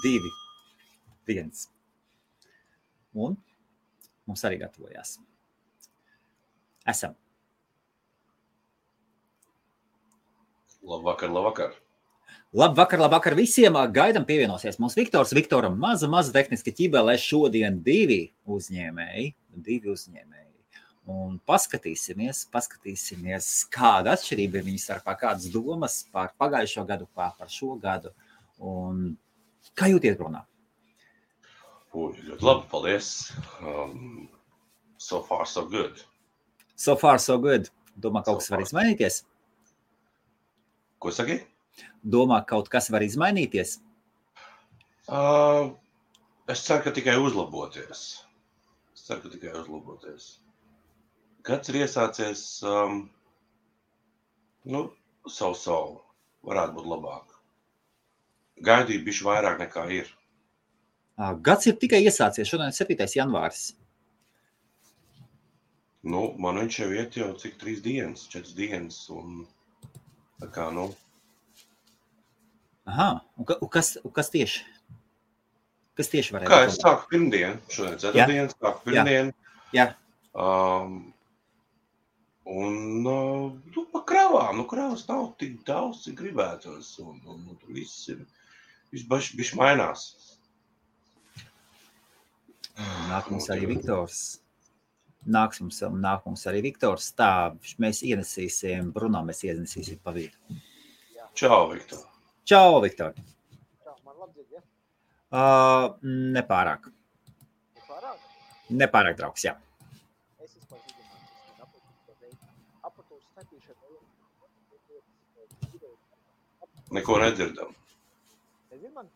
2, 1. Un mums arī gatavojās. Esam. Labvakar. Labvakar visiem. Gaidam pievienosies mums Viktors. Viktoram maza tehniska ķibelē šodien 2 uzņēmēji. Un paskatīsimies, kāda atšķirība ir viņu starpā, kādas domas par pagājušo gadu, par šo gadu. Un kā jūties, Brunā? Ļoti labi, paldies. So far, so good. So far, so good. Domā, kaut kas var izmainīties? Ko saki? Domā, kaut kas var izmainīties? Es ceru, ka tikai uzlaboties. Gads ir iesācies, savu, varētu būt labāk. Gaidīju bišķi vairāk nekā ir. Gads ir tikai iesācies, šodien 7. janvāris. Man viņš jau iet jau cik 3 dienas, 4 dienas, un tā kā, Aha, un kas tieši? Kas tieši varētu? Kā es sāku pirmdienu, šodien 4 dienas, sāku pirmdienu. Jā. Pa kravām, kravas nav tik daudz, cik gribētos, un tur viss bišķi mainās. Nāk mums arī Viktors. Tā, mēs ienesīsim, Bruno mēs ienesīsim pa vidu. Čau, Viktor. Čau, Viktor. Čau, man labi dzird, ja? Nepārāk. Nepārāk, draugs, jā. Es vispār apatūras statīšana. Neko nedzirdam. Nezinu man?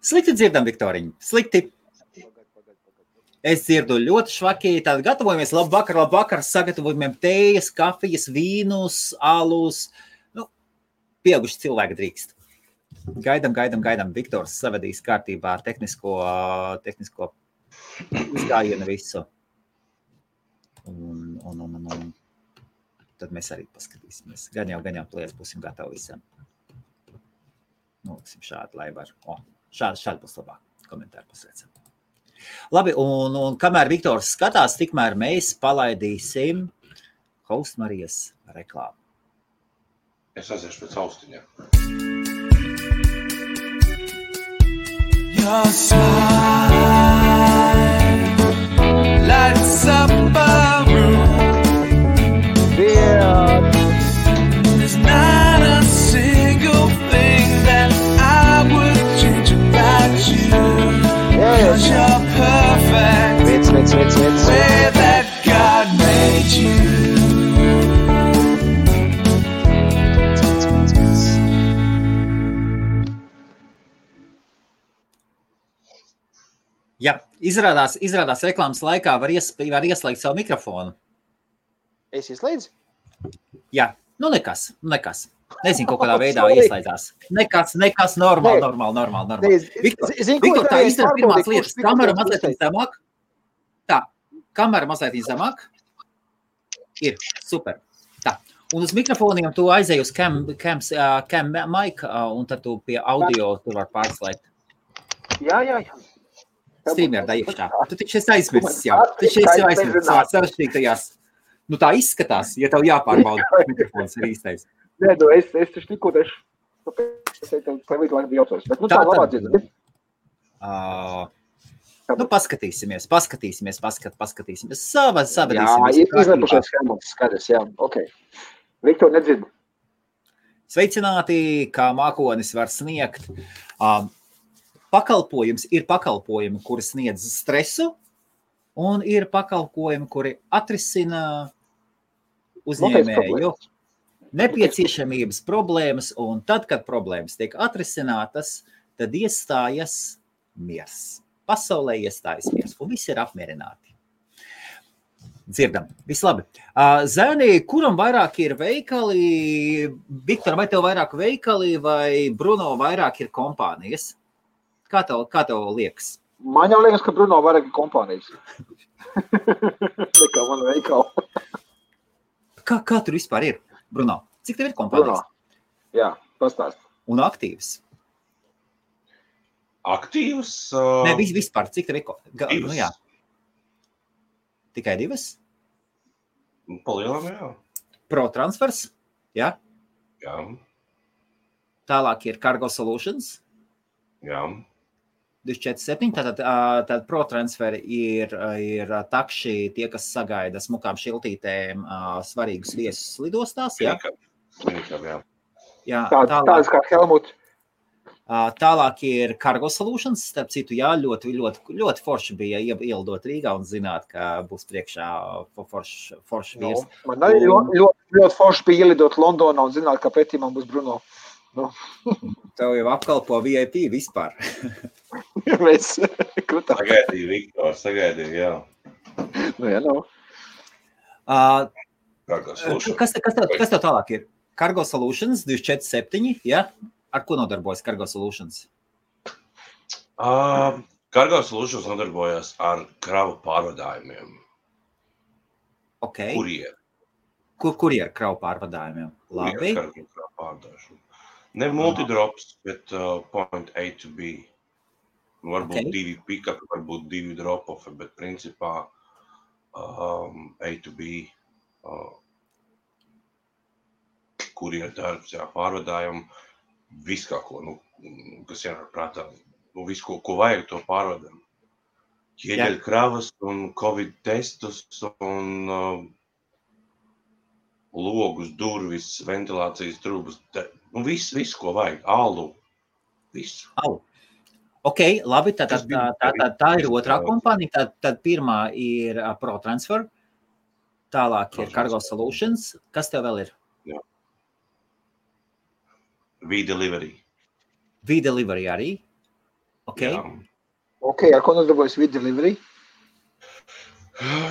Slikti dzirdam, Viktoriņ, slikti. Es dzirdu ļoti švaki, tad gatavojamies, labvakar, sagatavojumiem tējas, kafijas, vīnus, alus, pieauguši cilvēki drīkst. Gaidam, Viktors savadīs kārtībā tehnisko uzgājienu visu. Un tad mēs arī paskatīsimies. Gan jau plēs būsim gatavi visam. Noliksim šādi, lai var. Šādi būs labāk. Komentāri pasveicam. Labi, un kamēr Viktors skatās, tikmēr mēs palaidīsim Host Marijas reklāmu. Es aiziešu pēc austiņiem. Your smile lights up a room. There's not a single thing that I would change about you. 'Cause you're perfect the way that God made you. Jā, izrādās reklāmas laikā var ieslēgt savu mikrofonu. Es ieslēdzu? Jā, nekas. Nezinu, kaut kādā veidā ieslēdzās. Nekas, normāli. Viktor, tā izdara pirmās lietas. Kamera mazliet zemāk. Tā, kamera mazliet zemāk. Ir, super. Tā, un uz mikrofoniem tu aizēji uz cam mic, un tad tu pie audio tu var pārslēgt. Jā. Streamer da iekšā. Tu taču esi aizmirsis jau. Savā sarežģītajās. Tā izskatās, ja tev jāpārbauda mikrofons ir īstais. Nē, es taču tikko pavīdu laiku jaucos. Bet tā labā dzird. Paskatīsimies. Savadīsimies. Jā, izlepušies schēmas skaidrs, jā, ok. Viktor nedzird. Sveicināti, kā mākonis var sniegt. Ir pakalpojumi, kuri sniedz stresu, un ir pakalpojumi, kuri atrisina uzņēmēju nepieciešamības problēmas, un tad, kad problēmas tiek atrisinātas, tad iestājas miers. Pasaulē iestājas miers, un visi ir apmierināti. Dzirdam, vislabi. Zēni, kuram vairāk ir veikali? Viktor, vai tev vairāk veikali, vai Bruno vairāk ir kompānijas? Kā tev liekas? Man jau liekas, ka Bruno vairāk ir kompānijas. Nekā man veikala. Kā tur vispār ir, Bruno? Cik tev ir kompānijas? Bruno, jā, pastāst. Un aktīvs? Aktīvas? Nē, vispār, cik tev ir? Divas. Nu jā. Tikai 2? Palielam, jā. Pro transfers, jā. Jā. Tālāk ir Cargo Solutions. Jā. 247, tātad pro transferi ir takši tie, kas sagaida smukām šiltītēm svarīgus viesus lidostās, jā? Minikam, jā. Jā, Tāds kā Helmut. Tālāk ir Cargo Solutions, starp citu, jā, ļoti forši bija ielidot Rīgā un zināt, ka būs priekšā forši viesi. Man arī ļoti forši bija ielidot Londonā un zināt, ka pretī man būs Bruno. Nu. Tev jau apkalpo VIP vispār. Mēs krutām. Sagaidīju, Viktor, sagaidīju, jā. Nu, jā, nav. Kas tev tālāk ir? Cargo Solutions 247, jā? Ar ko nodarbojas Cargo Solutions? Cargo Solutions nodarbojas ar kravu pārvadājumiem. Ok. Kurier. Kurier kravu pārvadājumiem? Labi. Kravu pārvadājumu. Ne multidrops, bet point A to B. Varbūt 2 pick-up, varbūt 2 drop-off, bet principā A to B. Kurier darbs, jā, pārvadājumu. Viss kā ko, kas jānāk prātā. Visu, ko vajag, to pārvadām. Ķieģeļu kravas un Covid testus un logus, durvis, ventilācijas trūbas. Viss, ko vajag. Alu. Visu. Ok, labi, tā ir otrā kompānija. Tad pirmā ir Pro Transfer. Tālāk ir Cargo Solutions. Kas tev vēl ir? Jā. V-Delivery. V-Delivery arī? Ok. Jā. Ok, ar ko nodarbojas V-Delivery?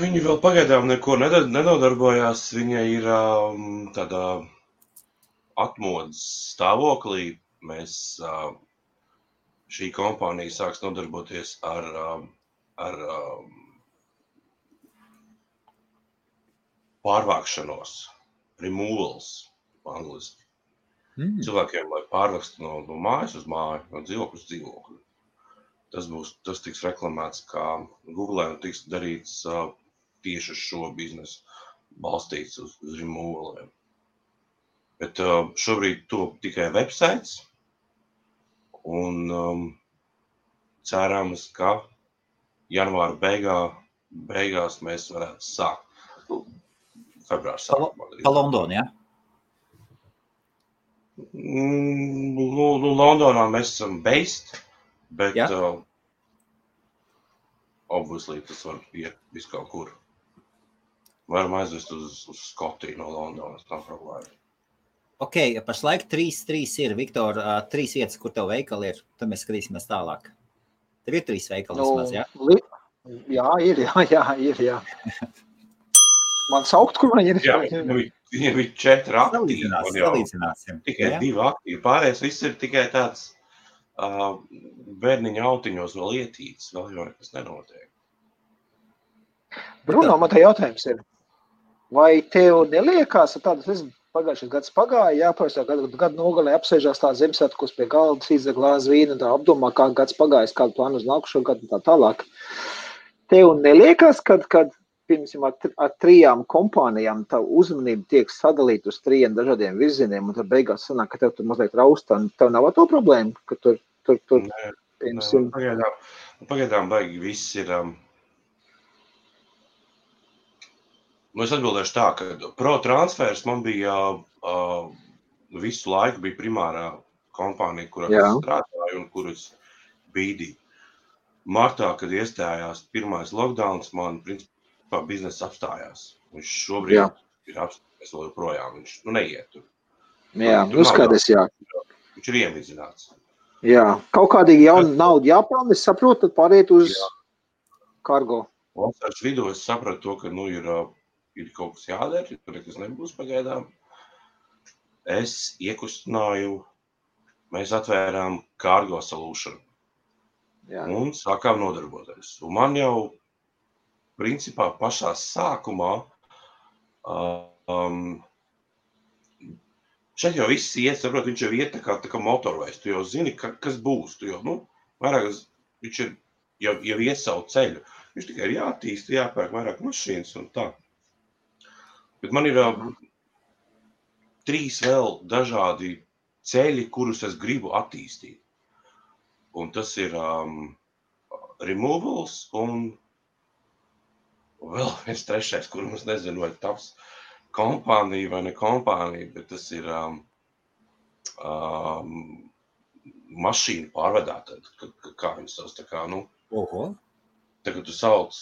Viņi vēl pagaidām neko nenodarbojās. Viņa ir tādā atmodas stāvoklī. Mēs, šī kompānija sāks nodarboties ar pārvākšanos, removals, angliski. Cilvēkiem, lai pārvākstu no mājas uz māju, no dzīvokļa uz dzīvokļu. Tas tiks reklamēts kā Google un tiks darīts tieši uz šo biznesu, balstīts uz removaliem. Bet šobrīd top tikai websites un cerams, ka janvāra beigās mēs varētu sākt. Februāra sākumā. Pa Londonu, jā? Londonā mēs esam based, bet obviously tas var iet visu kaut kur. Varam aizvest uz Skotiju no Londonas, nav problēma. Ok, pašlaik 3 ir, Viktor, 3 vietas, kur tev veikali ir, tad mēs skatīsimies tālāk. Tev ir 3 veikali vismaz, jā? Jā, ir. Man saukt, kur man ir? Jā, viņam ir 4 aktīvi. Salīdzināsim. Tikai 2 aktīvi. Pārējais viss ir tikai tāds bērniņa autiņos vēl ietīts, vēl jau nekas nenotiek. Bruno, man tā jautājums ir, vai tev neliekās tādas, pagājušais gads pagāja, jāpārstā gadu nogalē apsēžās tā Ziemassvētkos pie galda, izdzer glāzi vīnu, tā apdomā, kā gads pagājis, kādu plānu uz nākušo gadu un tā tālāk. Tev neliekās, kad piemēram, ar 3 kompānijām tā uzmanība tiek sadalīta uz 3 dažādiem virzieniem, un tad beigās sanāk, ka tev tur mazliet raustā, un tev nav to problēmu, ka tur piemēram. Pagaidām baigi viss ir. Es atbildēšu tā, ka Pro Transfers man bija visu laiku bija primārā kompānija, kurā es strādāju un kuras bīdīju. Martā, kad iestājās pirmais lockdowns, man principā biznesa apstājās. Viņš šobrīd ir apstājies vēl joprojām, viņš neiet tur. Jā, skaties, jā. Viņš ir iemizināts. Jā, kaut kādīgi jauna nauda jāpelna, es saprotu, tad pāriet uz Cargo. Vasaras vidū es sapratu to, ka ir kaut kas jādara, tur nekas nebūs pagaidām. Es iekustināju, mēs atvērām Cargo Solution un sākām nodarboties. Un man jau, principā, pašā sākumā, šeit jau viss iet, saprot, viņš jau iet tā kā motorveids. Tu jau zini, kas būs. Tu jau, vairāk, viņš ir jau ies savu ceļu. Viņš tikai ir jātīst, jāpērk vairāk mašīnas un tā. Bet man ir 3 vēl dažādi ceļi, kurus es gribu attīstīt. Un tas ir removals un vēl viens 3, kuru es nezinu, vai taps kompānija vai ne kompānija, bet tas ir mašīnu pārvadātāji, kā viņas savs, tā kā, tagad tu sauc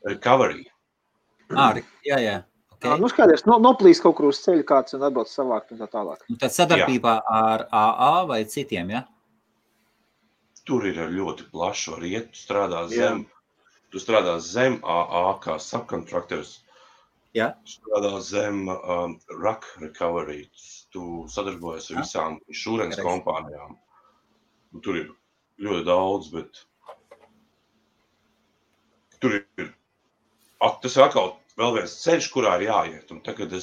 recovery. Jā. Okay. Skaidrs, noplīst kaut kur uz ceļu kāds un atbrauc savākt un tā tālāk. Un tad sadarbībā ar AA vai citiem, ja? Tur ir ļoti plaši, var iet, tu strādā zem AA kā subcontractors. Jā. Strādā zem RAC recovery. Tu sadarbojies ar visām insurance kompānijām. Tur ir ļoti daudz, bet tur ir tas ir atkal vēl viens ceļš, kurā ir jāiet. Un tagad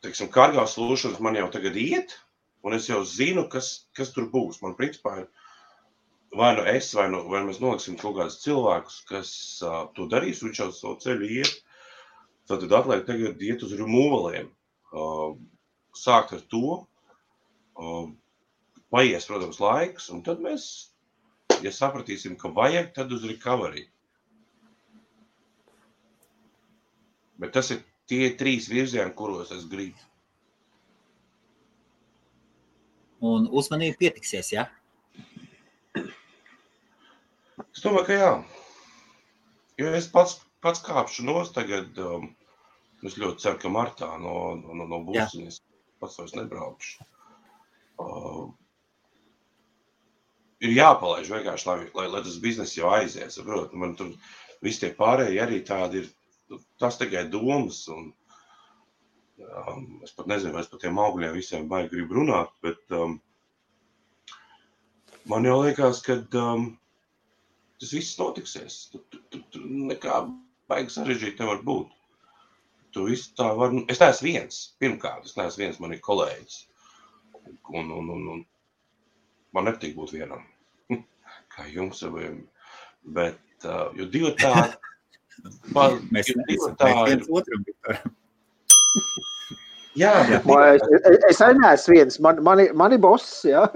teiksim, Cargo Solutions man jau tagad iet, un es jau zinu, kas tur būs. Man principā ir vai nu es, vai mēs noliksim kaut kādus cilvēkus, kas to darīs, viņš jau savu ceļu iet. Tad atliek tagad iet uz removaliem. Sākt ar to, paies, protams, laiks, un tad mēs, ja sapratīsim, ka vajag, tad uz recovery. Bet tas ir tie 3 virzieni, kuros es gribu. Un uzmanība pietiksies, ja? Es domāju, ka jā. Jo es pats kāpšu nost tagad, es ļoti ceru, ka martā no būsiņas pats vairs nebraukšu. Ir jāpalaiž vienkārši, lai tas biznes jau aizies. Man tur visi tie pārējie arī tādi ir, tas tikai domas. Un, es pat nezinu, vai es par tiem augļiem visiem baigi gribu runāt, bet man jau liekas, ka tas viss notiksies. Tu nekā baigi sarežģīt nevar būt. Tu viss tā var... Es neesmu viens, pirmkārt, man ir kolēģis. Un man nepatīk būt vienam. Kā jums saviem. Bet, jo divi tādi... Mēs viens otram, Viktor. Jā, es arī neesmu viens. Mani boss, jā.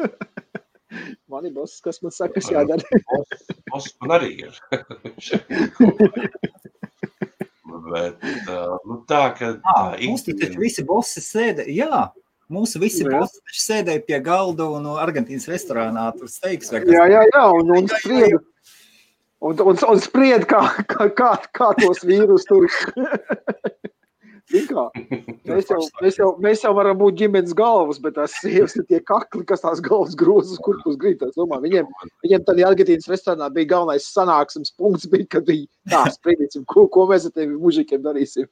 Mani boss, kas man saka, kas jādara. Boss man arī ir. Bet, tā, ka... Mums taču visi bossi sēdē, jā. Mūsu visi bossi taču sēdēja pie galda un Argentīnas restorānā tur steiks. Jā, un sprieda. Un spried, kā tos vīrus tur. Mēs jau varam būt ģimenes galvas, bet tās sievas ir tie kakli, kas tās galvas grozas, kur pus grīt. Viņiem tad Argentīnas restorānā bija galvenais sanāksmes punkts, bija, kad bija tā spriedīsim, ko mēs ar tevi mužikiem darīsim.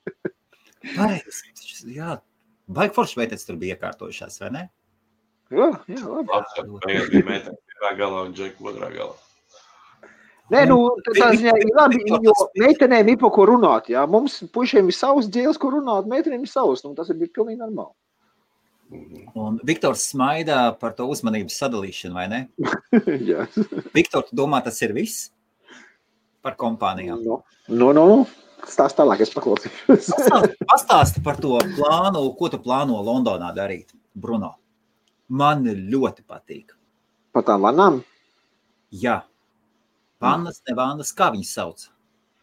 Jā, baigi forši veitēc tur bija iekārtojušās, vai ne? Jā, labi. Tagad bija meitene pirmā galā un Džeku otrā galā. Nē, tā ziņā ir labi, jo meitenēm ir pa ko runāt, jā. Mums puišiem ir savs dzēles, ko runāt, meitenēm ir savs, tas ir pilnīgi normāli. Un Viktors smaidā par to uzmanības sadalīšanu, vai ne? Jā. Viktor, tu domā, tas ir viss par kompānijām? Stāst tālāk, es paklausīšu. Pastāsti par to plānu, ko tu plāno Londonā darīt, Bruno. Man ļoti patīk. Par tām vanām? Jā. Vannas, ne vannas, kā viņas sauc?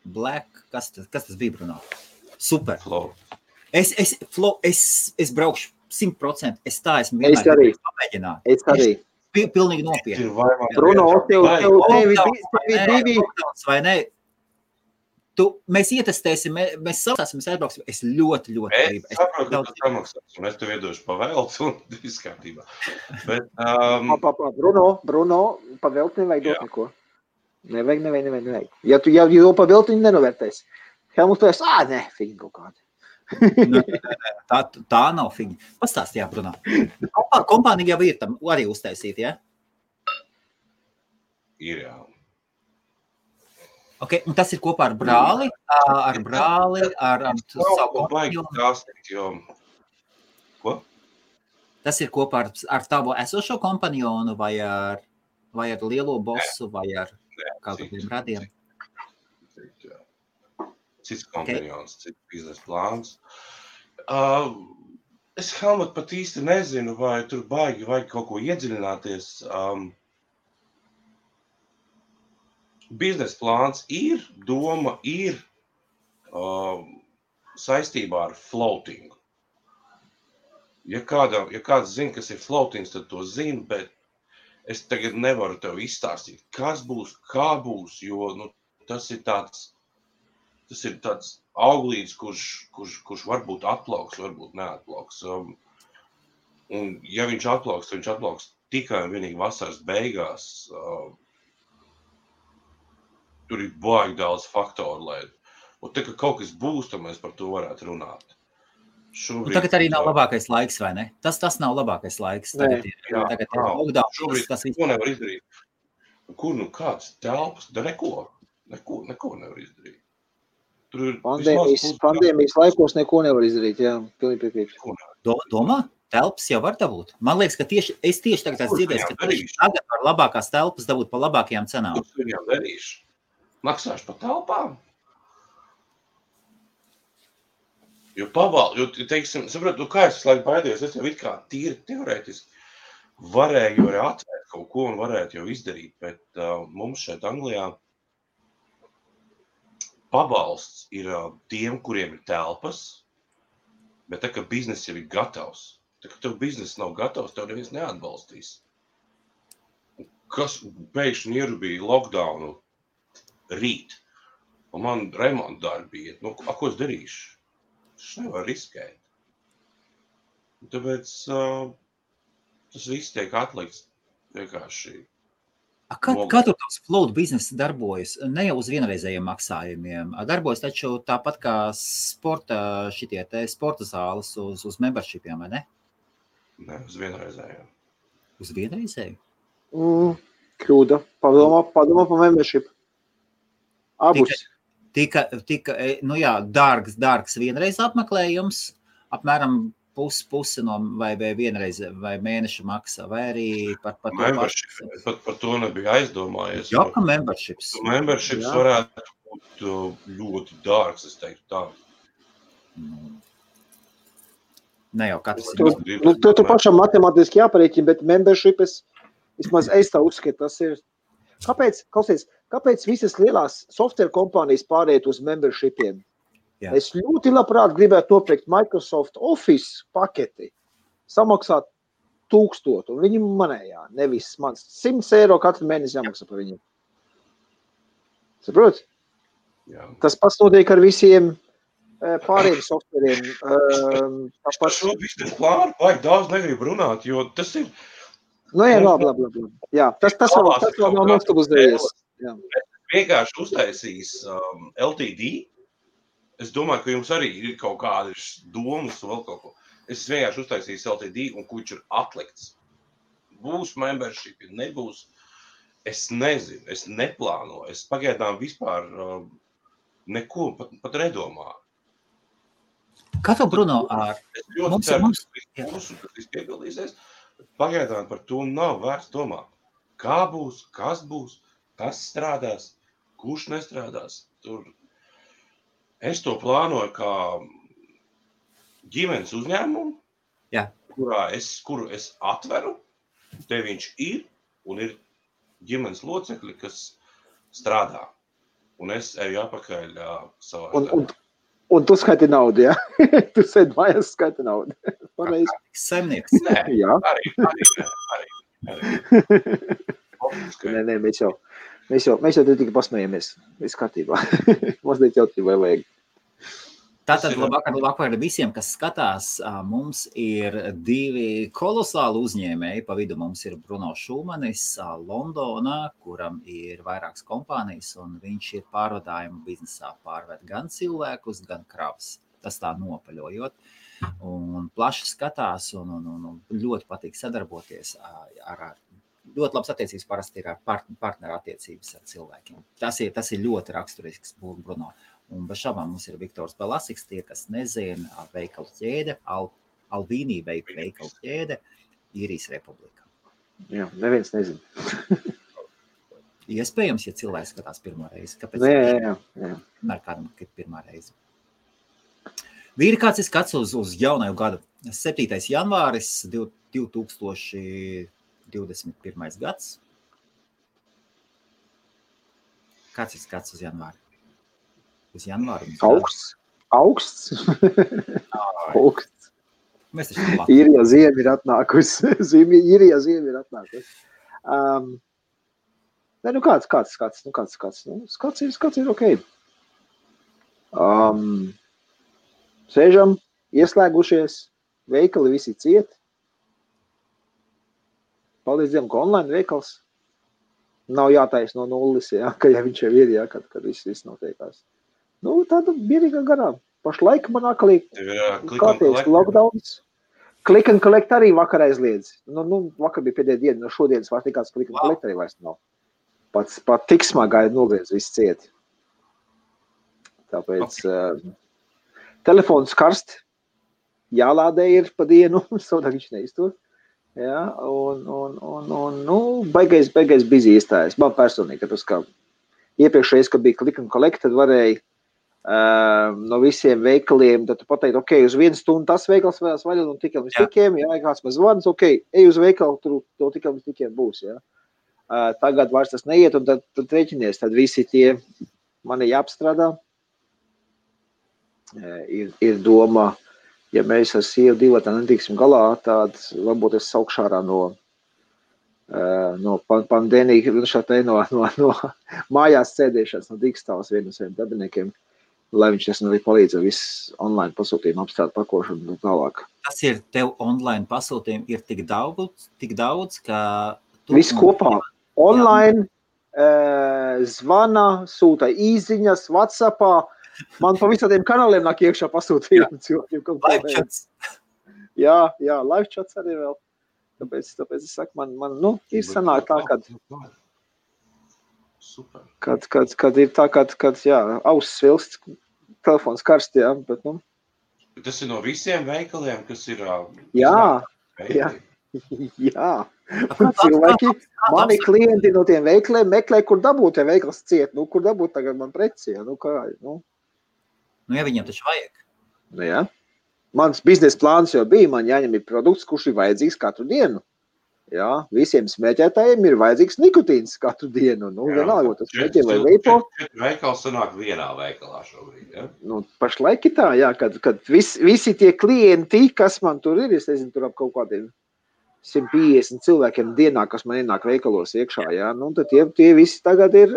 Black, kas tas bija, Bruno? Super. Flow. Es braukšu 100%. Es esmu vienmēr pamēģināt. Es arī. Pilnīgi nopietni. Bruno, tevi divi. Vai ne? Mēs ietestēsim, mēs saprāsim, mēs aizbrauksim. Es ļoti gribu. Es saprotu, ka tas samaksās, un es tev iedošu pavēlts un viss kārtībā. Bet, Bruno, pavēlt nevajag dot neko. Nevajag. Ja tu jau pavēlt, viņi nenovērtēs. Helmuts pēc, nē, fiņi kaut kādi. Tā nav fiņi. Pastāst, jā, Bruno. Kompānija jau ir tam arī uztaisīt, jā? Ir, jā. Okay, un tas ir kopā ar brāli? Ar brāli, ar savu kompāniju? Ko? Tas ir kopā ar tavu esošo kompanjonu vai ar lielo bosu vai ar kādiem radiem? Cits kompanjons, cits biznesa plāns. Es, Helmut, pat īsti nezinu, vai tur baigi vajag kaut ko iedziļināties. Biznesa plāns ir, doma ir saistībā ar floatingu. Ja kāds zina, kas ir floatings, tad to zina, bet es tagad nevaru tev izstāstīt, kas būs, kā būs, jo tas ir tāds auglīds, kurš varbūt atplauks, varbūt neatplauks. Un ja viņš atplauks tikai un vienīgi vasaras beigās. Tur ir baigi daudz faktoru, un tā, ka kaut kas būs, tad mēs par to varētu runāt. Šobrīd, tagad arī nav labākais laiks, vai ne? Tas nav labākais laiks. Tagad ir lockdown. Šobrīd ko nevar izdarīt. Kāds telpas? Neko nevar izdarīt. Pandēmijas laikos neko nevar izdarīt, jā. Pilnīgi piekrītu. Domā? Telpas jau var dabūt. Man liekas, ka es tieši tagad dzirdēju, ka tagad var labākās telpas dabūt pa labākajām cenām. Ko viņām darīšu? Maksāšu pa telpām? Jo teiksim, saprotu, kā es laiku baidījos, es jau it kā tīri teorētiski varēju arī atvērt kaut ko un varētu jau izdarīt, bet mums šeit Anglijā pabalsts ir tiem, kuriem ir telpas, bet tā, ka biznes jau ir gatavs. Tā, ka tev biznes nav gatavs, tev neviens neatbalstīs. Kas pēkšņi ierubīja lockdownu rīt, un man remonta darbi iet. Ko es darīšu? Tas nevar riskēt. Tāpēc tas viss tiek atlikts vienkārši. Kā tur tavs float biznesa darbojas? Ne jau uz vienreizējiem maksājumiem. Darbojas taču tāpat kā sporta zāles uz membershipiem, vai ne? Ne, uz vienreizējiem. Uz vienreizēju? Kļūda. Padomā pa membership. Abus. Tika dārgs vienreiz apmeklējums, apmēram pusi no vai vienreiz vai mēneša maksa, vai arī par to membership. Par to nebija aizdomājies. Jā, ka memberships. Memberships varētu būt ļoti dārgs, es teiktu tā. Ne jau katrs tu pašam matemātiski jāparēķina, bet membership vismaz es tā uzskatu, tas ir. Kāpēc visas lielās software kompānijas pāriet uz membershipiem? Jā. Es ļoti labprāt gribētu nopirkt Microsoft Office paketi, samaksāt 1000, un viņi manējā, nevis mans 100 eiro katru mēnesi jāmaksā par viņiem. Saprot? Jā. Tas pats notiek ar visiem pārējiem softveriem. Par šo biznesa plānu vajag daudz negribu runāt, jo tas ir... Jā, labi. Jā, tas vēl nav nostabilizējies. Vienkārši uztaisīs LTD. Es domāju, ka jums arī ir kaut kādas domas un vēl kaut ko. Es vienkārši uztaisīju LTD un kurš ir atlikts. Būs membership, nebūs. Es nezinu, es neplānoju. Es pagaidām vispār neko pat nedomāju. Kā tev, Bruno, Es ļoti ceru, ka tas piepildīsies. Pagaidām par to nav vērts domāt. Kā būs, kas strādās, kurš nestrādās. Es to plānoju kā ģimenes uzņēmumu, kuru es atveru, te viņš ir, un ir ģimenes locekļi, kas strādā. Un es eju apakaļ savā darbā. Un tu skaiti naudu, jā? Tu sēd mājās skaiti naudu. Pareizi. Saimnieks. Nē, jā. Arī. Nē, mēs jau tikai pasmējamies. Viss kārtībā. Mazliet jautrībai vajag. Tātad labāk visiem, kas skatās, mums ir 2 kolosāli uzņēmēji. Pa vidu mums ir Bruno Šumanis Londonā, kuram ir vairākas kompānijas, un viņš ir pārvadājumu biznesā pārved gan cilvēkus, gan kravas. Tas tā nopaļojot. Un plaši skatās un ļoti patīk sadarboties ar ļoti labas attiecības parasti ir ar partneru attiecības ar cilvēkiem. Tas ir ļoti raksturisks Bruno. Un bez šaubām mums ir Viktors Belasiks, tie, kas nezina, veikalu ķēde, Alvīnī veikalu ķēde Īrijas Republikā. Jā, neviens nezin. Iespējams, ja cilvēks skatās pirmo reizi. Kāpēc? Jā. Vienmēr kādam, kad pirmā reize. Vīri, kāds ir skats uz jaunaju gadu? 7. janvāris 2021. gads. Kāds ir skats uz janvāri? Uz janvāru? Augsts. Augsts. Mēs taču Īrija ziema ir atnākusi. Īrija ziema ir atnākusi. Nu kāds. Skats ir ok. Sēžam, ieslēgušies, veikali visi ciet. Paldies Dievam, ka online veikals. Nav jātais no nulles, ja viņš jau ir, ja, kad viss notiekās. Tāda mierīgā garā. Pašlaik man akalī kārtējis lockdowns. Click and collect arī vakar aizliedz. Vakar bija pēdējā diena, no šodienas vairs nekāds click and collect arī vairs nav. Pat tik smagā nogriez viss cieti. Tāpēc telefons karst, jālādē ir pa dienu, savādāk viņš neiztur. Jā, baigais busy iestājas. Man personīgi, tāpēc, ka iepriekšreiz, kad bija click and collect, tad varēja no visiem veikaliem, tad tu pateikt, ok, uz 1 stundu tas veikals varēs vaļā un tikai līdz tikiem, jā, kāds man zvans, ok, ej uz veikalu, tur tikai līdz tikiem būs, jā. Tagad vairs tas neiet, un tad rēķinies, tad visi tie mani jāapstrādā. Ir doma, ja mēs ar sievu divatā netiksim galā, tad varbūt es saukšu ārā no pandēmija, no mājās sēdēšanas, no digstāvas vienu no saviem darbiniekiem, lai viņš arī palīdz ar visu online pasūtījumu apstrādu pakošanu un tālāk. Tas ir tev online pasūtījumi ir tik daudz, ka... Viss kopā. Online, zvana, sūta īziņas, WhatsAppā. Man pa visādiem kanāliem nāk iekšā pasūtījumi cilvēkiem. Live chats. Jā, live chats arī vēl. Tāpēc es saku, man ir sanāk tā, kad ir tā, kad jā, auss svilst, telefons karst, jā, bet Tas ir no visiem veikaliem, kas ir... Jā. Cilvēki, mani klienti no tiem veikaliem meklē, kur dabūt tie veikals ciet, kur dabūt tagad man preci, ja viņiem taču vajag. Jā. Mans biznesa plāns jau bija, man jāņem ir produkts, kurš ir vajadzīgs katru dienu. Jā, visiem smēķētājiem ir vajadzīgs nikotīns katru dienu. Vienalga, tas smēķē vai veipo. Veikals sanāk vienā veikalā šobrīd, ja? Pašlaik ir tā, jā, kad visi tie klienti, kas man tur ir, es nezinu, tur ap kaut kādiem 150 cilvēkiem dienā, kas man ienāk veikalos iekšā, jā, tad tie visi tagad ir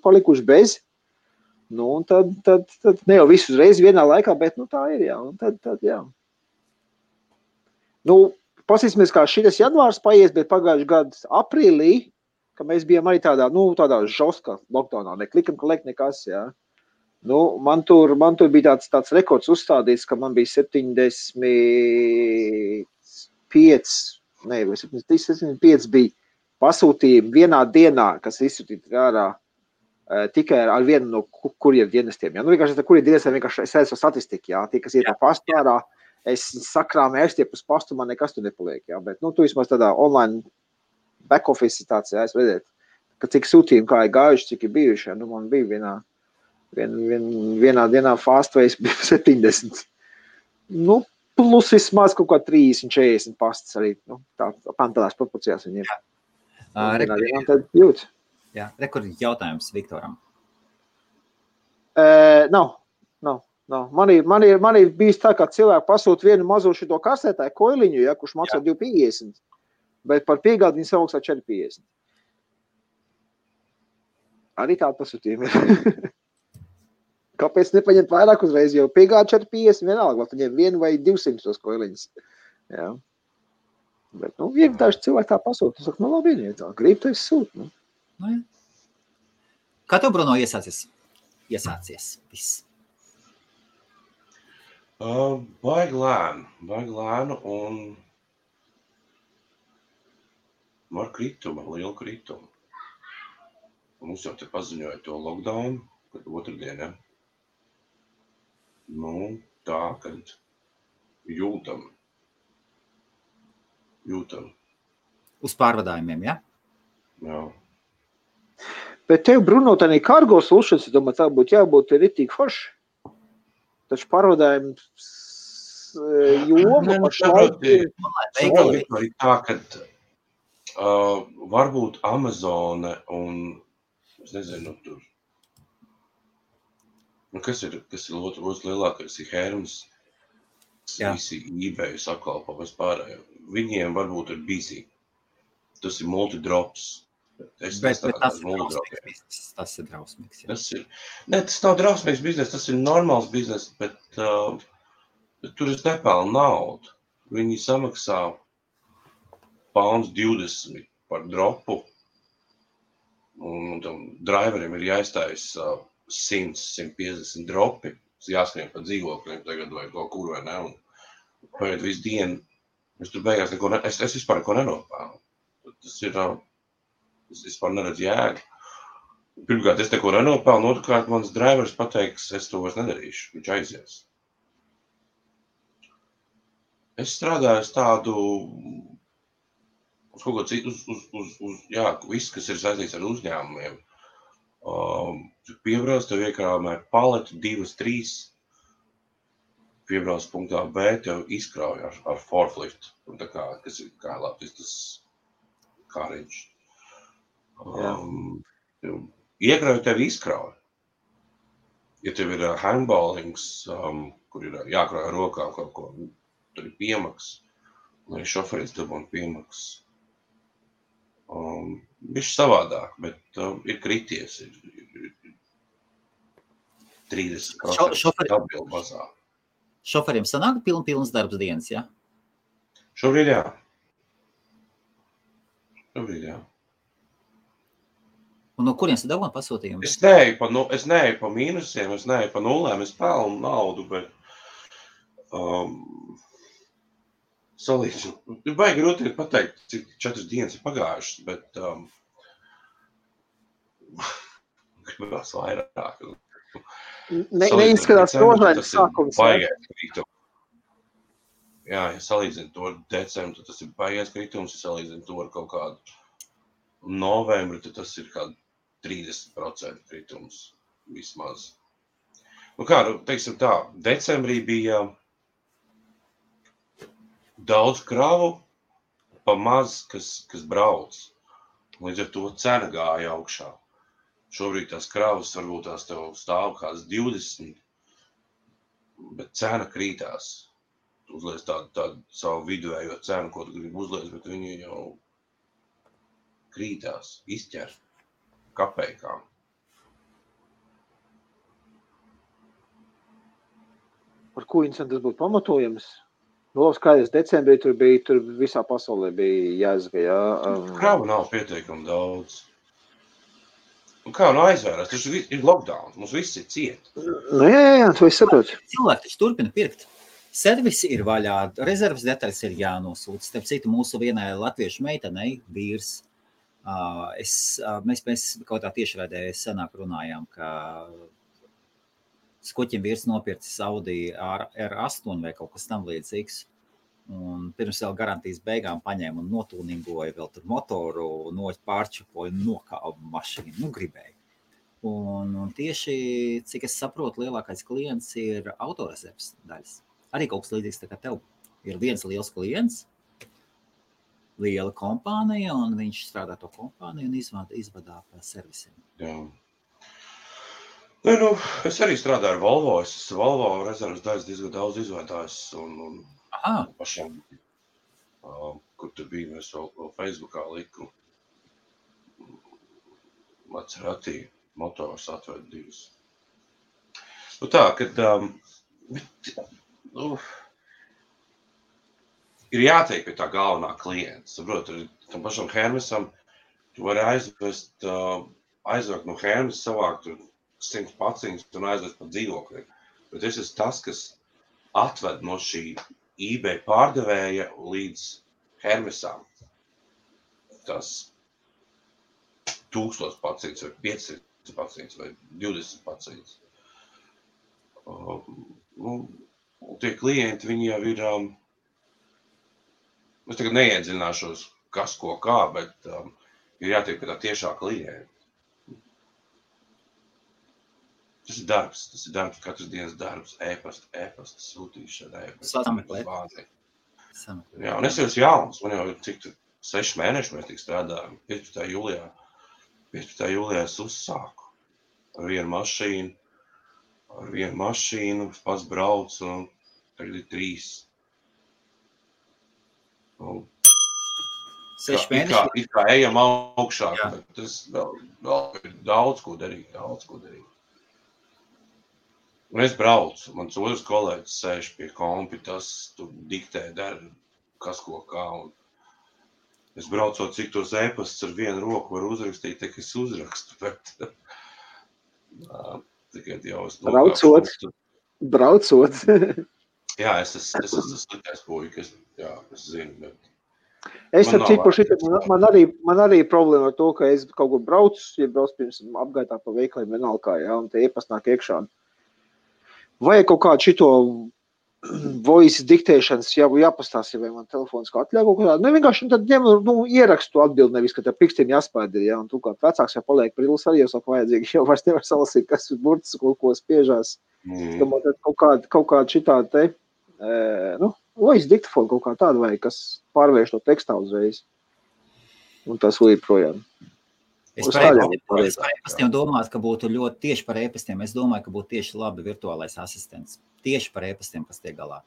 palikuši bez. Un tad ne jau visu uzreiz vienā laikā, bet tā ir, jā. Un tad jā. Pasīsimies, kā šitas janvārs paies, bet pagājuši gadu aprīlī, ka mēs bijām arī tādā žoska lockdownā, ne click and collect nekas, jā. Man tur bija tāds rekords uzstādīts, ka man bija 75 bija pasūtījumi vienā dienā, kas izsūtīti ārā tikai ar vienu no kurjeru dienestiem. Ja? Vienkārši kurjeru dienestiem vienkārši es redzu statistiku, jā, tie, kas iet pa pastu ārā, es sakrāmu ērstiep uz pastu, man nekas tur nepaliek, jā, bet, tu vismaz tādā online back office situācijā, es redzētu, ka cik sūtījumi kā ir gājuši, cik ir bijuši, jā, man bija vienā dienā fastways bija 70. Plus vismaz kaut kā 30-40 pastas arī, tādās proporcijās viņiem. Jā, rekordi jautājums Viktoram. Nav. Man ir bijis tā, ka cilvēki pasūta vienu mazo šito kasētāju koiliņu, ja, kurš maksā 2,50, bet par piegādi viņi samaksā 4,50. Arī tāda pasūtījuma ir. Kāpēc nepaņemt vairāk uzreiz, jo piegādi 4,50 vienalga, vai paņem 1 vai 200 tos koiliņus. Jā. Bet, vienkārši cilvēki tā pasūta. Es saku, labi, tā, grib, tu esi sūt. Kā tev, Bruno, iesācies viss? Baigi lēnu un ar kritumu, lielu kritumu. Mums jau te paziņoja to lockdown, kad otrdien, ja? Tā, kad Jūtam. Uz pārvadājumiem, ja? Jā. Bet tev, Bruno, tā kargo solutions, es domāju, tā būtu jābūt ritīgi forši. Taču pārvadājums joma pašlaik ir... Saproti, arī tā, ka varbūt Amazone un, es nezinu, tur, kas ir otrs lielākais, ir Hermes, visi eBay sakalpo vispārējo. Viņiem varbūt ir busy. Tas ir multidrops. Bet tas ir drausmīgs. Ja? Tas nav drausmīgs biznes, tas ir normāls biznes, bet tur es nepelnu naudu. Viņi samaksā £20 par dropu, un tam driveriem ir jāizstājas 100-150 dropi. Jāskrien pa dzīvokļiem tagad vai kaut kur vai ne, un paiet visu dienu. Es tur beigās es vispār neko nenopelnu. Tas ir, es vispār neredzu jēgu. Pirmkārt, es neko nenopelnu, otrkārt, mans drivers pateiks, es to vairs nedarīšu, viņš aizies. Es strādāju uz tādu, uz kaut ko citu, viss, kas ir saistīts ar uzņēmumiem. Piebrauc, tev iekrāmē paleti 2-3, piebrauc punktā B, tev izkrauj ar forklift, un tā kā, kas ir kā Latvijas tas kāriņš. Iekrauj tev izkrauj. Ja tev ir handballings, kur ir jākrauj ar rokām kaut ko, tur ir piemaks, lai šoferis dabūtu piemaks. Viņš savādāk, bet ir krities, ir 30% atbildu mazāk. Šoferiem sanāk pilns darbs dienas, ja? Šobrīd jā. Un no kurienes tu dabūji pasūtījumu? Es neeju pa mīnusiem, es neeju pa nulēm, es pelnu naudu, bet salīdzu. Ir baigi grūti pateikt, cik 4 dienas ir pagājušas, bet gribās vairāk. Neizskatās rožains sākums. Jā, ja salīdzinu to ar decembru, tad tas ir baigais kritums, ja salīdzinu to ar kaut kādu novembri, tad tas ir kādu 30% kritums vismaz. Nu kā, teiksim tā, decembrī bija daudz kravu, pa maz, kas brauc. Līdz ar to cena gāja augšā. Šobrīd tās kravas varbūt tās tev stāv kāds 20, bet cena krītās. Tu uzliec tādu savu viduējo cenu, ko tu gribi uzliec, bet viņi jau krītās, izķer kapeikām. Par ko incidents tas būtu pamatojams? No skaidrs, decembrī tur visā pasaulē bija jāizga, jā. Kravu nav pietiekami daudz. Un kā aizvērās, tas ir lockdown, mums viss ir ciet. Nu jā, tu esi saprot. Cilvēki taču turpina pirkt. Servisi ir vaļā, rezerves detaļas ir jānosūta. Starp citu, mūsu vienai latviešu meitenei, vīrs, mēs kaut tā tiešraidē senāk runājām, ka Skoķim vīrs nopircis Audi R8 vai kaut kas tam līdzīgs. Un pirms vēl garantijas beigām paņēma un notūningoja vēl tur motoru, pārčupoja un nokāva mašīnu. Nu, gribēja. Un tieši, cik es saprotu, lielākais klients ir autorezerves daļas. Arī kaut kas līdzīgs tā kā tev. Ir viens liels klients, liela kompānija, un viņš strādā to kompāniju un izvadā servisiem. Jā. Nu, es arī strādāju ar Volvo. Es Volvo rezerves daļas diezgan daudz izvadājis un pašam, kur tur bija, mēs vēl Facebookā liku Maserati motors atved 2. Nu tā, kad ir jātiek pie tā galvenā klienta. Saprot, tam pašam Hermesam tu vari aizvākt no Hermes, savākt 100 paciņas un aizvest pa dzīvokļiem. Bet es esmu tas, kas atved no šī eBay pārdevēja līdz Hermesām. Tas 1000 paciņas vai 500 paciņas vai 20 paciņas. tie klienti, viņi jau ir, es tagad neiedziļināšos, kas ko kā, bet ir jātiek pie tā tiešā klienta. Tas ir darbs, katras dienas darbs, e-pasta sūtīšana, Sameklēt. Jā, un es jau esmu jauns, man jau ir cik 6 mēneši mēs tik strādājam, 15. jūlijā es uzsāku ar vienu mašīnu, pats braucu, un tagad ir 3. 6 mēneši. It kā ejam augšā, bet tas vēl ir daudz ko darīt. Un es braucu, mans otrs kolēģis sēž pie kompi, tas tu diktē, dara kas ko kā. Un es braucot, cik tos e-pastus ar vienu roku var uzrakstīt, tā ka es uzrakstu, bet tikai jau es Braucot. Jā, es esmu sliktais puikas, jā, es zinu, bet es ar cipu man arī problēma ar to, ka es kaut kur braucu, ja braucu pirms apgaitā pa veikaliem vienalga, jā, un te e-past nāk iekšā. Vai kaut kādu šito voice diktēšanas jāpastāstīja, vai man telefons kā atļauj kaut kādā. Vienkārši tad ņem, ierakstu atbildi, nevis, ka te pikstiem jāspēd ir, ja, un tu kā vecāks jau paliek prilus arī jau saka vajadzīgi, jau vairs nevar salasīt, kas ir burts, ko spiežās. Domāt, kaut kāda šitā te, voice diktafonu kaut kā tāda vai, kas pārvērš to tekstā uzreiz. Un tas līdz projām. Es par e-pastiem domāju, ka būtu ļoti tieši par e-pastiem. Es domāju, ka būtu tieši labi virtuālais asistents. Tieši par e-pastiem, kas tiek galā.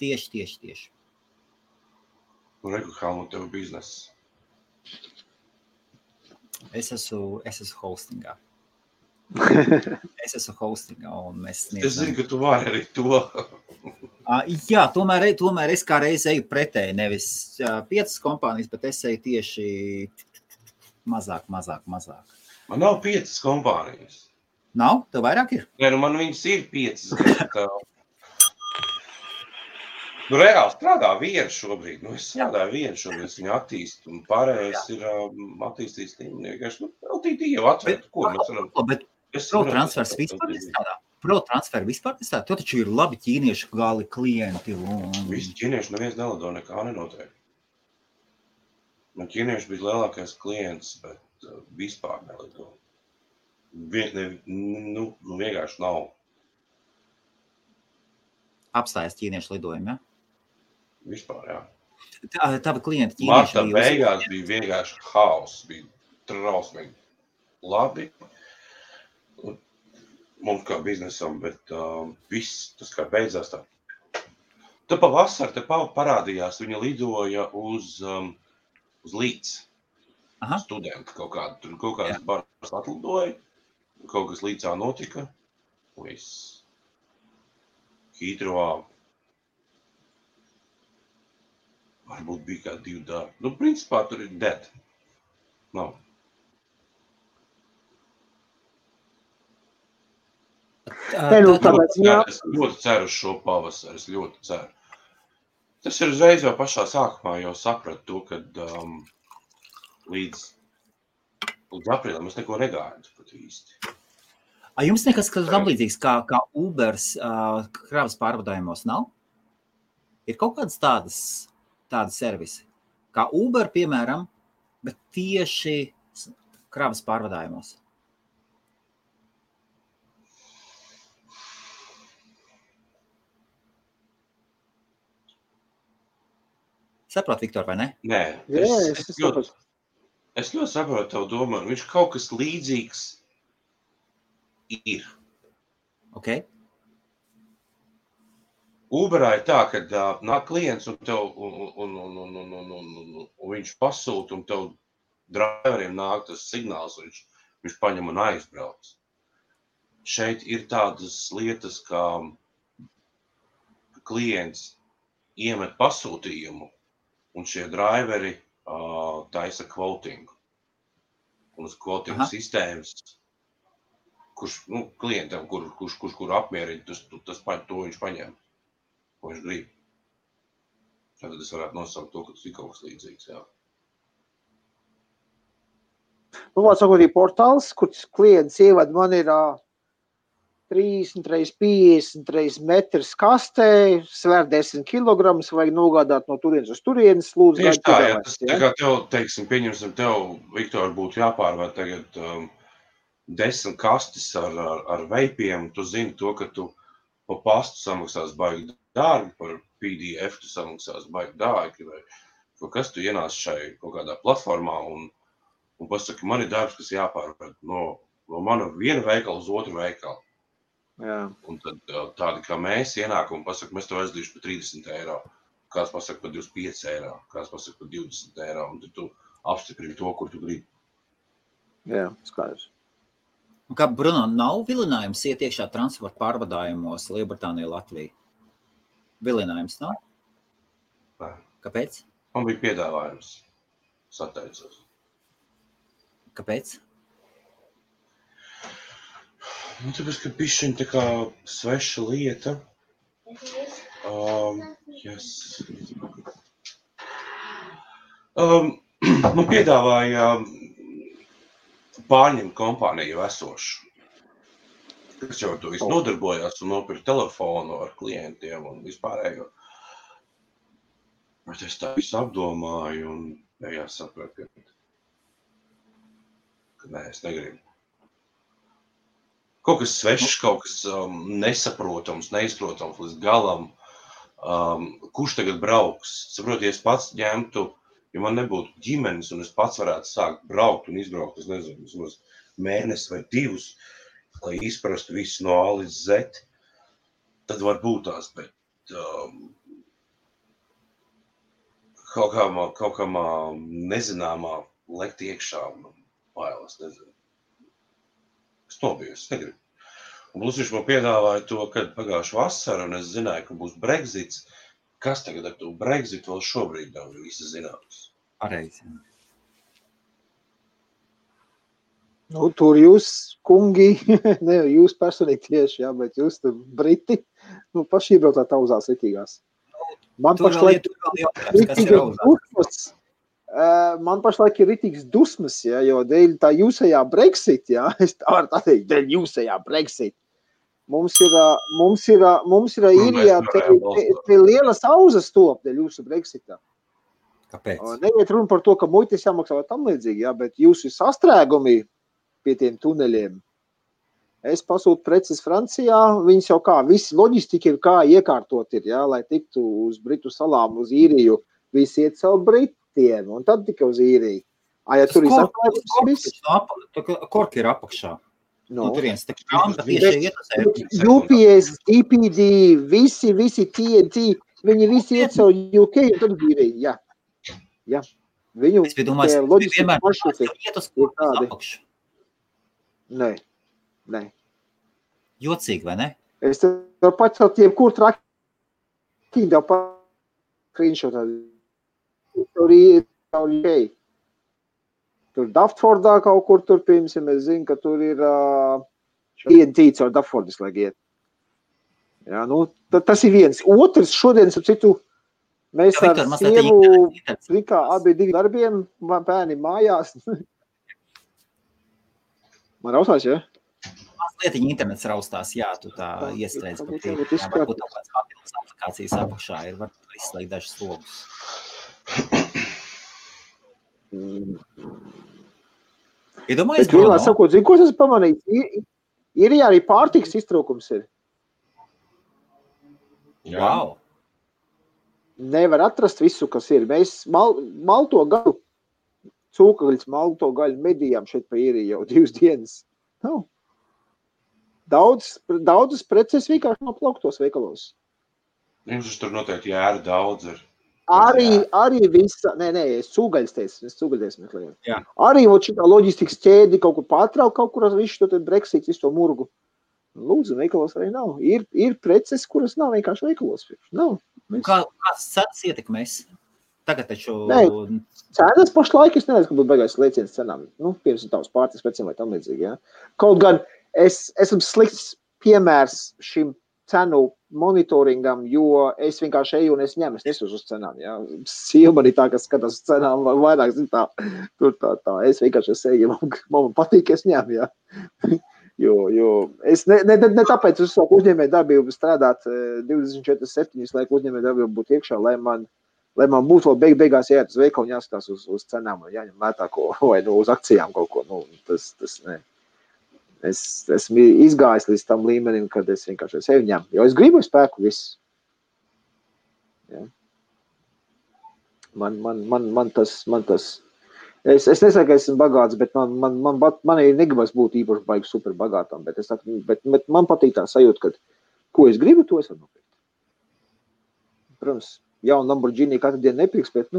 Tieši. Un reku, kā nu tev bizness? Es esmu hostingā. Un mēs sniedzam. Es zinu, ka tu vari arī to. Jā, tomēr es kā reiz eju pretēji, nevis 5 kompānijas, bet es eju tieši mazāk. Man nav 5 kompānijas. Nav? Tev vairāk ir? Nē, man viņas ir 5. Reāli strādā viena šobrīd. Es strādāju viena šobrīd, es viņu attīstu, un pārējais ir attīstīts vienkārši. LTD jau atvērt, ko mēs varam. Bet ProTransfers vispār nestrādā? ProTransfer vispār nestrādā? To taču ir labi ķīniešu gali klienti. Visi ķīnieši neviens nelido, nekā nenotiek. Man ķīnieši bija lielākais klients, bet vispār nelido. Vienkārši nav. Apstājas ķīniešu lidojumi, ja? Vispār, jā. Tavi klienti ķīnieši Marta beigās bija vienkārši haoss, bija trausmīgi labi. Mums kā biznesam, bet viss, tas kā beidzās tā. Tad pavasar te parādījās, viņa lidoja uz Līdz. Studenti kaut kādas baras atlidoja, kaut kas Līdzā notika, viss. Hītrovā varbūt bija kā 2 darbi. Principā tur ir dead. Nav. Es ļoti ceru uz šo pavasaru, es ļoti ceru. Tas ir uzreiz jau pašā sākumā jau sapratu to, kad līdz aprīlim es neko negāju pat īsti. Jums nekas tam līdzīgs kā Ubers kravas pārvadājumos nav? Ir kaut kādas tādas servisi, kā Uber, piemēram, bet tieši kravas pārvadājumos? Saprot, Viktor, vai ne? Nē, es ļoti saprotu tavu domu. Viņš kaut kas līdzīgs ir. Ok. Uberā ir tā, ka nāk klients un viņš pasūta un tev driveriem nāk tas signāls, viņš paņem un aizbrauc. Šeit ir tādas lietas, kā klients iemet pasūtījumu un šie driveri taisa kvotingu. Un uz kvotingu sistēmas, kurš klientam, kur apmierina, to viņš paņem, ko viņš grib. Tad es varētu nosaukt to, ka tas ir kaut kas līdzīgs, jā. Sakot, ir portāls, kur klients ievad, man ir 30 x 50 x metrs kastē, svēr 10 kilogramus, vajag nogādāt no turienes uz turienes, lūdzu, Tieši tā, jā, piedāvājums, tas tā kā tev, teiksim, pieņemsim tev, Viktor, būtu jāpārvērt tagad 10 kastis ar veipiem, tu zini to, ka tu pa pastu samaksās baigi dārgi, par PDF tu samaksās baigi dārgi, vai kas tu ienāc šai kaut kādā platformā un pasaki, man ir darbs, kas jāpārvērt no mana viena veikala uz otru veikalu. Jā. Un tad tādi kā mēs ienākam un pasaka, mēs tev aizdīšu par 30 eiro, kāds pasaka par 25 eiro, kāds pasaka par 20 eiro, un tad tu apstiprini to, kur tu gribi. Jā, skaidrs. Un kā, Bruno, nav vilinājums iet iekšā transporta pārvadājumos Lielbritānija, Latvija? Vilinājums nav? Nē. Kāpēc? Man bija piedāvājums. Sateicos. Kāpēc? Tāpēc, ka bišķiņ tā kā sveša lieta. Yes. Man piedāvāja pārņemt kompāniju jau esošu, kas jau to visu nodarbojās un nopirka telefonu ar klientiem un vispārējo. Bet es tā visu apdomāju un beigās sapratu, ka nē, es negribu. Kaut kas svešs, kaut kas nesaprotams, neizprotams līdz galam. Kurš tagad brauks? Saprot, ja es pats ņemtu, ja man nebūtu ģimenes un es pats varētu sākt braukt un izbraukt, es nezinu, mēnesi vai 2, lai izprastu visu no A līdz Z, tad var būt tās, bet kaut kā nezināmā lekt iekšā un bailes, nezinu. Es nobiju, es negribu. Un plus viņš man piedāvāja to, kad pagājuši vasara, un es zināju, ka būs Brexits. Kas tagad ar to Brexit vēl šobrīd nav visi zināms? Pareizi. Nu, tur jūs, kungi, ne jūs personīgi tieši, jā, bet jūs tur Briti, nu, paši iebraucāt auzās ritīgās. Man pašlaik ir ritīgs dusmas, ja, jo dēļ tā jūsējā Brexit, ja, es tā varu tā teikt, dēļ jūsējā Brexit. Mums ir īrijā te lielas auzas top dēļ jūsu Brexitā. Kāpēc? Neiet runa par to, ka muitis jāmaksā vai tam līdzīgi, ja, bet jūsu sastrēgumi pie tiem tuneļiem. Es pasūtu preces Francijā, viņas jau kā, visi loģistika ir kā iekārtot ir, ja, lai tiktu uz Britu salām, uz īriju, visi iet savu Britiem, un tad tikai uz īriju. Ja tur ir sastrēgums viss? Korki ir apakšā. No. Turienes, tā krāmta tieši iet. UPS, DPD, visi TNT, viņi visi iet savu UK un tad īriju, jā. Jā. Viņu es domāju, loģistika maršruti iet uz apakšu. Nē. Jocīgi, vai ne? Es tev pacelt jebkur trakiņu, tev screenshotā. Tur ir UK. Tur Daftfordā kaut kur tur, piemēram, es zinu, ka tur ir TNT caur Daftfordis, lai iet. Jā, nu, tas ir viens. Otrs šodien, ap citu, mēs ar sievu likā abi divi darbiem, bērni mājās. Man raustās, ja? Mazlietiņa internets raustās, jā, tu tā iestrēdz par tiem. Varbūt kaut kāds papildus aplikācijas apakšā ir, var izslēgt dažas logus. Iedomājies, Bruno? Sakot, zinu, ko es pamanīju? Ir arī pārtiks iztrūkums ir. Wow! Nevar atrast visu, kas ir. Mēs malto gaļu, cūkagaļas malto gaļu medījām šeit pa īriju jau 2 dienas. Nav. Daudzas preces vienkārši nav plauktos veikalos. Jums tur noteikti jāra daudz ir. Arī visa, es cūgaļas meklēju. Jā. Arī šitā loģistikas ķēdi kaut kur pārtrauk, kaut kur visu to Brexit, visu to murgu. Lūdzu, veikalos arī nav. Ir preces, kuras nav vienkārši veikalos. Nav. Kāds cenas ietekmēs? Tagad taču... Cenas pašlaik, es nezinu, ka būtu beigās lēciens cenām. Nu, pirms tavs pārtiks precēm vai tam līdzīgi, jā. Kaut gan es esmu slikts piemērs šim cenu monitoringam, jo es vienkārši eju un es ņemu, es nesos uz cenām, jā. Sieva man ir tā, kas skatās uz cenām, vairāk zin tā, tur tā. Es vienkārši eju, man patīk, es ņemu, jā. Jo es ne tāpēc uz savu uzņēmēju darbību strādāt 24/7, lai uzņēmēju darbību būtu iekšā, lai man būtu vēl beigās jāiet uz veikalu un jāskatās uz cenām un jāņem lētāko vai uz akcijām kaut ko. Tas ne. Es esmu izgājis līdz tam līmenim, kad es vienkārši sevi ņemu. Jo es gribu spēku viss. Ja. Man tas Es nesaku, ka esmu bagāts, bet man ir negribas būt īpaši baigi super bagātām, bet man patīk tā sajūta, ka ko es gribu, to es varu nopirkt. Protams, jaunu Lamborghini katru dienu nepirks, bet,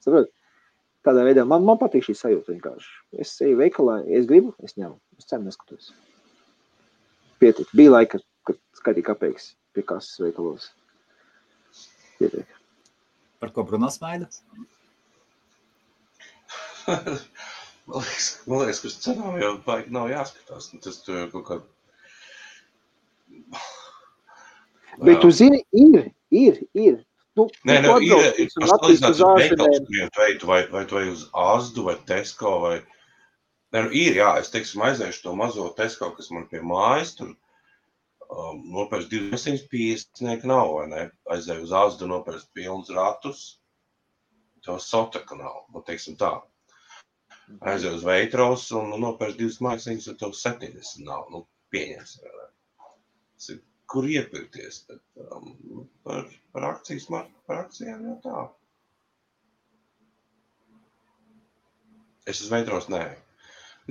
saprot, tādā veidā man patīk šī sajūta vienkārši. Es eju veikalā, es gribu, es ņemu, es cenu neskatos. Pietiek. Bija laika, kad skaitīja kapeikas pie kases veikalos. Pietiek. Par ko Bruno smaida? Man liekas, ka uz cenām jau baigi nav jāskatās. Tas tu jau kaut kā... Bet tu zini, ir. Nē, ir pasalīdzināt uz veikals veidu, vai tu vai uz Asdu, vai Tesco, vai... Nē, ir, jā, es teiksim aizēšu to mazo Tesco, kas man pie mājas, tur nopērst 250 nav, vai ne? Aizēju uz Asdu, nopērst pilnus ratus, to sotaka nav, teiksim tā. Aizēju uz Veitros un nopērst 2 māksliņas, un tev 70 nav, pieņems. Kur iepirkties? Par akcijām jau tā. Es uz Veitros nē.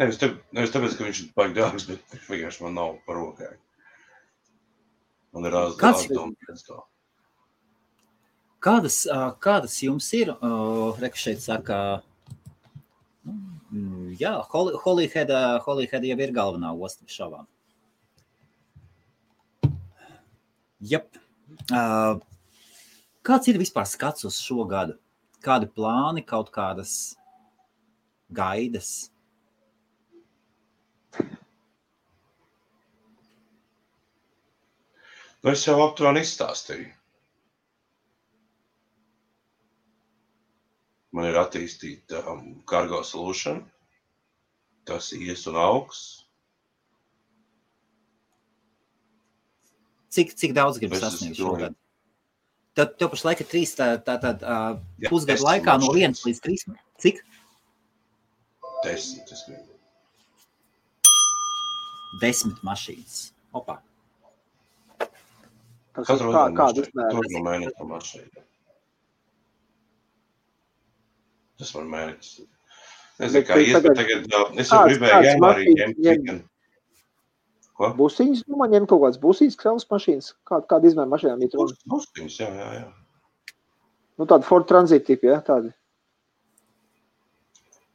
Nevis tāpēc, ka viņš ir baigi dārgs, bet vienkārši man nav par rokai. Man ir āzdoma. Kādas jums ir? Reku šeit saka... Jā, Holyhead jau ir galvenā osta šovām. Jep. Kāds ir vispār skats uz šo gadu? Kādi plāni, kaut kādas gaidas? Es jau aptuveni izstāstīju. Man ir attīstīta cargo solution. Tas ies un augs. Cik daudz gribi sasniegt šogad? Tev pašlaik ir 3 pusgadu laikā no 1 līdz 3. Cik? 10, es gribu. 10 mašīnas. Opā. Katru no mēneša mašīna. Tas man mēnesis. Nezinu, kā ies, bet tagad es jau gribēju janvārī ņemt. Ko? Busiņas, man ņem kaut kāds busiņas, kravas mašīnas. Kāda izmēra mašīnām ir runa? Busiņas, jā. Tāda Ford Transit tipi, ja? Tādi.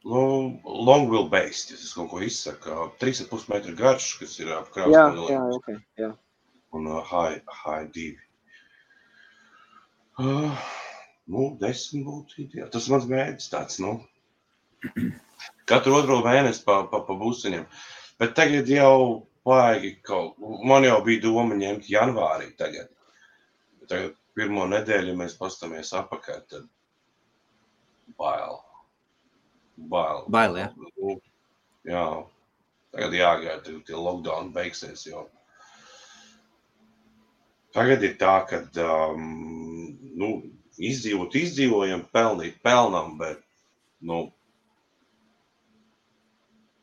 Long wheelbase, ja es kaut ko izsaku. 3,5 metru garš, kas ir ap kravas Jā, ok, jā. Un high 2. 10 būtu ideāli. Tas mans mērķis tāds, Katru otro mēnesi pa busiņiem. Bet tagad jau vajag man jau bija doma ņemt janvārī tagad. Tagad pirmo nedēļu, ja mēs pastamies apakaļ, tad bail. Bail, jā? Jā. Tagad jāgaida, tie lockdown beigsies, jo. Tagad ir tā, kad, izdzīvojam, pelnīt pelnam, bet,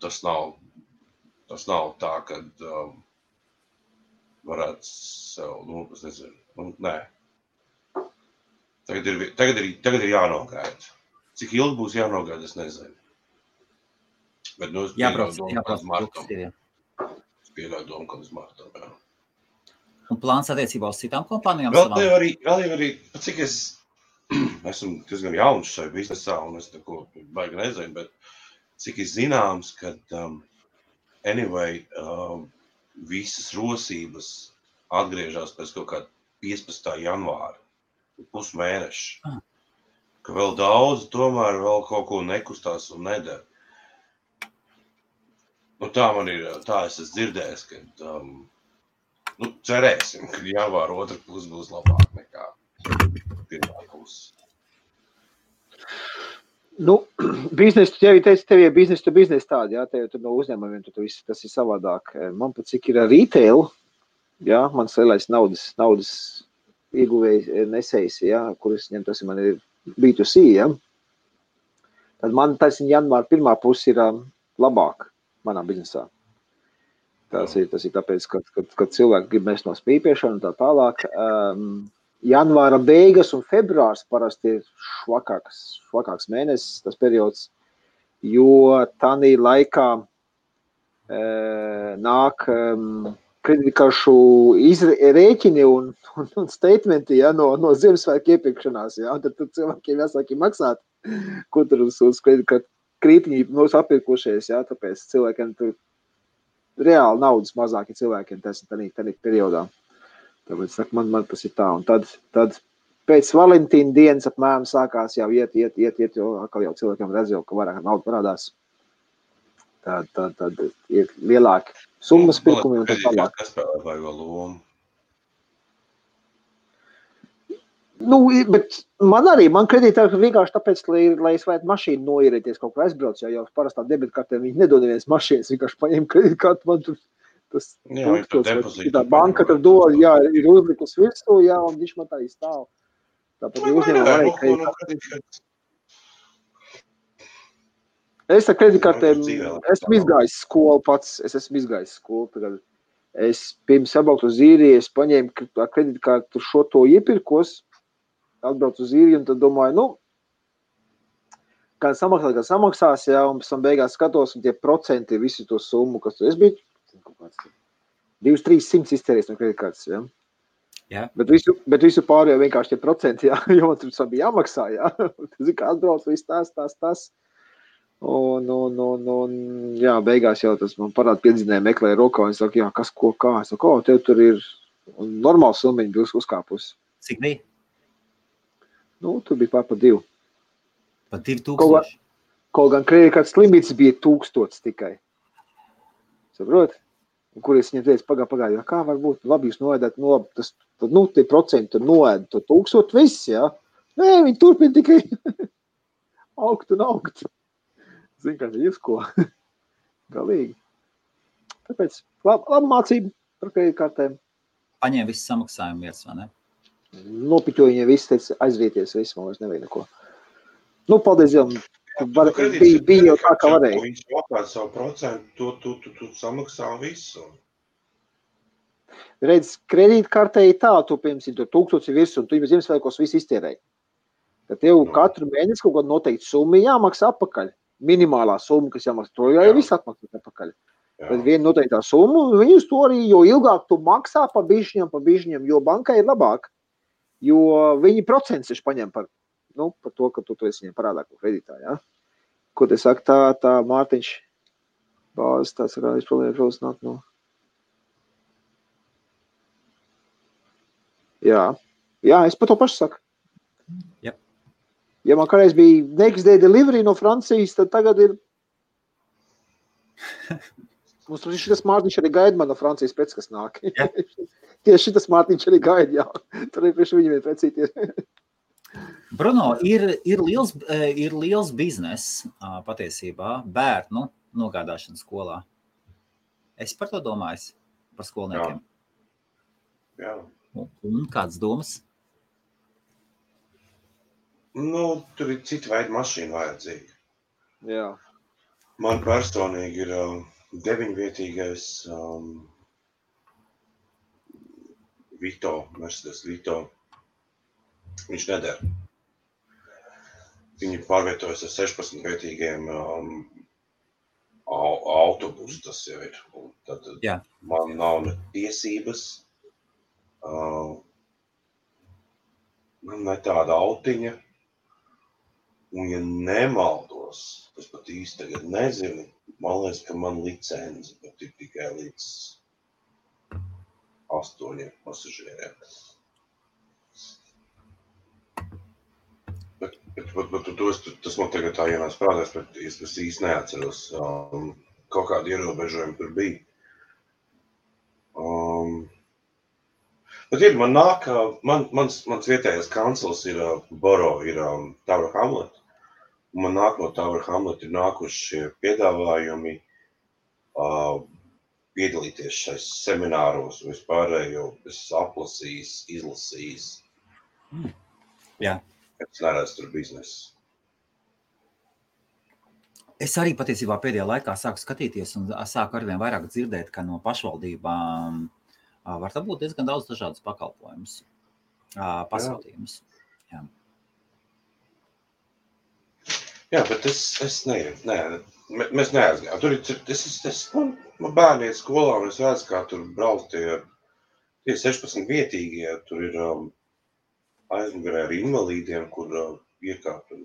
tas nav tā, kad varētu sev, es nezinu, nē. Tagad ir jānogaida. Cik ilgi būs jānogaida, es nezinu. Bet, es pieļauju domu, kad uz martam, jā. Un plāns attiecībā uz citām kompānijām? Vēl jau arī, cik es esmu diezgan jauns šai biznesā, un es neko baigi nezinu, bet cik ir zināms, ka visas rosības atgriežās pēc kaut kāda 15. janvāra, pusmēneša. Ka vēl daudz tomēr vēl kaut ko nekustās un nedara. Tā man ir, tā es esmu dzirdējis, ka cerēsim, ka janvāra otra puse būs labāk nekā pirmā puse. Nu, biznesu, tev ir biznesu to biznesu tādi, jā, tev no uzņēmumiem, tas ir savādāk. Man pat cik ir retail, jā, mans lielais naudas ieguvējs nesējs, jā, kuras ņem, tas man ir B2C, jā. Tad man tas janvāra pirmā pusi ir labāk manā biznesā. Tas ir tāpēc, kad cilvēki grib mest no spīpiešana un tā tālāk. Janvāra beigas un februārs parasti ir švakāks mēnesis, tas periods, jo tādā laikā nāk kreditkaršu rēķini un statementi, ja, no Ziemassvētku iepirkšanās. Ja, tad cilvēkiem jāsāk maksāt, ko tur uz kreditkartu krītiņi apirkušies. Ja, tāpēc cilvēkiem tur reāli naudas mazāk ir cilvēkiem tādā periodā. Tāpēc man tas ir tā. Un tad pēc Valentīna dienas apmēram sākās jau iet, jo atkal jau cilvēkiem redz, ka vairāk nauda parādās. Tad ir lielāki summas pirkumi un tā tālāk. Kas spēlē vaigo lomu? Nu, bet man kredītā vienkārši tāpēc, lai es varētu mašīnu noierēties kaut kur aizbrauc, jo parastā debitkartē viņi nedod neviens mašīnas, vienkārši paņem kredītkartu, man tur tas tā banka tur dod, jā, ir uzlikus virsū, jā, un viņš man tā izstāv. Tāpat ir uzņēmumā arī kredītkartē. Es ar kredītkartēm, esmu izgājis skolu pats, tagad. Es pirms apbraukt uz Īriju, es paņēmu ar kredītkartu šo to iepirkos, atbraucu uz Īriju, un tad domāju, gan samaksās, jā, un pēc tam beigās skatos, un tie procenti visu to summu, kas tur es biju, 200-300 iztērējis no kreditkartes, jā. Jā. Bet visu pārējo vienkārši tie procenti, jā, jo man tur bija jāmaksā, jā. Tas ir kā atbrauc, viss tas. Un, jā, beigās jau tas man parāda piedzinēja meklēja rokā, un es saku, jā, kas, ko, kā. Es saku, tev tur ir normāls summiņi bija uzkāpus. Cik bija? Nu, tur bija pār 2. Pa 2000? Kaut gan kreditkartes limits bija 1000 tikai. Saprot? Un kur es viņiem teicu, pagāju, kā var būt, labi jūs noēdāt, tie procenti tur noēd, to 1000 viss, jā. Nē, viņi turpina tikai augt un augt. Zin, kā jūs ko? Galīgi. Tāpēc labi mācība par kreditkartēm. Paņēma visu samaksājumu vietas, vai ne? Nopiķoja viņiem visu, teica, aizvieties visu, man vairs nevajag neko. Nu, paldies Dievam. Bija jau tā, kā varēja. Viņš apkārt savu procentu, tu samaksā visu. Redz, kredītkartē ir tā, tu, piemēram, 1000 virs, un tu jau Ziemassvētkos visu iztērēji. Tad tev katru mēnesi kaut kādu noteikti summu jāmaksā atpakaļ. Minimālā summa, kas jāmaksā, to jau viss atmaksā atpakaļ. Tad viena noteiktā summa, viņi uz to arī, jo ilgāk tu maksā pa bišķiņam, jo bankai ir labāk, jo viņi procents ir paņem par to, ka tu esi viņiem parādā ko kredītā, jā. Ko te saka, tā Mārtiņš bāzes, tāds ir problēmas nāk no. Jā, es par to pašu saku. Yep. Ja man kādreiz bija next day delivery no Francijas, tad tagad ir. Mums šitas Mārtiņš arī gaida man no Francijas pēc, kas nāk. Yeah. Tieši šitas Mārtiņš arī gaida, jā. Tur arī priekš viņiem precīti ir. Bruno, ir liels biznes patiesībā bērnu nogādāšana skolā. Es par to domāju, par skolniekiem. Jā. Un kādas domas? Nu, tur ir cita veida mašīna vajadzīga. Jā. Man personīgi ir 9-vietīgais Mercedes Vito. Viņš neder. Viņi pārvietojas ar 16-vietīgiem autobusu, tas jau ir. Un tad man nav ne tiesības, man ne tāda autiņa. Un ja nemaldos, es pat īsti tagad nezinu, man liekas, ka man licenci pat ir tikai līdz 8 pasažieriem. Bet tas man tagad tā ienāc prātās, bet es īsti neatceros. Kaut kādi ierobežojumi tur bija. Bet ir, man nāk, mans vietējais kancels ir Boro, ir Tower Hamlet. Man nāk no Tower Hamlet ir nākuši piedāvājumi piedalīties šais semināros, vispārējo es aplasījis, izlasījis. Jā. Es neredzu tur biznesu. Es arī patiesībā pēdējā laikā sāku skatīties un sāku arvien vairāk dzirdēt, ka no pašvaldībām var būt diezgan daudz dažādas pakalpojumus, pasūtījumus. Jā. Jā, bet es mēs neaizgājām. Tur man bērni iet skolā, un es redzu, kā tur brauc tie 16 vietīgie, tur ir aizmugurē ar invalīdiem, kur iekāpt un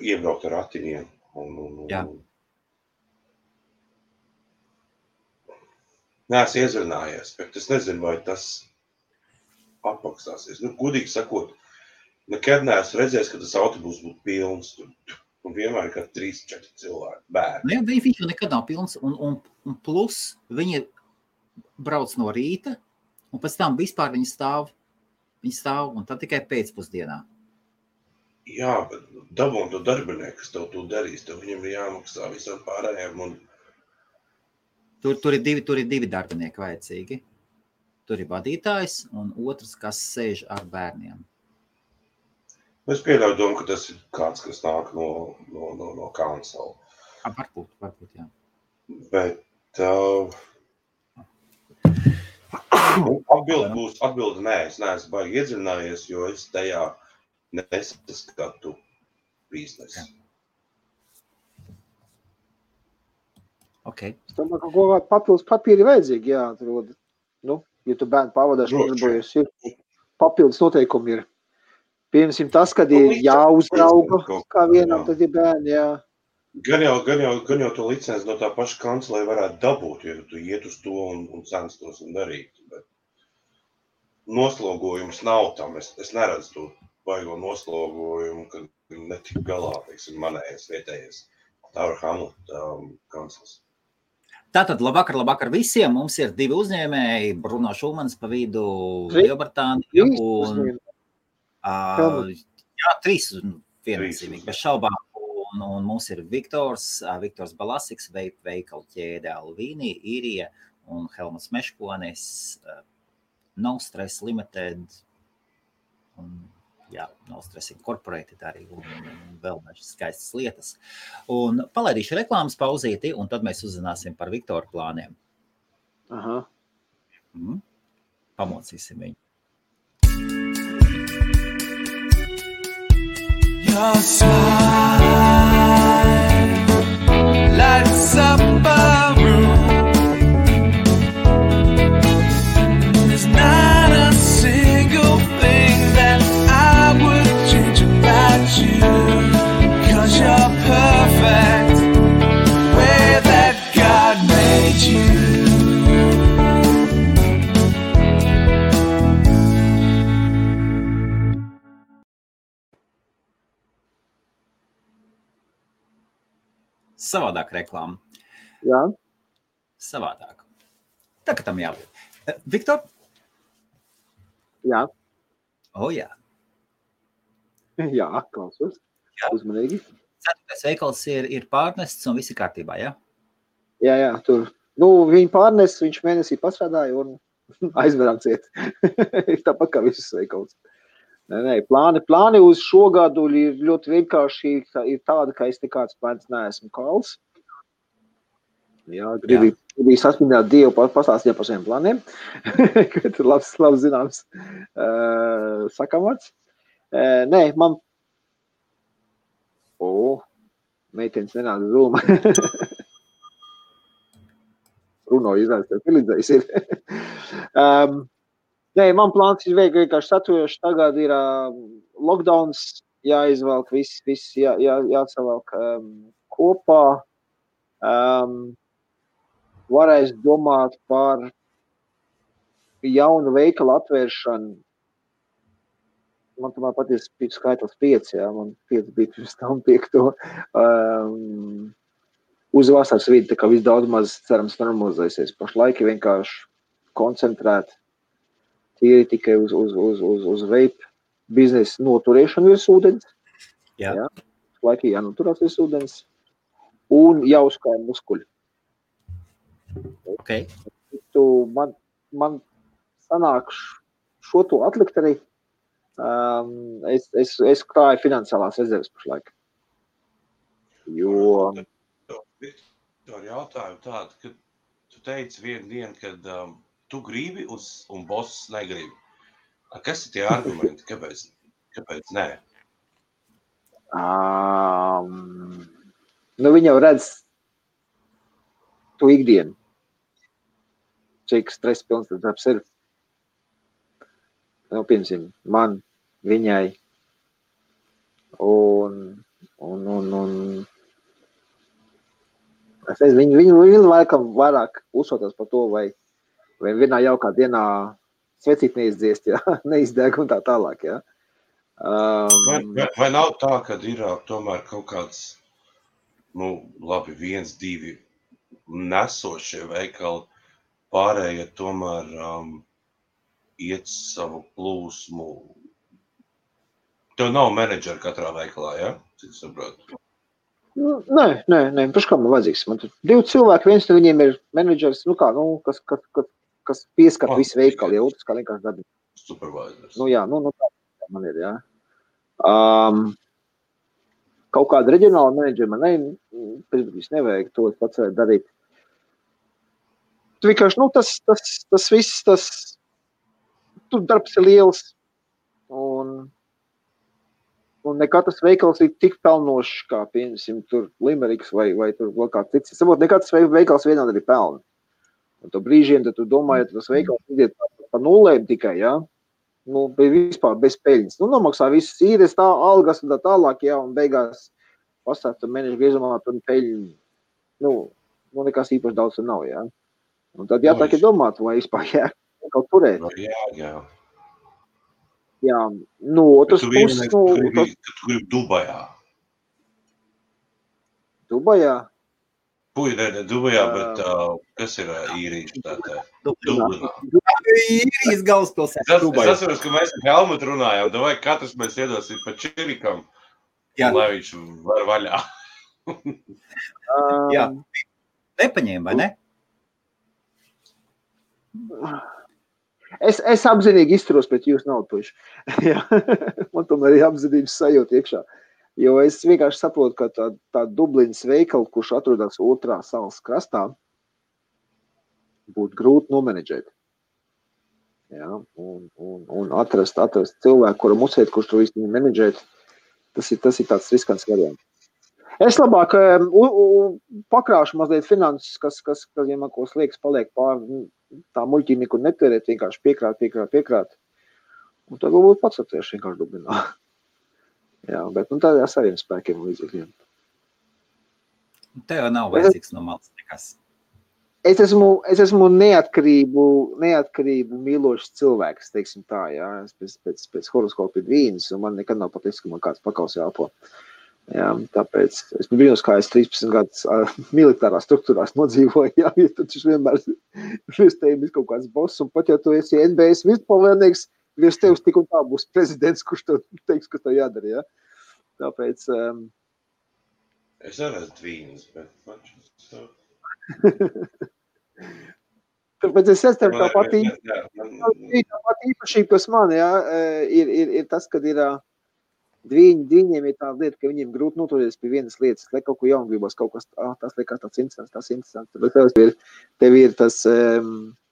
iebraukt ar ratiņiem. Jā. Neesmu iezrunājies, bet es nezinu, vai tas apmaksāsies. Gudīgi sakot, nekad neesmu redzējis, ka tas autobus būtu pilns. Un vienmēr ir kā 3-4 cilvēki, bērni. Viņš nekad nav pilns, un plus viņi brauc no rīta, un pēc tam vispār viņi stāv, un tad tikai pēcpusdienā. Jā, bet dabūn to darbinieku, kas tev to darīs, tev viņam ir jāmaksā visam pārējiem. Un... Tur ir divi darbinieki vajadzīgi. Tur ir vadītājs un otrs, kas sēž ar bērniem. Es pieļauju domu, ka tas ir kāds, kas nāk no council. Varbūt, jā. Bet atbildi nē, es neesmu baigi iedzinājies, jo es tajā nesaskatu biznesu. Okay. Es domāju, ka kaut kādā papildus papīri vajadzīgi, jā, atrod. Ja tu bērnu pavadāšu, nodarbojies, ir papildus noteikumi ir. Piemēram, tas, kad ir jāuzrauga kā vienam, tad ir bērni, jā. Gan jau to licenci no tā paša kancelē varētu dabūt, ja tu iet uz to un censtos un darīt. Bet noslogojums nav tam. Es neredzu to baigo noslogojumu, kad netik galā, teiksim, manējais vietējais Tower Hamlet kancels. Tātad, labvakar visiem. Mums ir 2 uzņēmēji, Bruno Šulmans pa vidu, Lielbritānija un... Jā, 3 viennozīmīgi, bez šaubām. Un mums ir Viktors Balasiks, veikalu ķēde Alvīni, Īrija un Helmuts Meškonis, No Stress Limited, un, jā, No Stress Incorporated arī, un vēl dažas skaistas lietas. Un palaidīšu reklāmas pauzīti, un tad mēs uzzināsim par Viktora plāniem. Aha. Pamocīsim viņu. Your smile lights up a room. There's not a single thing that I would change about you, 'cause you're perfect way that God made you. Savādāk reklāma. Jā. Savādāk. Tā, ka tam jābūt. Viktor? Jā. Jā. Jā, klausos. Jā. Uzmanīgi. 4. veikals ir pārnests un viss ir kārtībā, jā? Jā, tur. Viņi pārnes, viņš mēnesī pastrādāja un aizverām ciet. Tāpat kā visus veikals. Nē, plāni uz šo gadu ir ļoti vienkārši, ir tāda, ka es nekāds plāns neesmu kals. Jā, gribu sasminēt Dievu, pastāstīt par saviem plāniem, kad ir labs zināms sakamats. Nē, man... meitenes nenāda zūma. Bruno izrādās, tev pilīdzējis ir. Nē, man plāns ir vienkārši saturoši. Tagad ir lockdowns, jāizvelk, viss jāsavelk kopā. Varēs domāt par jaunu veikalu atvēršanu. Man tomēr paties skaitlis 5, jā, man 5 bija pirms tam 5. Uz vasaras vidi, tā kā viss daudz maz cerams normalizēsies. Pašlaik vienkārši koncentrēt. Tie ir tikai uz vape biznesa noturēšanu virs ūdens. Jā. Ja? Laikī jānoturās virs ūdens un jāuzkāja muskuļi. Okay. Man sanāk šo to atlikt arī. Es krāju finansiālās rezerves pašlaik. Jo... Ar jautājumu tādu, ka tu teici vienu dienu, kad tu gribi un boss negribi. Kas ir tie argumenti? Kāpēc nē? Viņi jau redz tu ikdienu. Cik stresa pilns tas darbs ir. Piemēram, man, viņai un es nezinu, viņi laikam vairāk uzsotās par to, vai vienā jaukā dienā svecīt neizdziest, ja? Neizdeg un tā tālāk. Ja? Vai nav tā, ka ir tomēr kaut kāds, labi, 1, 2 nesošie veikali, pārējie tomēr iet savu plūsmu? Tev nav menedžera katrā veikalā, ja? Cik saprotu? Nē, paši kā man vajadzīgs. Man tur 2 cilvēki, viens no viņiem ir menedžers, kas pieskat visu veikalu, ja otrs kā vienkārši darbi. Supervisors. Tā man ir, jā. Kaut kāda reģionāla menedžera man nevajag, to es pats varētu darīt. Tu vienkārši, tas viss, tur darbs ir liels, un ne katrs veikals ir tik pelnošs, kā, piemēram, tur Limeriks vai tur vēl kāds cits. Es saprotu, ne katrs veikals vienādi arī pelna. Un to brīžiem, tad tu domā, ja tas veikals iziet pa nulēm tikai, ja? Vispār bez peļņas. Nomaksā visas īres, algas un tā tālāk, ja, un beigās pastāv tur mēnešu griezumā, tur peļņu, nekas īpaši daudz tur nav, ja. Un tad jātāk ir domāt, vai vispār kaut turēt. Jā. Jā, otrs puses... Tu gribi Dubajā. Dubajā? Dubajā, bet kas ir īrijas tātad? Dublinā. Īrijas galvaspilsēta Dubajā. Es atceros, ka mēs ar Helmutu runājām, vai katrs mēs iedosim pa čirikam, lai viņš var vaļā. Jā. Nepaņēma, vai ne? Es apzinīgi izturos pret jūsu naudu, puiši. Man tomēr ir apzinības sajūta iekšā. Jo es vienkārši saprotu, ka tā Dublinas veikala, kurš atrodas otrā salas krastā, būtu grūti nomenedžēt. Ja? Un atrast cilvēku, kuram uzsēt, kurš to visu menedžēt, tas ir tāds riskants variants. Es labāk pakrāšu mazliet finanses, kas ja man ko sliekas paliek pāri tā muļķī nekur netērēt, vienkārši piekrāt. Un tad varbūt pats atvēršu vienkārši Dublinā. Jā, bet tādā saviem spēkiem un līdzekļiem. Tev nav vajadzīgs no malas nekas. Es esmu neatkarību mīlošs cilvēks, teiksim tā, jā. Es pēc horoskopa ir vīnas, un man nekad nav patiks, ka man kāds pakaus jāpo. Jā, tāpēc es brīnos, kā es 13 gadus militārās struktūrās nodzīvoju, jā, ja tad viņš vienmēr virs tevi ir kaut kāds boss, un pat ja tu esi NBS vispalvēnieks, virs tevis tik un tā būs prezidents, kurš tev teiks, kas tev jādara, jā. Tāpēc... Es arī esmu vīnas, bet... Tāpēc es esmu tā pati īpašība, kas man, jā, ir tas, kad ir... Viņiem ir tāda lieta, ka viņiem grūti noturēties pie vienas lietas, lai kaut ko jaunu gribas, kaut kas tas liekas tāds interesants. Bet tev ir tas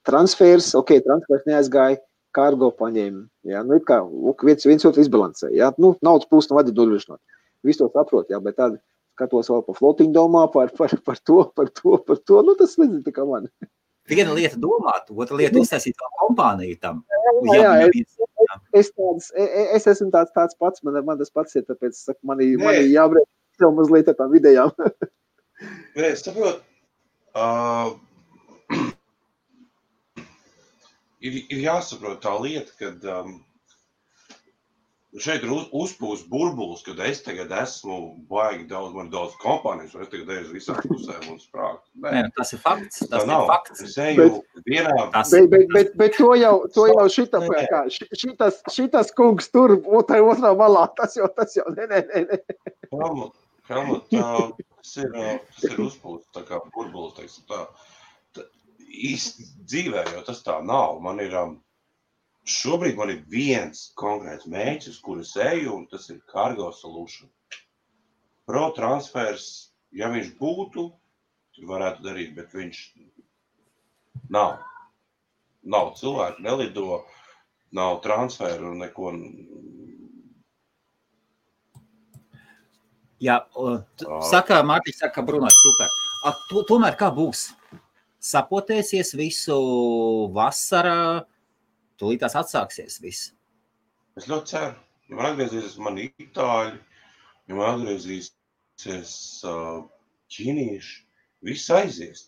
transfers, transfers neaizgāja, kargo paņēma. Jā, ir kā viens otru izbalansē. Jā, naudas plūst no vadi nodrošināt. Visu to saprot, jā, bet tad skatos vēl par flotiņu domā, par to. Tas nezinu, tā kā man. Viena lieta domāt, otra lieta uztaisīt vēl kompāniju tam. Es esmu tāds pats, man tas pats ir, tāpēc saku, man jābrēc sev mazliet ar tām vidējām. Nē, es saprotu, ir jāsaprot tā lieta, kad šeit ir uzpūst burbulis, kad es tagad esmu baigi daudz kompānijas, un es tagad eju uz visām pusēm un sprāgu. Nē, tas ir fakts. Tas ir fakts. Es eju vienā... Bet to jau šitas kungs tur, otrā malā, tas jau, nē. Helmut, tas ir uzpūst, tā kā burbulis, teiksim tā. Īsti dzīvē, jo tas tā nav. Šobrīd man ir viens konkrēts mēģis, uz kuru es eju, un tas ir Cargo Solution. Pro transfers, ja viņš būtu, tad varētu darīt, bet viņš nav. Nav cilvēku, nelido, nav transferu, neko... Jā, Mārtiņš saka, Bruno, super. Tomēr kā būs? Sapotēsies visu vasarā, tūlītās atsāksies viss. Es ļoti ceru. Ja man atgriezīsies mani itāļi, ja man atgriezīsies ķīnieši, viss aizies.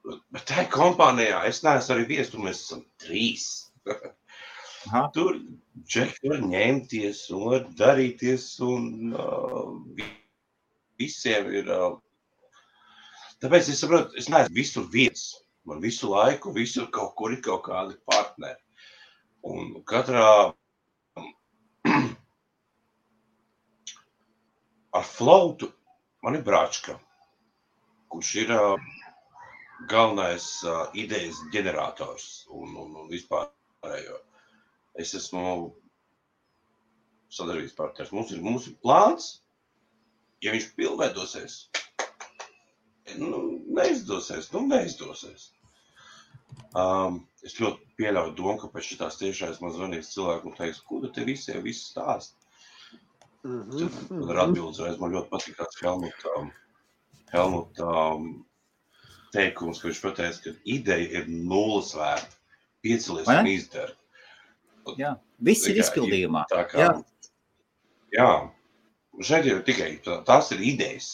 Bet tā kompānijā es neesmu arī vies, tur mēs esam 3. Tur džeki var ņemties un var darīties un visiem ir... Tāpēc es saprotu, es neesmu visur viens. Man visu laiku, visur kaut kur ir kaut kādi partneri. Un katrā ar Floatu man ir Bračka, kurš ir galvenais idejas ģenerators un vispārējo. Es esmu sadarbības partners. Mums ir plāns, ja viņš pilnveidosies, neizdosies. Es ļoti pieļauju domu, ka pēc šitās tiešais man zvanīs cilvēku un teiks, ko te visiem viss stāst. Tad ar atbildes man ļoti patīkās Helmuta teikums, ka viņš pateica, ka ideja ir 0 vērta. Piecelies un izdara. Jā, viss ir izpildījumā. Jā. Šeit ir tikai, tās ir idejas.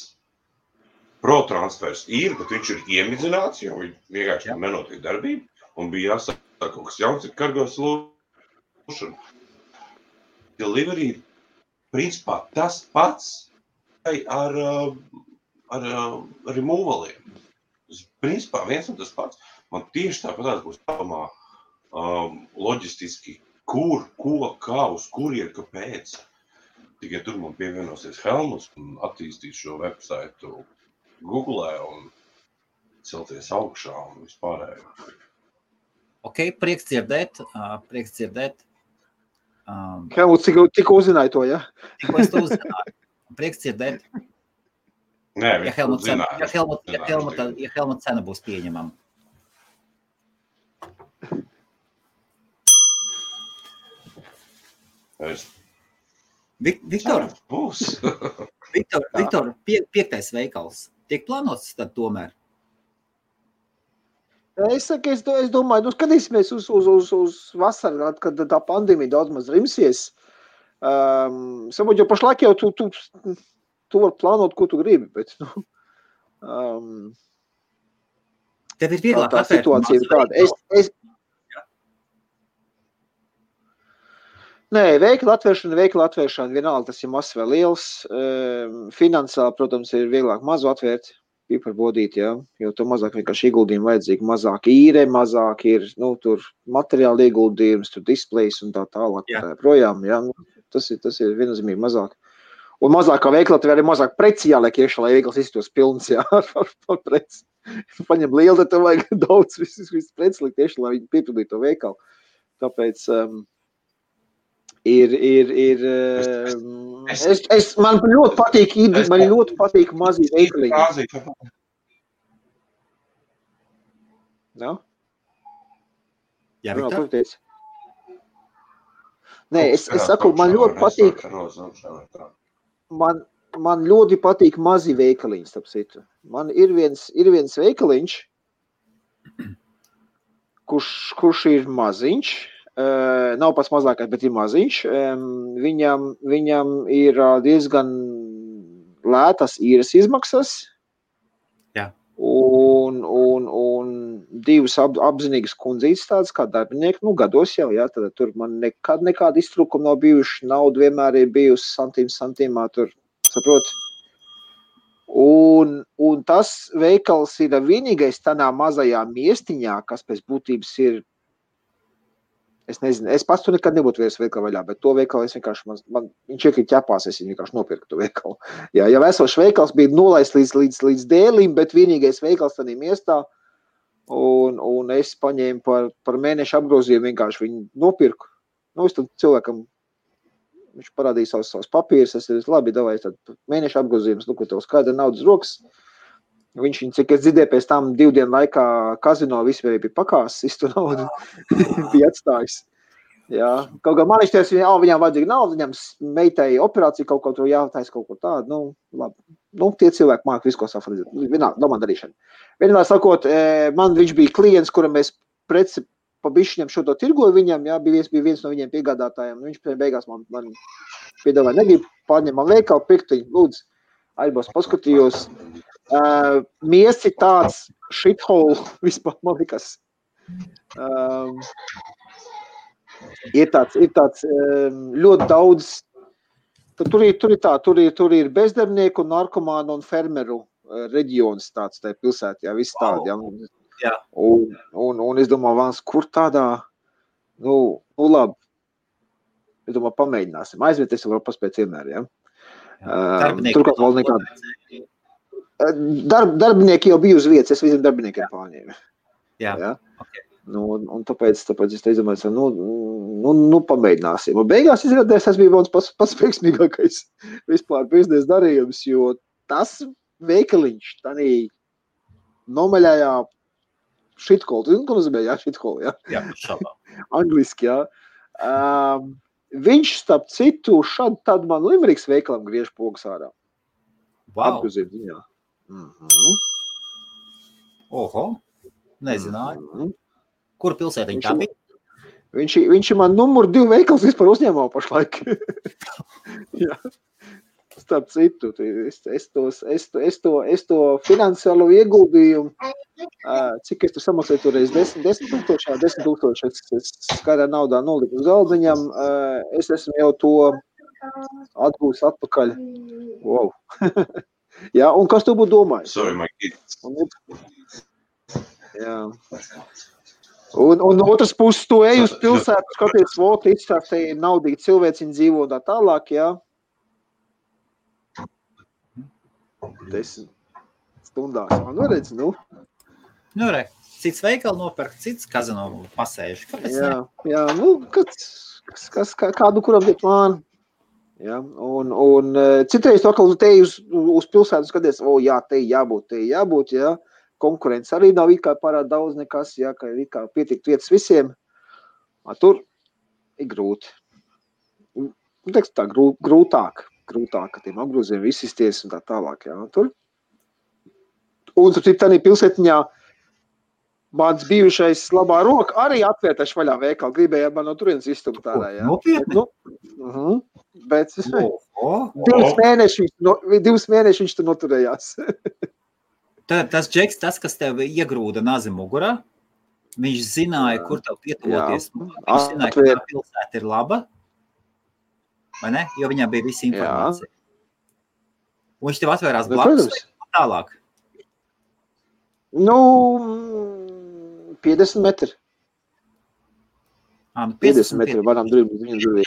Pro transfers ir, bet viņš ir iemidzināts, jo vienkārši nenotiek darbība, un bija jāsaka kaut kas jauns ir Cargo Solution. Delivery ir principā tas pats ar removaliem. Principā viens un tas pats. Man tieši tāpatās būs jādomā loģistiski, kur, ko, kā, uz kurien, kāpēc. Tikai tur man pievienosies Helmuts un attīstīt šo websaitu Google un celties augšā un vispārējo. Ok, prieks dzirdēt. Helmuts, tikko uzzināju to, ja? Tikko es to uzzināju. Prieks dzirdēt. Nē, ja Helmuta cena būs pieņemama. Viktor, Viktor, 5. veikals. Tiek plānots tad tomēr? Es domāju, skatīsimies uz vasaru, kad tā pandēmija daudz maz rimsies. Sabūt, jo pašlaik jau tu var plānot, ko tu gribi, bet, tev ir vieglāk tā situācija ir tāda. Nē, veikla atvēršana, vienalga tas ir mazs vai liels. Finansiāli, protams, ir vieglāk mazu atvērt, piparbodīt, jā, jo to mazāk vienkārši ieguldījumi vajadzīgi, mazāk īre, mazāk ir, tur materiāli ieguldījums, tur displejs un tā tālāk, projām, jā. Tas ir viennozīmīgi mazāk. Un mazāk kā veikla atvēr arī mazāk preci jāliek iekšā, lai veikls iztos pilns, jā, ar preci. Paņem lielu, tad tev vajag daudz visu preci likt iekšā, lai viņi piepildītu to veikalu. Tāpēc... Man ļoti patīk mazi veikaliņi. No? Jā, Viktor? Nē, es saku, man ļoti patīk. Man ļoti patīk mazi veikaliņi, starp citu. Man ir viens veikaliņš, kurš ir maziņš. Nav pats mazākais, bet ir maziņš. Viņam ir diezgan lētas īres izmaksas. Jā. Un divas apzinīgas kundzītes tādas kā darbinieki, gados jau, jā, tad tur man nekāda iztrūkuma nav bijuši, nauda vienmēr ir bijusi santīmā tur, saprot. Un tas veikals ir vienīgais tādā mazajā miestiņā, kas pēc būtības ir, es nezinu, es pats tu nekad nebūtu vairs veikalu vaļā, bet to veikalu es vienkārši, viņš iekrīt ķepās, es vienkārši nopirku to veikalu. Jā, jau esošs veikals bija nolaists līdz dēlim, bet vienīgais veikals tādā miestā, un es paņēmu par mēnešu apgrozījumu, vienkārši viņu nopirku. Es tad cilvēkam, viņš parādīja savus papīrus, es labi, davai, tad mēnešu apgrozījums, ko tev skaidra naudas rokas. Viņš, cik es dzirdēju, pēc tam 2 dienu laikā kazino vispār bija pakās, visu naudu bija atstājis. Jā, kaut kā man izties, viņām vajadzīga nauda, viņam meitai operācija kaut ko tur jātais kaut ko tādu, labi. Tie cilvēki māk visu, ko safredzēt. Vienā domā darīšana. Vienmēr sakot, viņš bija klients, kuram es preci pa bišķiņam šo to tirgoju viņam, jā, bija viens no viņiem piegādātājiem. Viņš beigās man piedāvāja, negribu pārņemt man veikalu, pirktiņu, lūdzu, aizbos paskatījos. Mies ir tāds shithole vispār, man likas. Ir tāds ļoti daudz, tur ir bezdarbnieku, narkomānu un fermeru reģions tāds tajā pilsētā, jā, viss tādi, jā. Un es domāju, Vans, kur tādā, labi, es domāju, pamēģināsim, aizvieties var paspēt vienmēr, jā. Turklāt vēl nekāda. Darbinieki jau bija uz vietas, es visiem darbiniekiem pārņēmu. Jā. Okay. Un tāpēc es teicu, pamēģināsim. Un beigās izrādījās, tas bija viens pats veiksmīgākais vispār biznesa darījums, jo tas veikaliņš tādā nomaļājā shithole, zinu, ko nozīmē, jā, shithole, jā? Jā, šādā. Angliski, jā. Viņš, starp citu, tad man Limeriks veikalam griež pogas ārā. Wow. Apgrozīt viņā. Oho, nezināju. Kur pilsētiņ tā bija? Viņš ir man numur 2 veikals vispār uzņēmumā pašlaik. Jā. Starp citu, es to finansiālo ieguldījumu, cik es tur samaksāju toreiz 10 000, es skaidrā naudā noliku uz galdiņam, es esmu jau to atgūs atpakaļ. Wow. Jā, un kas tu būtu domājis? Sorry, my kids. Jā. Un otras puses tu ej uz pilsētu, skaties, izstāst, te ir naudīgi cilvēciņi dzīvo un tā tālāk, jā. 10 stundās. Man redz, cits veikali nopērk, cits kazino pasēž. Kāpēc ne? Jā, kādu kuram iet plānu. Ja, un citreiz to, ka te uz pilsētu skaties, jā, te jābūt, jā. Konkurence arī nav it kā pārāk daudz nekas, jā, ka ir it kā pietikt vietas visiem. Tur ir grūti. Teiks tā, grūtāk, ka tiem apgroziem visisties un tā tālāk, jā. Tur. Un tur tādā pilsētiņā mans bijušais labā roka arī atvērtaši vaļā veikalu. Gribēja man no turienes izstumt tādā, jā. Nopietni? Bet 2 mēneši viņš tur noturējās. Tas Džeks, tas, kas tev iegrūda nazi mugurā, viņš zināja, kur tev pietuvoties. Viņš zināja, ka tā pilsēta ir laba, vai ne? Jo viņam bija visa informācija. Un viņš tev atvērās blakus tālāk. 50 metri. 50 metri varam durvīt.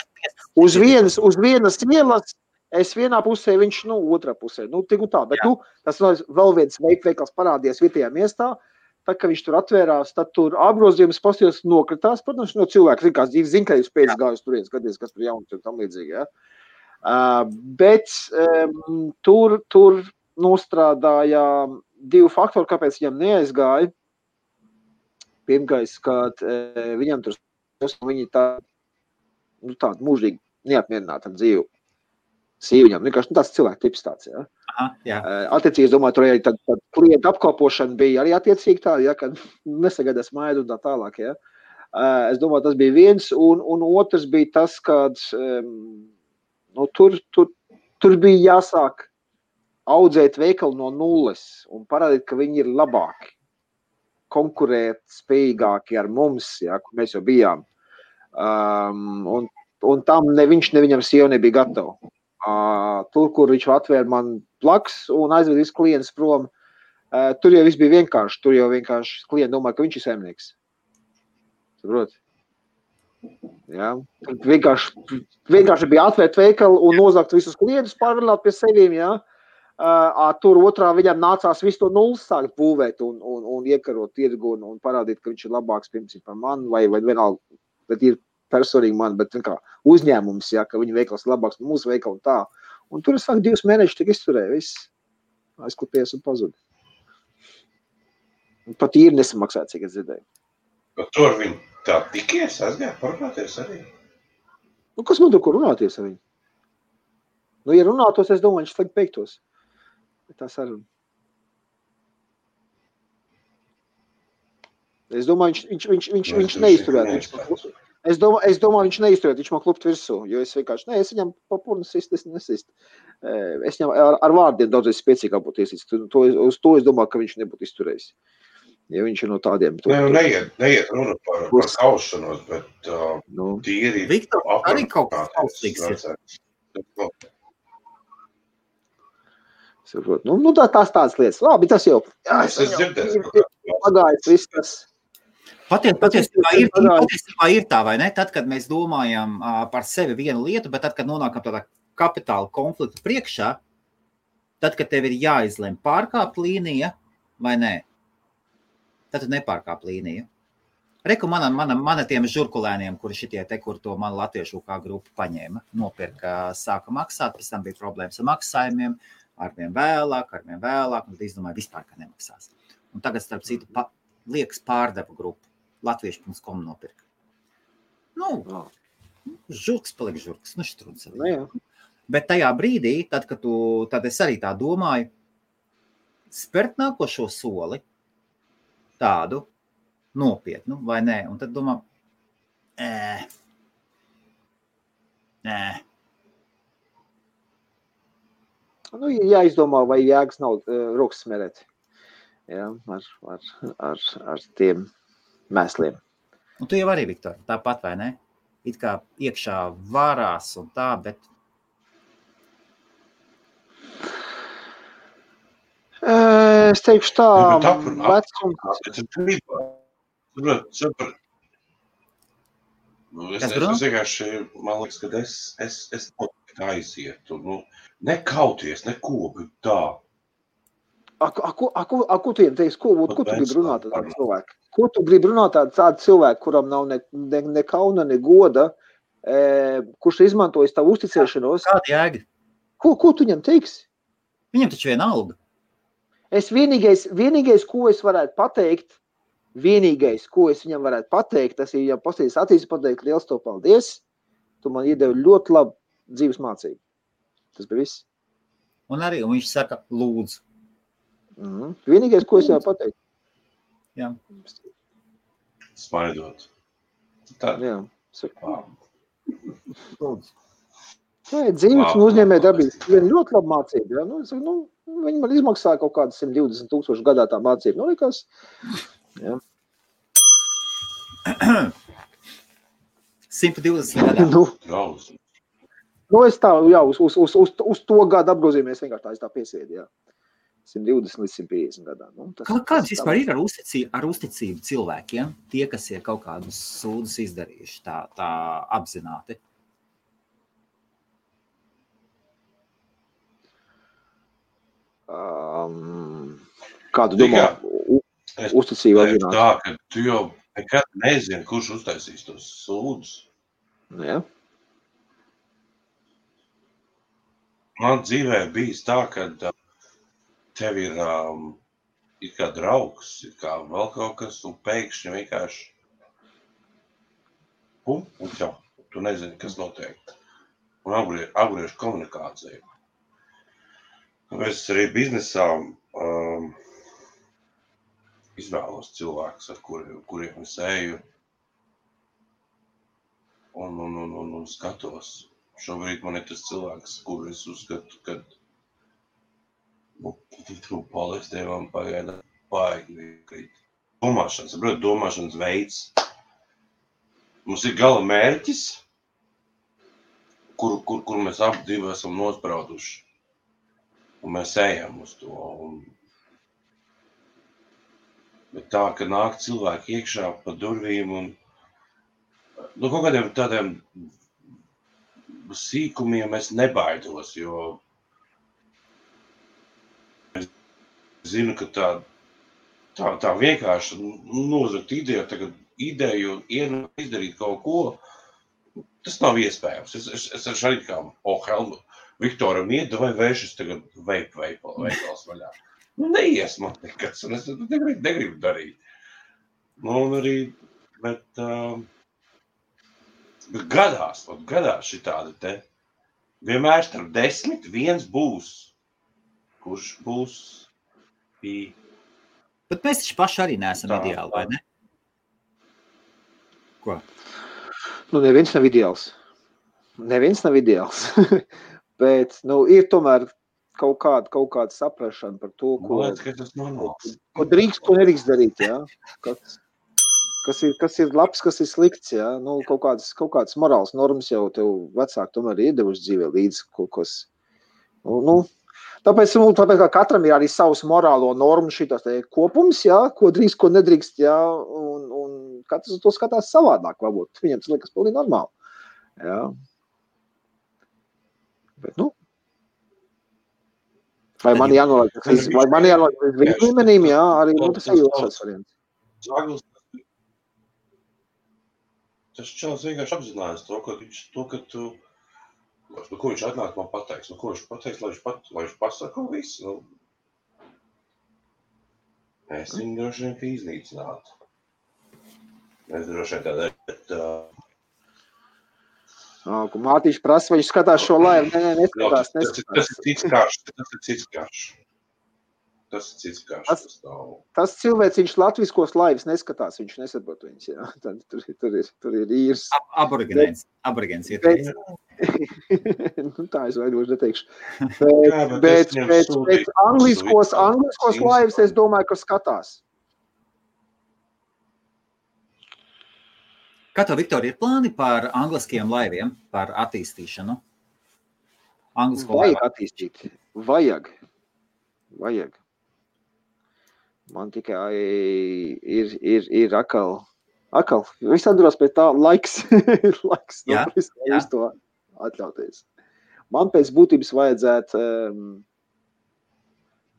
Uz vienas ielas, es vienā pusē, viņš, otrā pusē. Tik un tā, bet, tas vēl viens veikals parādījās vietējā miestā, tā, ka viņš tur atvērās, tad tur apgrozījums postījos nokritās, protams, no cilvēku, zin, ka jūs pēc gājus turien, skaties, kas tur jauns un tam līdzīgi, jā. Bet tur nostrādāja 2 faktori, kāpēc viņam neaizgāja. Pirmais, kad viņam tur viņi tāda mūžīgi neapmierināta dzīve. Sīviņam, vienkārši tāds cilvēku tips tāds, jā. Aha, jā. Attiecīgi, es domāju, tur arī tad klienta apkalpošana bija arī attiecīgi tā, jā, kad nesagaidās maidu un tā tālāk, jā. Es domāju, tas bija viens, un otrs bija tas, kad tur bija jāsāk audzēt veikalu no nulles un parādīt, ka viņi ir labāki. konkurēt spējīgāki ar mums, ja, kur mēs jau bijām. Un tam ne viņš, ne viņam sieva nebija gatava. Tur, kur viņš atvēra man plaks un aizved visu klientus prom, tur jau viss bija vienkārši. Tur jau vienkārši klienti domā, ka viņš ir saimnieks. Saprot? Ja? Vienkārši bija atvērt veikalu un nozakt visus klientus, pārvilināt pie sevīm, ja? Tur otrā viņam nācās visu to nulles sākt būvēt un iekarot tirgu un parādīt, ka viņš ir labāks pirms par mani vai vienalga, bet ir personīgi man, bet kā uzņēmums, ja, ka viņa veikals ir labāks par mūsu veikalu un tā. Un tur es sāku 2 mēnešus tik izturēju, viss aizklāpies un pazud. Pat īri nesamaksāja, cik es dzirdēju. Bet tur viņi tā tikies, aizgāja parunāties arī? Nu, kas man tur, kur runāties ar viņu? Nu, ja runātos, es domāju, viņš slēgt beigtos. Tā saruna. Es domāju, viņš neizturētu. Es domāju, viņš neizturētu, viņš man klupt virsū, jo es vienkārši, es viņam papurnu sist, es nesist. Es viņam ar vārdiem daudzreiz spēcīgāk būtu iesist. Uz to es domāju, ka viņš nebūtu izturējis. Ja viņš ir no tādiem. Neiet runa par kaušanos, bet tīri. Viktor, arī kaut kas kaustīgs ir. Nu, tās tādas lietas. Labi, tas jau. Es dzirdēju. Pagājis viss tas. Patiesībā ir tā, vai ne? Tad, kad mēs domājam par sevi vienu lietu, bet tad, kad nonākam tādā kapitāla konflikta priekšā, tad, kad tev ir jāizlem pārkāpt līnija vai nē, tad tu nepārkāp līniju. Reku mana tiem žurkulēniem, kuri šitie te, kur to man latviešu kā grupu paņēma, nopirka, sāka maksāt, pēc tam bija problēmas ar maksājumiem, arvien vēlāk, un tad izdomāju vispār, ka nemaksās. Un tagad, starp citu, liekas pārdevu grupu. Latviešu.com nopirka. Žurks paliek žurks, štruds arī. Bet tajā brīdī, tad es arī tā domāju, spērt nākošo soli, tādu nopietnu, vai nē, un tad domā, Nu, jāizdomā, vai jēgas nav rokas smerēt. Ja, ar tiem mēsliem. Un tu jau arī, Viktor, tāpat, vai ne? It kā iekšā varās un tā, bet... Es teikšu tā, vecums... Es vienkārši, man liekas, ka es aizietu, nekauties, neko, bet tā. Ko tu teiks, ko tu gribi runāt ar tādu cilvēku? Ko tu gribi runāt ar tādu cilvēku, kuram nav ne kauna, ne goda, kurš izmantojas tavu uzticēšanos? Kāda jēga? Ko tu viņam teiksi? Viņam taču viena alga. Es vienīgais, ko es varētu pateikt, tas ir, ja pasties atīs pateikt, liels to paldies, tu man iedevi ļoti labu dzīves mācību. Tas bija viss. Un viņš saka, lūdzu. Vienīgais, ko es jau pateicu. Jā. Smaidot. Tā. Jā. Dzīves un uzņēmē darbības. Viena ļoti laba mācība. Ja? Viņi man izmaksāja kaut kādas 120,000 gadā tā mācība. Likās. Jā. 120 gadā. Es tā, jā, uz to gadu apgrozījumies vienkārši tā, es tā piesēdu, jā. 120 līdz 150 gadā. Kāds vispār ir ar uzticību cilvēkiem, tie, kas ir kaut kādus sūdus izdarījuši tā apzināti? Kādu domā uzticību apzināti? Tā, ka tu jau nekad nezini, kurš uztaisīs tos sūdus. Jā. Man dzīvē bijis tā, ka tev ir kā draugs, ir kā vēl kaut kas, un pēkšņi vienkārši un jau, tu nezini, kas notiek. Un apgriež komunikāciju. Es arī biznesā izvēlos cilvēkus, ar kuriem es eju un skatos. Šobrīd man ir tas cilvēks, kuru es uzskatu, ka palestē man pagaida baigi krīt. domāšanas veids. Mums ir gala mērķis, kur mēs abi divi esam nosprauduši. Un mēs ejam uz to. Bet tā, ka nāk cilvēki iekšā pa durvīm un kaut kādiem tādiem sīkumiem es nebaidos, jo es zinu, ka tā vienkārši nozagt ideju un izdarīt kaut ko, tas nav iespējams. Es arī kā Viktoram iedavai vēršas tagad veikals vaļā. Neies man nekas, un es negribu darīt. Un arī, bet gadās šitādi te. Vienmēr starp 10 viens būs, kurš būs pie. Bet mēs taču paši arī neesam ideāli, vai ne? Ko? Neviens nav ideāls. Bet, ir tomēr kaut kāda saprašana par to, ko drīkst, ko nedrīkst darīt, jā. Kas ir labs, kas ir slikts, jā. Kaut kāds morāls normas jau tev vecāki tomēr iedevuši dzīvē līdz kaut kas. Tāpēc kā katram ir arī savs morālo normu šitas kopums, jā, ko drīkst, ko nedrīkst, jā, un katrs to skatās savādāk, varbūt. Viņam tas liekas pilnīgi normāli, jā. Bet, vai man jānolaiž viņa līmenīm, jā, arī tas ir jūtas variants. Tas čels vienkārši apzinājās to, ka tu, ko viņš atnāk man pateiks, ko viņš pateiks, lai viņš pasaka visu. Es viņu droši vien ka iznīcinātu. Es droši vien tādā, bet... Mātīši prasa, vai viņš skatās šo laivu? Nē, neskatās. Tas ir cits karš. Tas cilvēciņš latviskos laivas neskatās, viņš nesaprot viņas, jā. Tur ir īrs. Aborigēns ieteikts. Tā es vaidoši neteikšu. Bet angliskos laivas es domāju, ka skatās. Kā tev, Viktor, ir plāni par angliskiem laiviem, par attīstīšanu? Vajag attīstīt. Vajag. Man tikai ir akal. Viss atdurās pēc tā laiks. Jā. To atļauties. Man pēc būtības vajadzētu,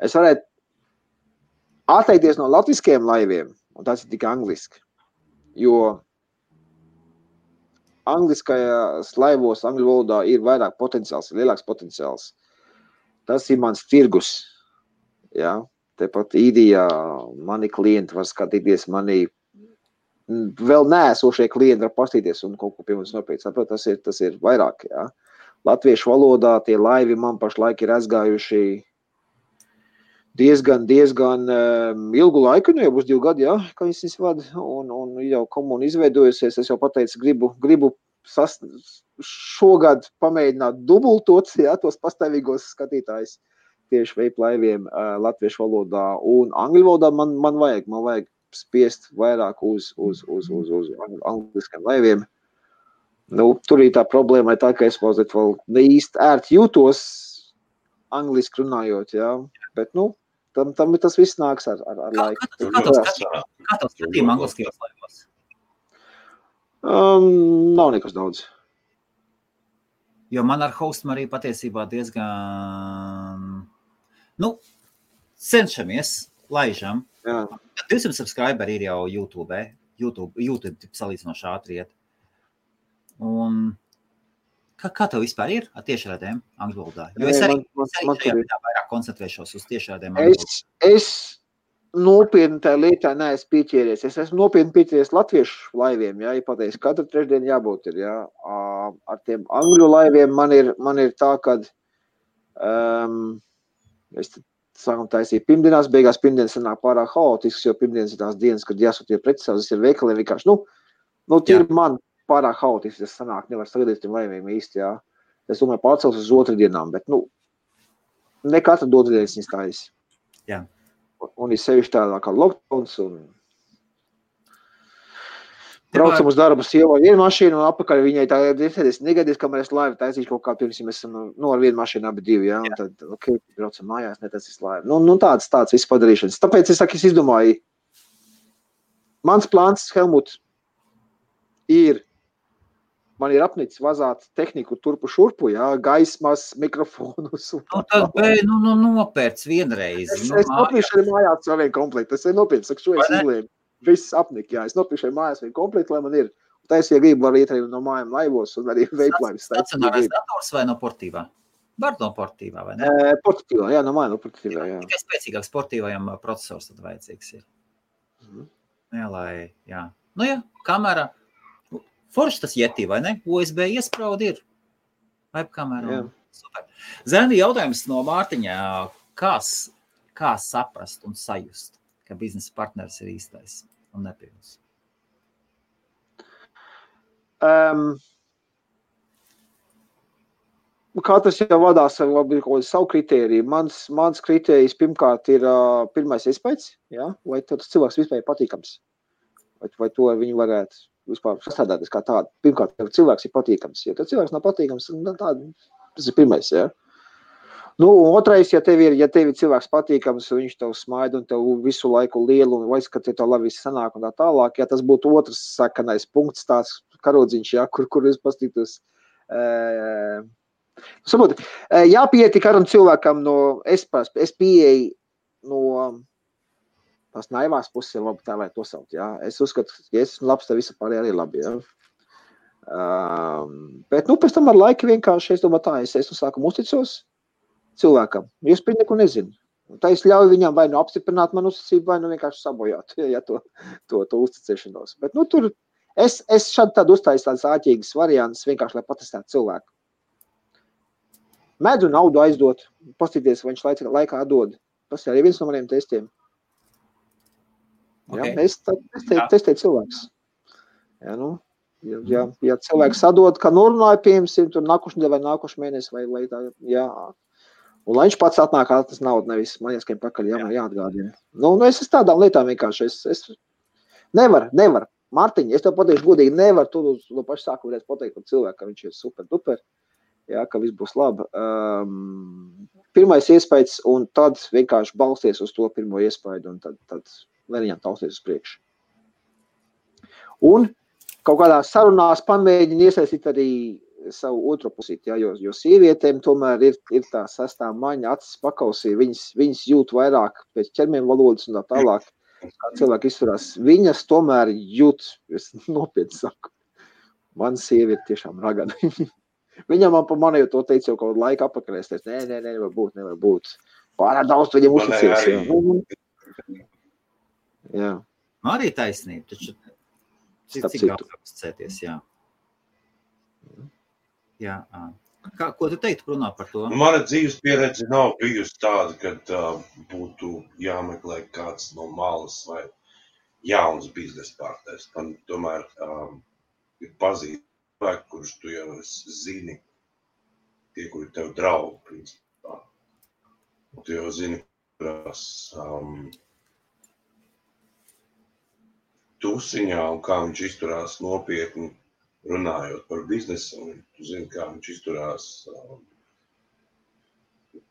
es varētu atteikties no latviskiem laiviem, un tas ir tikai angliski. Jo angliskajās laivos, angļu valodā ir vairāk potenciāls, ir lielāks potenciāls. Tas ir mans tirgus. Jā. Tepat īdijā mani klienti var skatīties, mani vēl neesošie klienti var pastīties un kaut ko pie mums nopēc. Tas ir vairāk. Jā. Latviešu valodā tie laivi man pašlaik ir aizgājuši diezgan ilgu laiku, jau būs 2 gadi, jā, kā viņas vada, un jau komuna izveidojusies, es jau pateicu, gribu šogad pamēģināt dubultot, jā, tos pastāvīgos skatītājus tieši veiplaiviem latviešu valodā, un angļu valodā man vajag spiest vairāk uz angliskiem laiviem. Tur ir tā problēma, tā, ka es mazliet vēl neīsti ērti jūtos angliski runājot, jā, bet, tam tas viss nāks ar laiku. Kā tev skatījumi angliskajos laivos? Nav nekas daudz. Jo man ar hostam arī patiesībā diezgan, cenšamies, laižam. Jā. 200 subscriberi ir jau YouTube salīdzinoši ātri iet. Un kā tev vispār ir ar tiešraidēm angļu valodā? Jo es arī vairāk koncentrēšos uz tiešraidēm angļu valodā. Es nopietni tā lietā neesmu pieķēries. Es esmu nopietni pieķēries latviešu laiviem, jā, ja pateiks, katru trešdienu jābūt ir, jā. Ar tiem angļu laiviem man ir tā, kad es sākam taisīt pirmdienās, beigās pirmdienas sanāk pārāk haotisks, jo pirmdienas ir tās dienas, kad jāsūtie precisās, tas ir veikaliem vienkārši, tie ir man pārāk haotisks, tas sanāk, nevar sagadīt tiem laiviem īsti, jā. Es domāju, pārcels uz otrdienām, bet, ne katru otrdienas viņas taisi. Jā. Un ir sevišķi tādā kā lockdowns un Braucam uz darbu sievai vienu mašīnu un apakaļ viņai tā negadies, kamēr es laivu taisīšu kaut kā pirms, mēs esam ar vienu mašīnu abi divi, ja, un tad, braucam mājās, netaisīs laivu. Nu tāds viss padarīšanas. Tāpēc es izdomāju, mans plāns, Helmut, man ir apnicis vazāt tehniku turpu šurpu, ja, gaismas, mikrofonus. Tad nopērc vienreiz. Es nopirkšu arī mājās vēl vienu komplektu. Es nopirkšu, saku, šo es izlēmu. Viss apnika, jā. Es nopirkšu arī mājās vienu komplektu, lai man ir. Tā es, ja gribu, var iet arī no mājām laivos un arī veiplaivis. Stacionārais dators vai no portīvā? Var no portīvā, vai ne? Portīvā, jā, no mājām no portīvā, jā. Tikai spēcīgāks portīvajam procesors tad vajadzīgs ir. Jā, jā. Nu jā, kamera. Forši tas Yeti, vai ne? USB iespraudi ir. Webkamera. Super. Zeni, jautājums no Mārtiņā. Kā saprast un sajust, ka biznesa partneris ir īstais un nepilns? Katrs jau vadās ar savu kritēriju. Mans kritērijs pirmkārt ir pirmais iespējas, ja? Vai tas cilvēks vispār patīkams? Vai to viņu varētu vispār sastādāties kā tādu? Pirmkārt, ja cilvēks ir patīkams. Ja tas cilvēks nav patīkams, tas ir pirmais, ja? Nu, un otrais, ja tev ir cilvēks patīkams, viņš tev smaida un tev visu laiku lielu un vairs, ka tev labi viss sanāk un tā tālāk, ja tas būtu otrs sakanais punkts, tās karodziņš, ja, kur es pastītos. Saproti, jāpieti karam cilvēkam es pieeju no tās naivās puses, ja labi tā vai to saukt, ja. Es uzskatu, ja es esmu labs, tad visu pārējā arī labi, ja. Bet, pēc tam ar laiku vienkārši, es domāju tā, es sākumu uzticos cilvēkam, jo es par neko nezinu. Tā es ļauju viņam vai apstiprināt manu uzticību, vai vienkārši sabojāt, ja to uzticēšanos. Bet, tur es šādi tādu uztāju tādas āķīgas variantas, vienkārši, lai patestētu cilvēku. Medzu naudu aizdot, pastīties, vai viņš laikā dod. Tas ir arī viens no maniem testiem. Okay. Ja, es testēju cilvēks. Ja, ja cilvēks sadod, ka norunāja, piemēram, tur nākuši nedēļ vai nākuši mēnesi, vai tā, jā. Un lai viņš pats atnāk, tas naudu nevis man jāskiem pakaļ, jāatgādina. Es tādām lietām vienkārši, es nevar. Mārtiņ, es tev pateikšu godīgi, nevar tu no paša sākuma varēs pateikt par cilvēku, ka viņš ir super duper, jā, ka viss būs labi. Pirmais iespējas, un tad vienkārši balsties uz to pirmo iespēju, un tad lai viņam tausties uz priekšu. Un kaut kādā sarunās pamēģina iesaistīt arī savu otro pusīti, jā, jo sievietēm tomēr ir tā sastā maņa acis pakausī, viņas jūt vairāk pēc ķermeņa valodas un tā tālāk, kā cilvēki izturās. Viņas tomēr jūt, es nopietni saku, man sieviete tiešām ragana. Viņam man pa mani jau to teica jau kaut laika apakaļ, es teicu, nē, nevar būt. Pārāk daudz viņam uzticības. Jā. Arī taisnība, taču cik daudz uzticēties, jā. Jā. Ko tu teiktu, Bruno, par to? Mana dzīves pieredze nav bijusi tāda, kad būtu jāmeklē kāds no malas vai jauns biznesa partners. Man tomēr ir pazīstami cilvēki, kurus tu jau zini, tie, kuri tev draugi, principā. Tu jau zini, kurās tusiņā un kā viņš izturās nopietni runājot par biznesu, un tu zini, kā viņš izturās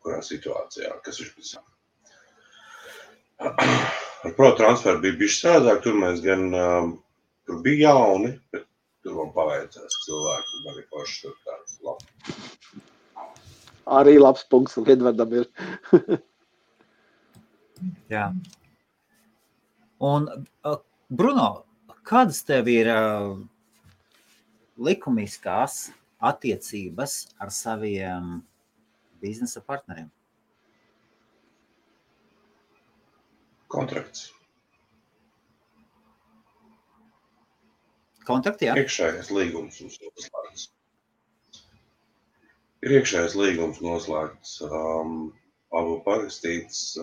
kurā situācijā, kas viņš pēc. Ar ProTransfer bija bišķi strādāk, tur mēs gan, tur bija jauni, bet tur man paveicās cilvēki, un arī paši tur tāds labi. Arī labs punkts, un Edvardam ir. Jā. Un, Bruno, kādas tev ir likumiskās attiecības ar saviem biznesa partneriem? Kontrakts. Kontrakti, jā? Iekšējais līgums noslēgts. Ir iekšējais līgums noslēgts, abu parakstīts,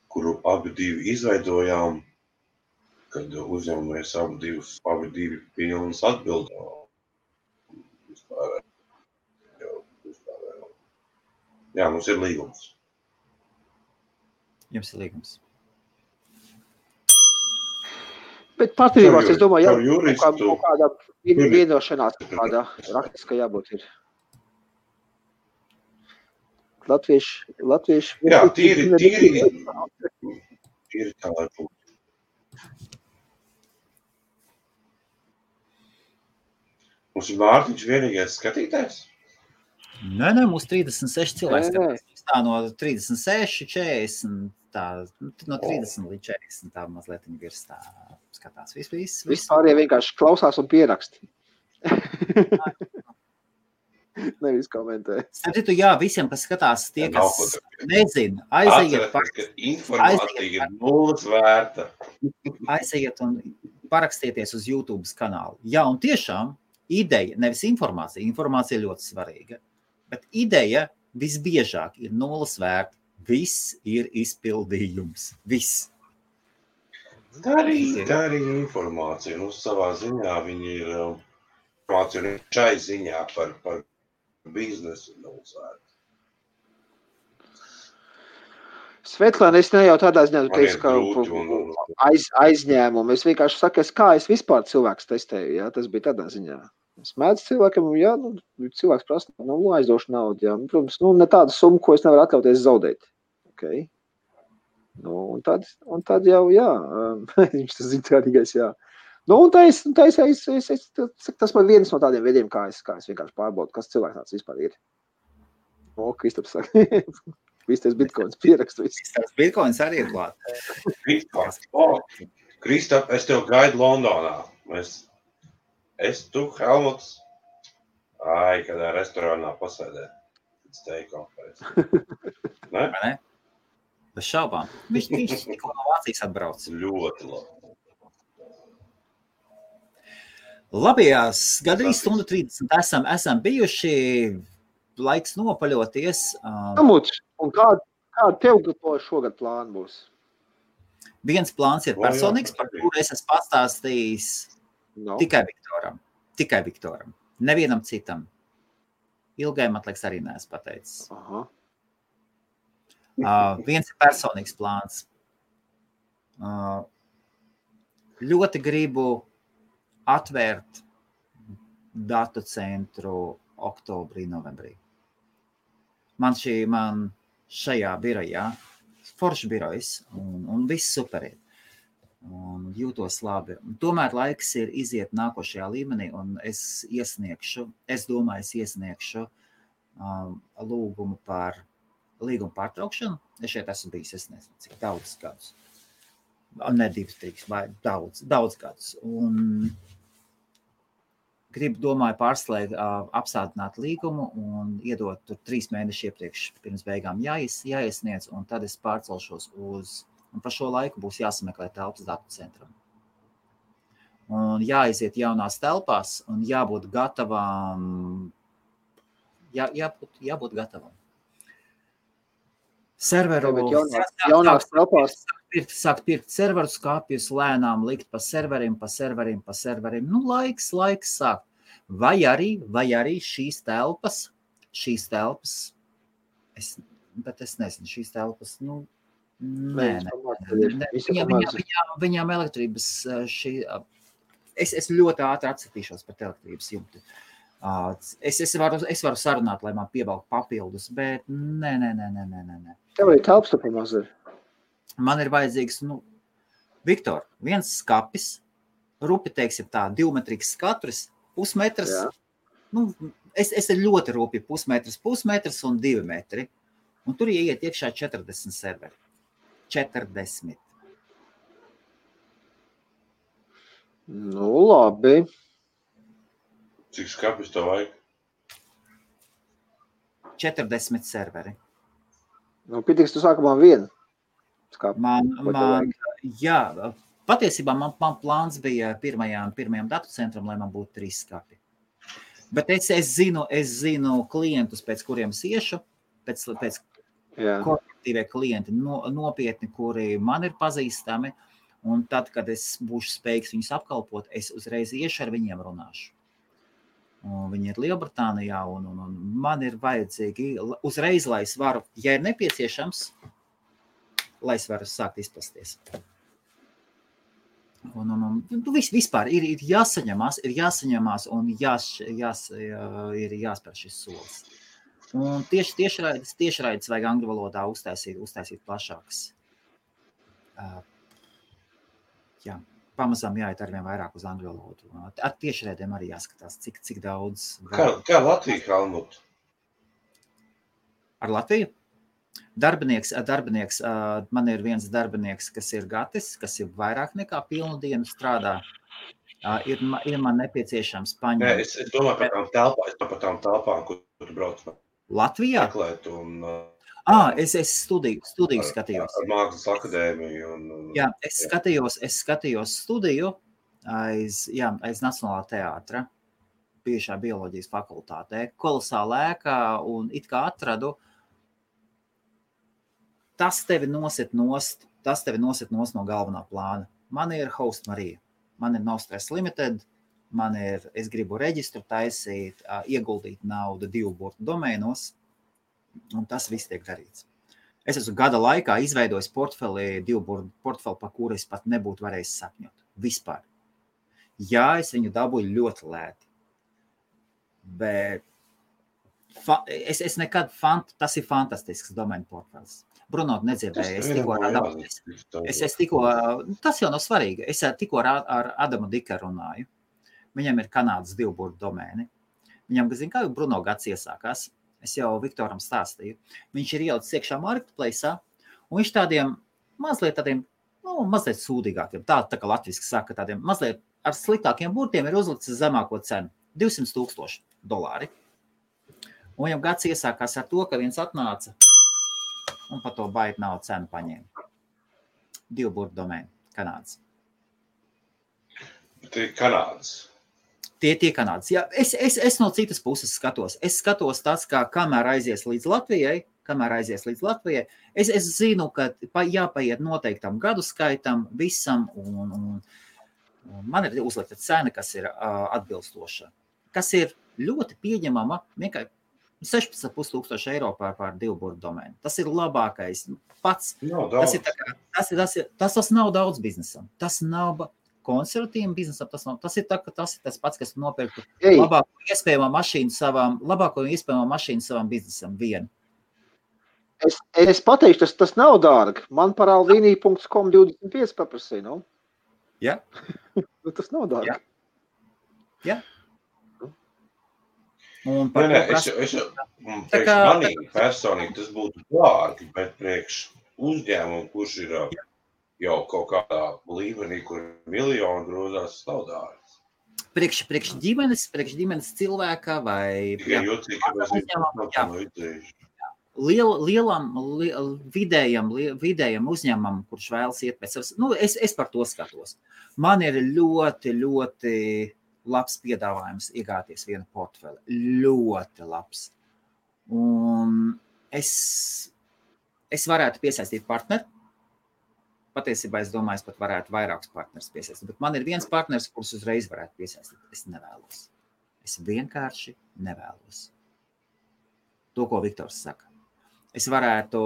kuru abi divi izveidojām, kad uzņemamies abi divi pilnas atbildām. Jā, mums ir līgums. Jums ir līgums. Bet partnerībās, es domāju, juristu, kādā vienošanās, kādā raktiskā jābūt ir. Latvieši. Jā, tīri tā, lai būtu. Mums ir Mārtiņš vienīgais skatītājs? Nē, mums 36 cilvēks skatās. Tā no 36, 40, tā, no 30 līdz 40, tā mazliet virs tā skatās. Vispārējie vienkārši klausās un pieraksti. Nevis komentē. Starp jā, visiem, kas skatās, tie, kas nezina, aiziet. Atcerieties, ka informācija ir nulles vērta. Aiziet un parakstieties uz YouTube kanālu. Jā, un tiešām ideja, nevis informācija ļoti svarīga, bet ideja visbiežāk ir nulles vērta. Viss ir izpildījums. Viss. Tā arī informācija. Nu, savā ziņā viņi ir informācija šai ziņā par biznesu nulles vērta. Svetlāna, es ne jau tādā ziņā, tu teici, ka aizņēmumu. Es vienkārši saku, kā es vispār cilvēks testēju, jā, tas bija tādā ziņā. Es mēdzu cilvēkam, jā, cilvēks prasa, aizdošu naudu, jā. Protams, ne tādu summu, ko es nevaru atļauties zaudēt. Okay. Un tad jau, jā, viņš tas zina tādīgais, jā. Tas man viens no tādiem veidiem, kā es vienkārši pārbaudu, kas cilvēks tāds vispār ir. Kristaps saka, viss tas bitcoins pierakstu. Viss tas bitcoins arī ir klāt. Kristap, es tev gaidu Londonā. Tu, Helmuts, kādā restorānā pasēdēt. Ne? Bez šaubām. Viņš tikko no Vācijas atbrauc. Ļoti labi. Labajās gadījumā stundu 30 esam bijuši, laiks nopaļoties. Helmuts, un kāda tev šogad plāna būs? Viens plāns ir personīgs, par kuru es esmu pastāstījis. No. Tikai Viktoram. Nevienam citam. Ilgai, man liekas, arī neesmu pateicis. Viens ir personīgs plāns. Ļoti gribu atvērt datu centru oktobrī, novembrī. Man šajā birojā, foršs birojs un viss superīt. Un jūtos labi. Tomēr laiks ir iziet nākošajā līmenī, un es iesniegšu lūgumu par līgumu pārtraukšanu. Es šeit esmu bijis, es nezinu, cik daudz gadus. Ne 2, 3, vai daudz gadus. Un domāju pārslēgt, apsādināt līgumu un iedot tur 3 mēneši iepriekš pirms beigām jāiesniedz, un tad es pārcelšos un par šo laiku būs jāsameklē telpas datu centram. Un jāiziet jaunās telpās un jābūt gatavam. Jābūt gatavam. Serveru. Jaunās telpās. Sākt pirkt serveru skāpjus, lēnām likt pa serverim. Nu, laiks sākt. Vai arī šīs telpas, bet es nezinu, šīs telpas, Viņām elektrības es ļoti ātri atsatīšos par elektrības jumtu. Es varu sarunāt, lai man piebalk papildus, bet nē. Tev ir telpas tu pamaz ir? Man ir vajadzīgs, Viktor, viens skapis, rupi, teiksim tā, 2-metriks katrs, pusmetrs. Es ir ļoti rupi pusmetrs un 2 metri. Un tur ieiet iekšā 40 serveri. 40. Nu, labi. Cik skapis tev vajag? 40 serveri. Nu, pitiks tu sākumā vienu skapi. Jā, patiesībā man plāns bija pirmajām datu centram, lai man būtu 3 skapi. Bet es zinu klientus, pēc kuriem es iešu, pēc korporatīvie klienti nopietni, kuri man ir pazīstami, un tad, kad es būšu spējīgs viņus apkalpot, es uzreiz iešu ar viņiem runāšu. Un viņi ir Lielbritānijā, un man ir vajadzīgi uzreiz, lai es varu, ja ir nepieciešams, lai es varu sākt izplasties. Vispār ir jāsaņemās un ir jāspēr šis solis. Un tiešraides vajag angļu valodā uztaisīt plašākas. Pamazām jāiet arvien vairāk uz angļu valodu. Ar tiešraidēm arī jāskatās, cik daudz. Kā Latvija, Helmut? Ar Latviju? Darbinieks, man ir viens darbinieks, kas ir Gatis, kas ir vairāk nekā pilnu dienu strādā. Ir man nepieciešams paņemt. Es domāju par tām telpām, kur tu brauc. Latvijā? Meklēt un... Es studiju skatījos. Ar Mākslas akadēmiju. Jā, es skatījos studiju aiz Nacionālā teātra, bijušā bioloģijas fakultātē. Kolosāla ēkā un it kā atradu. Tas tevi nosit nost no galvenā plāna. Man ir Host Marija, man ir No Stress Limited, es gribu reģistru taisīt, ieguldīt naudu 2 burtu domēnos, un tas viss tiek darīts. Es esmu gada laikā izveidojis portfeli, 2 burtu portfeli, par kuru es pat nebūtu varējis sapņot. Vispār. Jā, es viņu dabūju ļoti lēti. Bet tas ir fantastisks domēnu portfels. Bruno nedzirdēja, tas jau nav svarīgi, es tikko ar Adamu Dika runāju. Viņam ir Kanādas 2 burtu domēni. Viņam, kā Bruno gads iesākās, es jau Viktoram stāstīju. Viņš ir ielicis iekšā marketplace'ā, un viņš tādiem mazliet sūdīgākiem, tā kā latviski saka, tādiem mazliet ar sliktākiem burtiem ir uzlicis zemāko cenu, $200,000. Un viņam gads iesākās ar to, ka viens atnāca un par to baigi nav cenu paņēma. 2 burtu domēni, Kanādas. Tie Kanādas. Tie Kanādas. Jā, es no citas puses skatos. Es skatos tas, kā kamēr aizies līdz Latvijai, es zinu, ka jāpaiet noteiktam gadu skaitam visam, un man ir uzlikta cena, kas ir atbilstoša, kas ir ļoti pieņemama, vienkārši 16,500 eiro par 2 burtu domēnu. Tas ir labākais pats. Tas nav daudz biznesam. Tas nav konservatīvam biznesam. Tas ir tas pats, kas nopirktu labāko iespējamo mašīnu savam biznesam vienu. Es pateikšu, tas nav dārgi. Man par alvini.com 25 paprasīja, no? Jā. Tas nav dārgi. Jā. Manī personīgi tas būtu dārgi, bet priekš uzņēmumu, kurš ir jau kaut kādā līmenī, kur miljoni grozās, tas nav dārgi. Priekš ģimenes cilvēka vai vidējam uzņēmumam, kurš vēlas iet pēc savas. Es par to skatos. Man ir ļoti, ļoti labs piedāvājums iegāties vienu portfeli. Ļoti labs. Un es varētu piesaistīt partneri. Patiesībā es domāju, es pat varētu vairākus partnerus piesaistīt. Bet man ir viens partners, kurus uzreiz varētu piesaistīt. Es nevēlos. Es vienkārši nevēlos. To, ko Viktors saka. Es varētu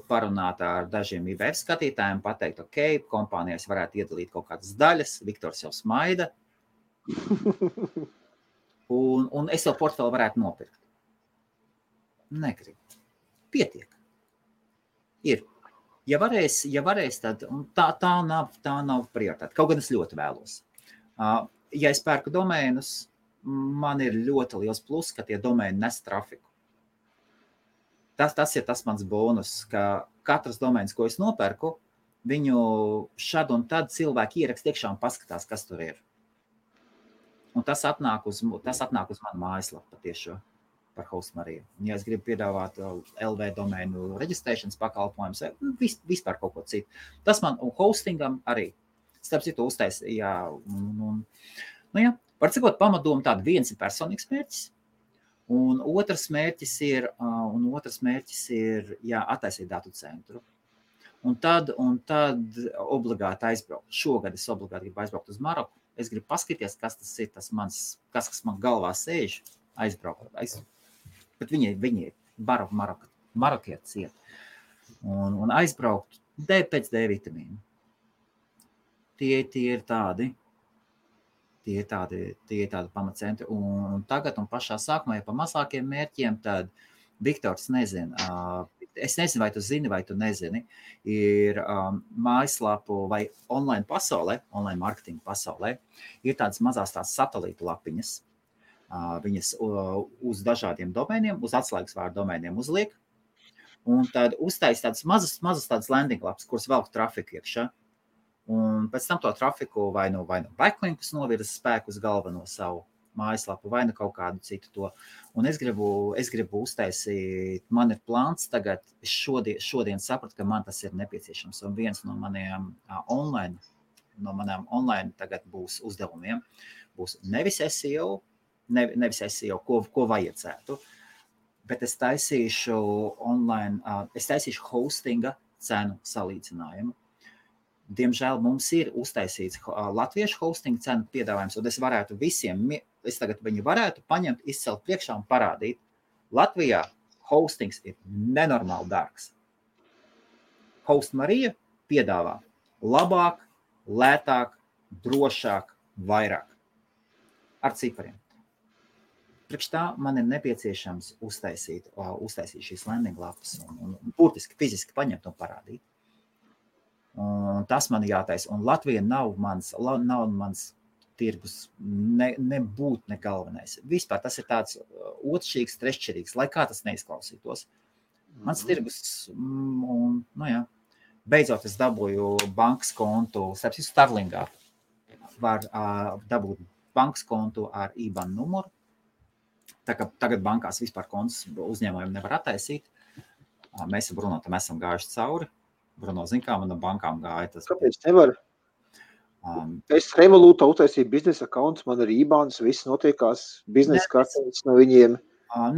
parunāt ar dažiem IBF skatītājiem, pateikt, ok, kompānijās varētu iedalīt kaut kādas daļas. Viktors jau smaida. Un es to portfeli varētu nopirkt. Negribu. Pietiek. Ir. Ja varēs, tad tā nav prioritāte. Kaut gan es ļoti vēlos. Ja es pērku domēnus, man ir ļoti liels plus, ka tie domēni nes trafiku. Tas ir tas mans bonus, ka katrs domēns, ko es nopērku, viņu šad un tad cilvēki ierakst iekšā un paskatās, kas tur ir. Un tas atnāk uz manu mājaslapu patiešo par Host Mariju. Ja es gribu piedāvāt LV domēnu reģistrēšanas pakalpojumus, vispār kaut ko citu. Tas man un hostingam arī. Starp citu uztaisīja. Var cikot pamatdomu tādu, viens ir personīgs mērķis, un otrs mērķis ir attaisīt datu centru. Un tad obligāti aizbraukt. Šogad es obligāti gribu aizbraukt uz Maroku. Es gribu paskatīties, kas tas ir, kas man galvā sēž, aizbraukt. Bet viņi ir marokietis iet. Un aizbraukt pēc D vitamīnu. tie ir tādi pamatcentri. Un tagad un pašā sākumā, ja pa mazākiem mērķiem, tad Viktors nezina. Es nezinu, vai tu zini, vai tu nezini. Ir mājaslapu vai online pasaulē, online marketinga pasaulē, ir tādas mazās satelītu lapiņas. Viņas uz dažādiem domēniem, uz atslēgas vārdu domēniem uzliek. Un tad uztais tādas mazas tādas landing lapas, kuras velk trafiku iekšā. Un pēc tam to trafiku vai nu backlinkus novirza spēku uz galveno savu mājaslapu, vai nu kaut kādu citu to. Un es gribu uztaisīt, man ir plāns tagad, es šodien sapratu, ka man tas ir nepieciešams. Un viens no maniem online tagad būs uzdevumiem, būs nevis SEO, ko vajadzētu, bet es taisīšu online, es taisīšu hostinga cenu salīdzinājumu. Diemžēl mums ir uztaisīts latviešu hostinga cenu piedāvājums, un es varētu tagad viņu varētu paņemt, izcelt priekšā un parādīt. Latvijā hostings ir nenormāli dārgs. Host Marija piedāvā labāk, lētāk, drošāk, vairāk. Ar cipariem. Priekš tā man ir nepieciešams uztaisīt šīs landing lapas un burtiski fiziski paņemt un parādīt. Un tas man jātaisa. Un Latvija nav mans tirgus, nebūt ne galvenais. Vispār tas ir tāds otršķirīgs, treššķirīgs, lai kā tas neizklausītos. Mans tirgus, beidzot es dabūju bankas kontu, starp citu Starlingā var dabūt bankas kontu ar IBAN numuru. Tā kā tagad bankās vispār kontus uzņēmumiem nevar attaisīt. Mēs ar Bruno tam esam gājuši cauri. Bruno zin, kā man no bankām gāja. Kāpēc nevar? Es Revolūtā uztaisīju biznesa accounts, man ir IBANs, viss notiekās, biznesa kartes no viņiem.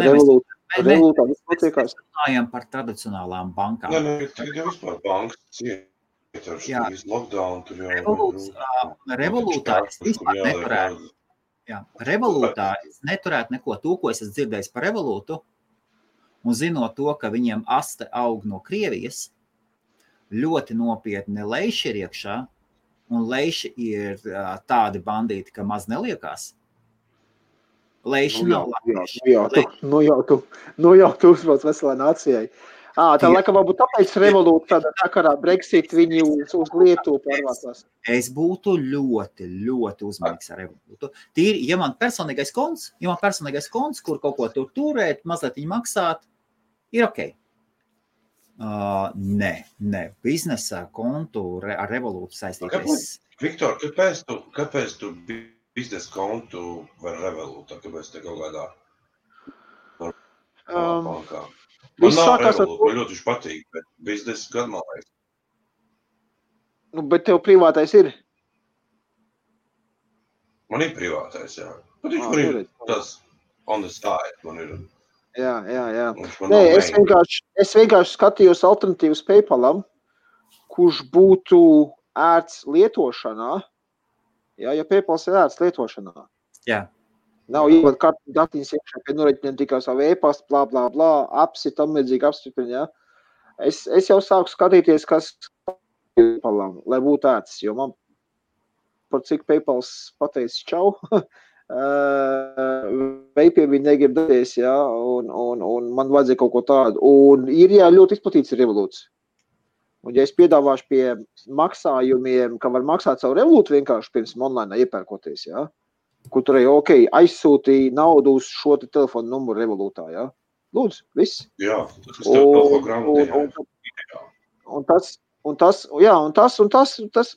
Revolūtā viss notiekās. Mēs runājam par tradicionālām bankām. Tagad jau vispār bankas ciet ar šīs lockdown. Revolūtā es vispār neturētu. Revolūtā es neturētu neko to, ko es esmu dzirdējis par Revolūtu, un zinot to, ka viņiem aste aug no Krievijas, ļoti nopietni leiši ir iekšā, un leiši ir tādi bandīti, ka maz neliekās. Leiši nav latvieši. Nu jau tu uzbrauc veselā nācijai. Tā laikam varbūt tāpēc Revolūta tādā sakarā Brexit viņi uz Lietuvu pārvācās. Es būtu ļoti, ļoti uzmanīgs ar Revolūtu. Tīri, ja man personīgais konts, kur kaut ko turēt, mazliet viņi maksāt, ir ok. Nē, biznesa kontu ar Revolūtu saistīties. Viktor, kāpēc tu biznesa kontu var Revolūtā? Kāpēc te kaut kādā bankā? Man nav Revolūta, man ļoti patīk, bet biznesa gan man vajag. Bet tev privātais ir? Man ir privātais, jā. Bet viņš man ir tas on the side, man ir. Jā. Nē, es vienkārši skatījos alternatīvas PayPalam, kurš būtu ērts lietošanā. Jā, ja PayPals ir ērts lietošanā. Jā. Nav jābūt kartu datiņas iekšā, pie noreķiniem tikai savu e-pastu, blā, apsi, tam līdzīgi apstiprina, jā. Es jau sāku skatīties, kas PayPalam, lai būtu ērts, jo man par cik PayPals pateicis čau, veipie viņi negrib darīties, jā, un man vajadzēja kaut ko tādu. Un ir, jā, ļoti izplatīts Revolūts. Un ja es piedāvāšu pie maksājumiem, ka var maksāt savu Revolūtu vienkārši pirms online iepērkoties, jā, kur tur aizsūtīja naudu uz šo telefonu numuru Revolūtā, jā. Lūdzu, viss. Jā, tas telefonu grāmatā. Un tas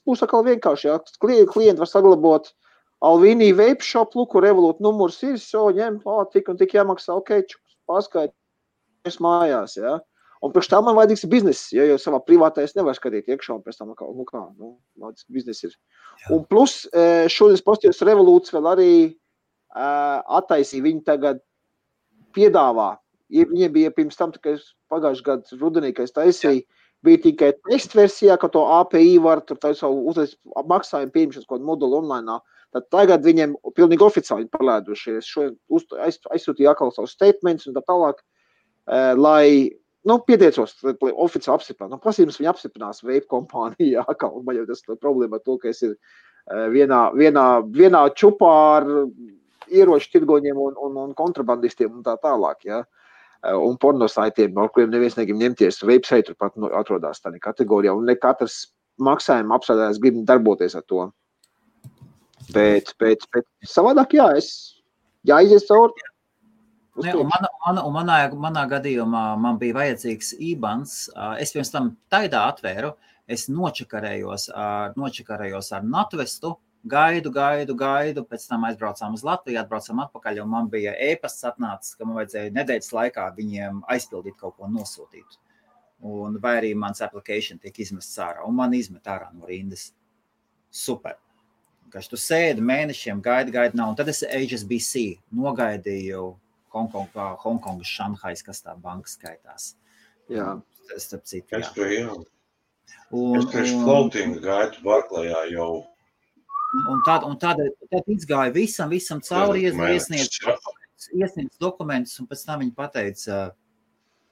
būs atkal vienkārši, jā. Klienti var saglabot Alvīnī vape shop, luku, Revolūta numurs ir, ņem, tik un tik jāmaksā, pārskaitīs mājās, jā. Un priekš tā man vajadzīgs bizness, jo savā privātais nevar skatīt iekšā, un pēc tam, vajadzīgs bizness ir. Jā. Un plus, šodien postījos Revolūts vēl arī attaisīja, viņi tagad piedāvā. Viņiem bija pirms tam, ka pagājuši gadu rudenī, ka es taisīju, bija tikai test versijā, ka to API var tur savu uzreiz maksājumu pieņemšanas kaut moduli online. Tad tagad viņiem pilnīgi oficiāli palēdušies. Aizsūtīja atkal savus statements un tā tālāk, lai pieteicos, lai oficiāli apstiprināt. Prasījums viņi apstiprinās vape kompānijā, un man jau tas problēma ar to, ka es ir vienā čupā ar ieroču tirgoņiem un kontrabandistiem un tā tālāk, ja. Un pornosaitiem, ar kuriem neviens negrib ņemties. Vape tur pat atrodās tādā kategorijā, un ne katrs maksājuma apstrādājums grib darboties ar to. Bet savādāk, jā, jāizies cauri. Ne, un manā gadījumā man bija vajadzīgs IBANs. Es pirms tam Taidā atvēru, es nočakarējos ar Natvestu, gaidu, pēc tam aizbraucām uz Latviju, atbraucām atpakaļ, un man bija e-pasts atnācis, ka man vajadzēja nedēļas laikā viņiem aizpildīt kaut ko nosūtīt. Un vai arī mans application tiek izmests ārā, un man izmet ārā no rindas. Super. Kaž tu sēdi mēnešiem, gaidi nav, un tad es HSBC nogaidīju Hongkongas, Šanhais, kas tā banka skaitās. Jā. Starp citu, jā. Es priekš floating gaitu Barklajā jau. Un tad izgāja visam cauri, iesniedz dokumentus, un pēc tam viņi pateica,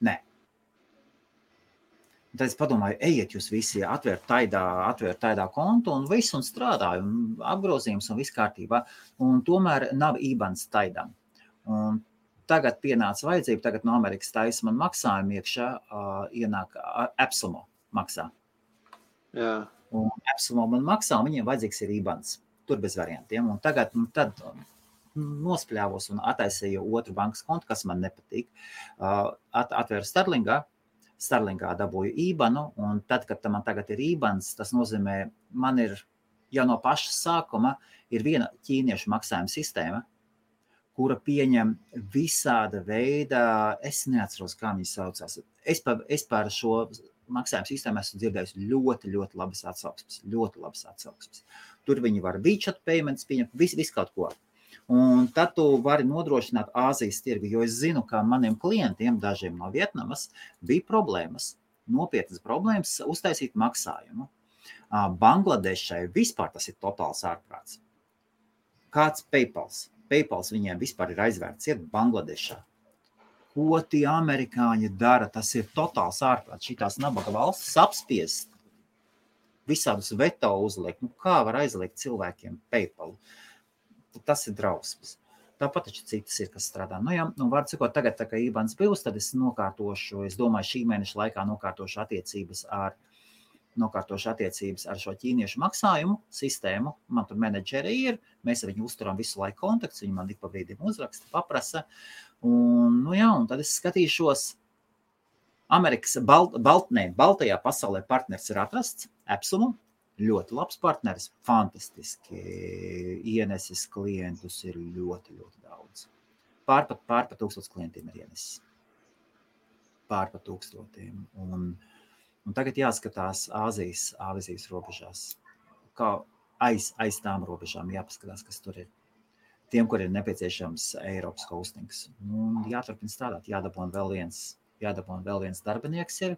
nē. Un tad es padomāju, ejiet jūs visi, atvērt Taidā kontu un visu, un strādāju, un apgrozījums un viss kārtībā. Un tomēr nav IBANs Taidam. Un tagad pienāca vajadzība, tagad no Amerikas taisa man maksājumu iekšā, ienāk Epsilon maksā. Jā. Un Epsilon man maksā, un viņiem vajadzīgs ir IBANs. Tur bez variantiem. Un tad nospļāvos un attaisīju otru bankas kontu, kas man nepatīk. Atvēru Starlingā dabūju IBANu, un tad, kad man tagad ir IBANs, tas nozīmē, man ir jau no paša sākuma ir viena ķīniešu maksājuma sistēma, kura pieņem visāda veida, es neatceros, kā viņi saucās. Es par šo maksājuma sistēmu esmu dzirdējis ļoti labas atsauksmes. Tur viņi var WeChat payments pieņemt, visu kaut ko. Un tad tu vari nodrošināt Āzijas tirgu, jo es zinu, ka maniem klientiem, dažiem no Vietnamas, bija nopietnas problēmas uztaisīt maksājumu. Bangladešai vispār tas ir totāls ārprāts. Kāds PayPals viņiem vispār ir aizvērts, ir Bangladešā. Ko tie amerikāņi dara, tas ir totāls ārprāts. Šitās nabaga valstis apspiest, visādus veto uzliekt. Kā var aizliegt cilvēkiem PayPal? Tas ir drausmas. Tāpat taču citas ir, kas strādā. Var cikot, tagad, tā kā IBANs būs, tad es nokārtošu, es domāju, šī mēneša laikā nokārtošu attiecības ar šo ķīniešu maksājumu sistēmu. Man tur menedžeri ir, mēs ar viņu uzturam visu laiku kontakts, viņi man ik pa brīdim uzraksta, paprasa. Un tad es skatīšos, Amerikas Baltajā pasaulē partners ir atrasts, Epsilon, ļoti labs partneris, fantastiski, ienesis klientus ir ļoti daudz. Pārpa 1000 klientiem ir ienesis. Pārpa 1000. Un tagad jāskatās Āzijas robežās, kā aiz tām robežām jāpaskatās, kas tur ir. Tiem, kur ir nepieciešams Eiropas hostings. Jāturpina strādāt, jādabon vēl viens darbinieks ir,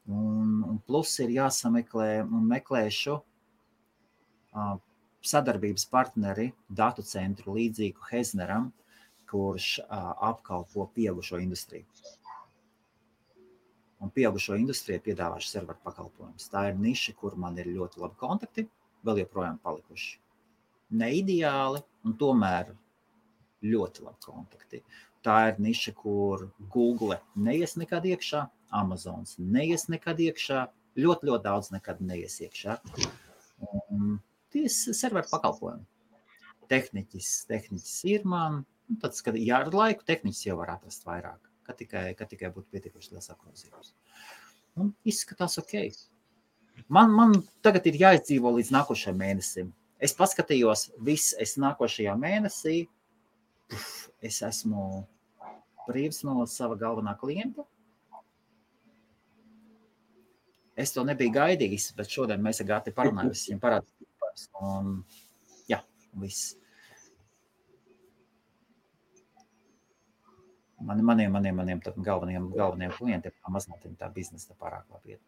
un plus ir jāsameklē un meklēšu sadarbības partneri datu centru līdzīgu Hezneram, kurš apkalpo pieaugušo industriju. Un pieaugušo industriju piedāvāšu serveru pakalpojumus. Tā ir niša, kur man ir ļoti labi kontakti, vēl joprojām palikuši. Ne ideāli, un tomēr ļoti labi kontakti. Tā ir niša, kur Google neies nekad iekšā, Amazons neies nekad iekšā, ļoti daudz nekad neies iekšā. Tie serveru pakalpojumi. Tehniķis ir man, tad, kad ar laiku tehniķis jau var atrast vairāk. Kad tikai būtu pietiekuši liels apgrozījums. Un izskatās ok. Man tagad ir jāizdzīvo līdz nākošajam mēnesim. Es paskatījos es nākošajā mēnesī, es esmu brīvs no sava galvenā klienta. Es to nebiju gaidījis, bet šodien mēs ar Gati parunājam, es viņam parādīju. Un viss. Maniem galvenajiem klientiem mazliet tā biznesa pārāk labi iet.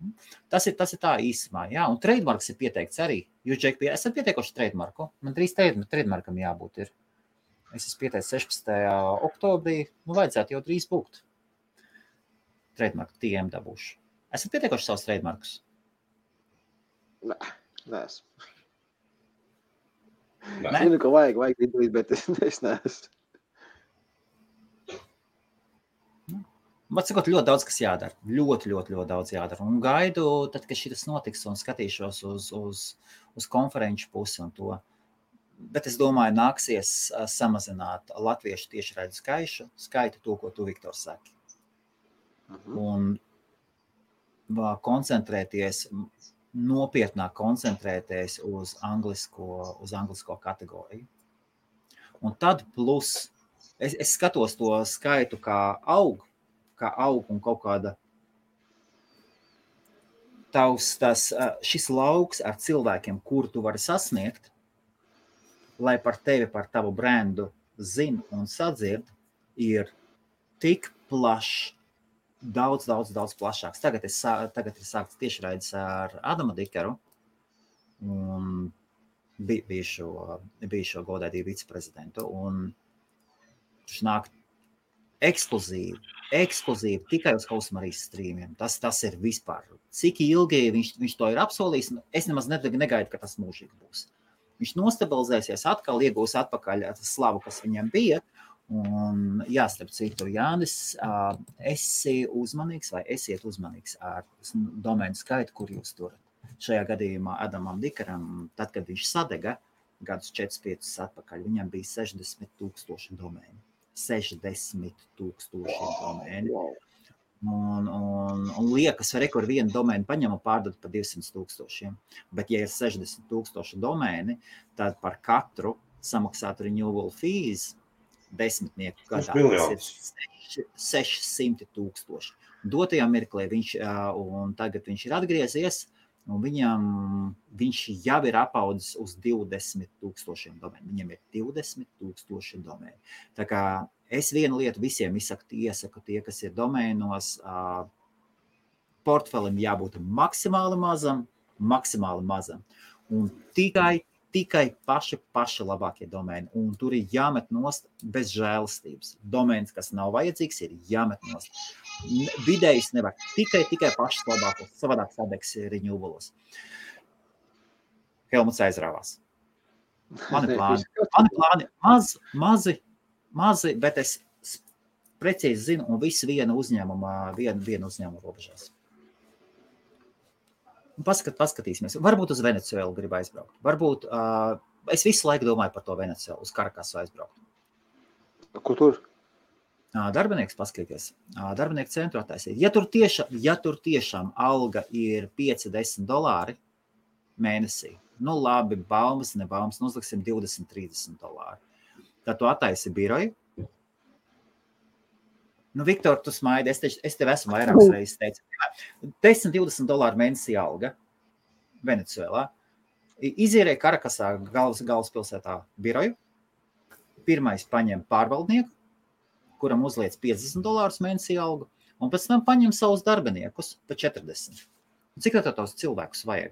Tas ir tā īsumā, jā. Un trademarks ir pieteikts arī. Jūs, Džek, esat pieteikuši trademarku? Man drīz trademarkam jābūt ir. Es esmu pieteicis 16. oktobrī, vajadzētu jau drīz būt. trademarku TM dabūšu. Esat pietiekuši savus trademarkus? Nē, neesmu. Nē. Zinu, ka vajag izdarīt, bet es neesmu. Man sakot, ļoti daudz, kas jādara. Ļoti daudz jādara. Un gaidu, tad, kad šitas notiks un skatīšos uz konferenču pusi un to. Bet es domāju, nāksies samazināt latviešu tiešraidžu skaitu, to, ko tu, Viktor, saki. Un nopietnāk koncentrēties uz anglisko kategoriju. Un tad plus, es skatos to skaitu, kā aug un kaut kāda šis lauks ar cilvēkiem, kuru tu vari sasniegt, lai par tevi, par tavu brendu zina un sadzird, ir tik plašs, daudz plašāks. Tagad ir sākts tiešraides ar Adamu Dikeru un bijušo godētību viceprezidentu. Un viņš nāk ekskluzīvi tikai uz Hausmarijas strīmiem. Tas ir vispār. Cik ilgi viņš to ir apsolījis, es nemaz negaidu, ka tas mūžīgi būs. Viņš nostabilizēsies atkal, iegūs atpakaļ slavu, kas viņam bija. Un starp citu, Jānis, esi uzmanīgs vai esiet uzmanīgs ar domēnu skaitu, kur jūs turat. Šajā gadījumā Adamam Dikeram, tad, kad viņš sadega gadus 4-5 atpakaļ, viņam bija 60,000 domēni. 60,000 domēni. Un liekas, kur vienu domēnu paņem un pārdod par 200,000. Bet, ja ir 60,000 domēni, tad par katru samaksāt renewal fees 10 gadā. Tas ir 600,000. Dotajā mirklī un tagad viņš ir atgriezies, un viņš jau ir apaudzis uz 20,000 domēnu. Viņam ir 20,000 domēnu. Tā kā es vienu lietu visiem iesaku tie, kas ir domēnos, portfelim jābūt maksimāli mazam, un tikai paši labākie domēni, un tur ir jāmet nost bez žēlastības. Domēns, kas nav vajadzīgs, ir jāmet nost. Vidējs nevar, tikai pašas labākos, savādāk sadegs renewals. Helmuts aizrāvās. Mani plāni mazi, bet es precīzi zinu, un visu vienu uzņēmumu robežās. Paskatīsimies. Varbūt uz Venecuēlu grib aizbraukt. Varbūt, es visu laiku domāju par to Venecuēlu, uz Karakasu aizbraukt. Ko tur? Darbinieks paskatīties. Darbinieku centru attaisīt. Ja tur tiešām alga ir $5-10 mēnesī, nu labi, baumas, nebaumas, uzliksim $20-30. Tad tu attaisi biroju. Nu, Viktor, tu smaidi, es tev esmu vairākas reizes teicu. $10-20 mēnesī alga Venecuēlā. Izīrēja Karakasā galvaspilsētā biroju. Pirmais paņem pārvaldnieku, kuram uzliec $50 mēnesī algu, un pēc tam paņem savus darbiniekus pa 40. Cik tā tos cilvēkus vajag?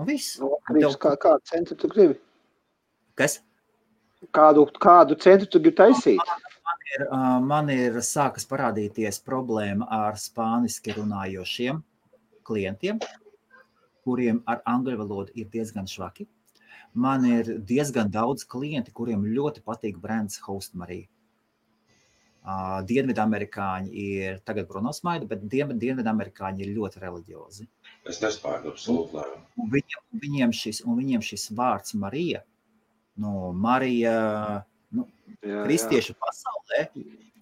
Un viss. Kādu centru tu gribi? Kas? Kādu centru tu gribi taisīt? Man ir sākas parādīties problēma ar spāniski runājošiem klientiem, kuriem ar angļu valodu ir diezgan švaki. Man ir diezgan daudz klienti, kuriem ļoti patīk brands Hausmarija. Dienvidamerikāņi ir tagad Bruno smaida, bet dienvidamerikāņi ir ļoti reliģiozi. Es nespēju absolūti lēmu. Viņiem šis vārds Marija, Marija, kristiešu pasaulē,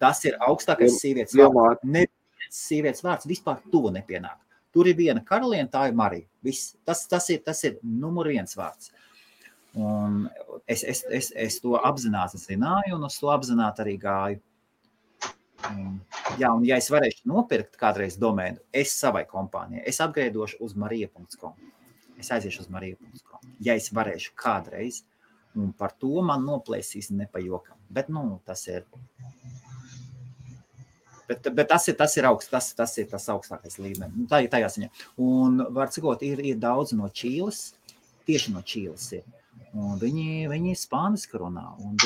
tas ir augstākais sievietes vārds. Neviens sievietes vārds vispār tuvu nepienāk. Tur ir viena karaliene, tā ir Marija. Viss. Tas ir numur 1 vārds. Un es to apzināti zināju, un uz to apzināti arī gāju. Un ja es varēšu nopirkt kādreiz domēnu, es savai kompānijai, es upgradeošu uz marija.com. Es aiziešu uz marija.com. Ja es varēšu kādreiz, un par to man noplēsīs nepajokam. Bet, tas ir... Bet tas ir augsts, tas ir tas augstākais līmenis. Tā ir tajā ziņā. Un, var cikot, ir daudz no Čīles, tieši no Čīles ir. Un viņi spāniski runā, un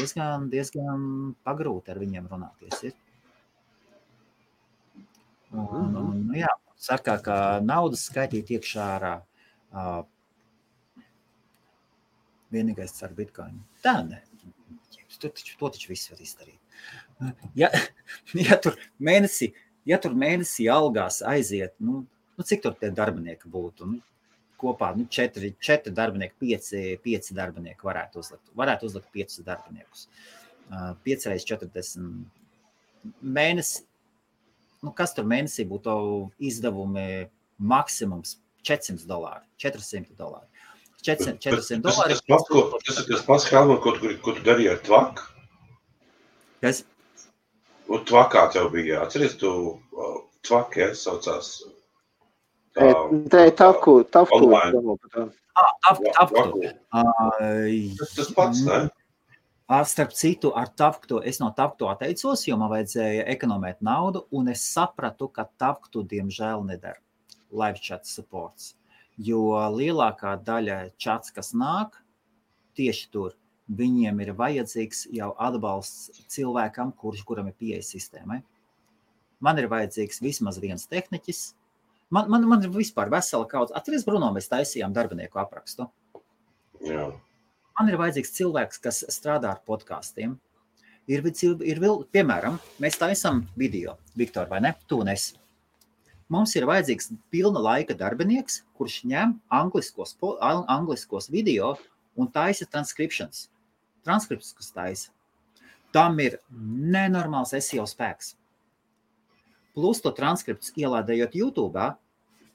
diezgan pagrūti ar viņiem runāties ir. Un jā, saka, ka naudas skaitīt iekšā ārā vienīgais ar bitcoinu. Tā ne. To taču viss var izdarīt. Ja tur mēnesī algās aiziet, cik tur tie darbinieki būtu? Kopā 4 darbinieki, 5 darbinieki varētu uzlikt 5 darbiniekus. 5 reiz 40 mēnesi. Kas tur mēnesī būtu izdevumi maksimums $400, $400. $400. Tas ir tas pats Helmut, ko tu darīji ar tvaku? Kas? Un tvakā tev bija, atceries, tu tvaki, saucās? Tavku. Tas pats, ne? Starp citu, ar Tavktu, es no Tavktu atteicos, jo man vajadzēja ekonomēt naudu, un es sapratu, ka Tavktu diemžēl nedara live chat supports, jo lielākā daļa chats, kas nāk, tieši tur, viņiem ir vajadzīgs jau atbalsts cilvēkam, kuram ir pieeja sistēmai. Man ir vajadzīgs vismaz viens tehniķis. Man ir vispār vesela kaudze. Atceries, Bruno, mēs taisījām darbinieku aprakstu. Jā. Man ir vajadzīgs cilvēks, kas strādā ar podkastiem. Ir piemēram, mēs taisām video, Viktor, vai ne? Tu un es. Mums ir vajadzīgs pilna laika darbinieks, kurš ņem angliskos video un taisa transcriptions. Transkripts, kas taisa. Tam ir nenormāls SEO spēks. Plus to transkripts ielādējot YouTube,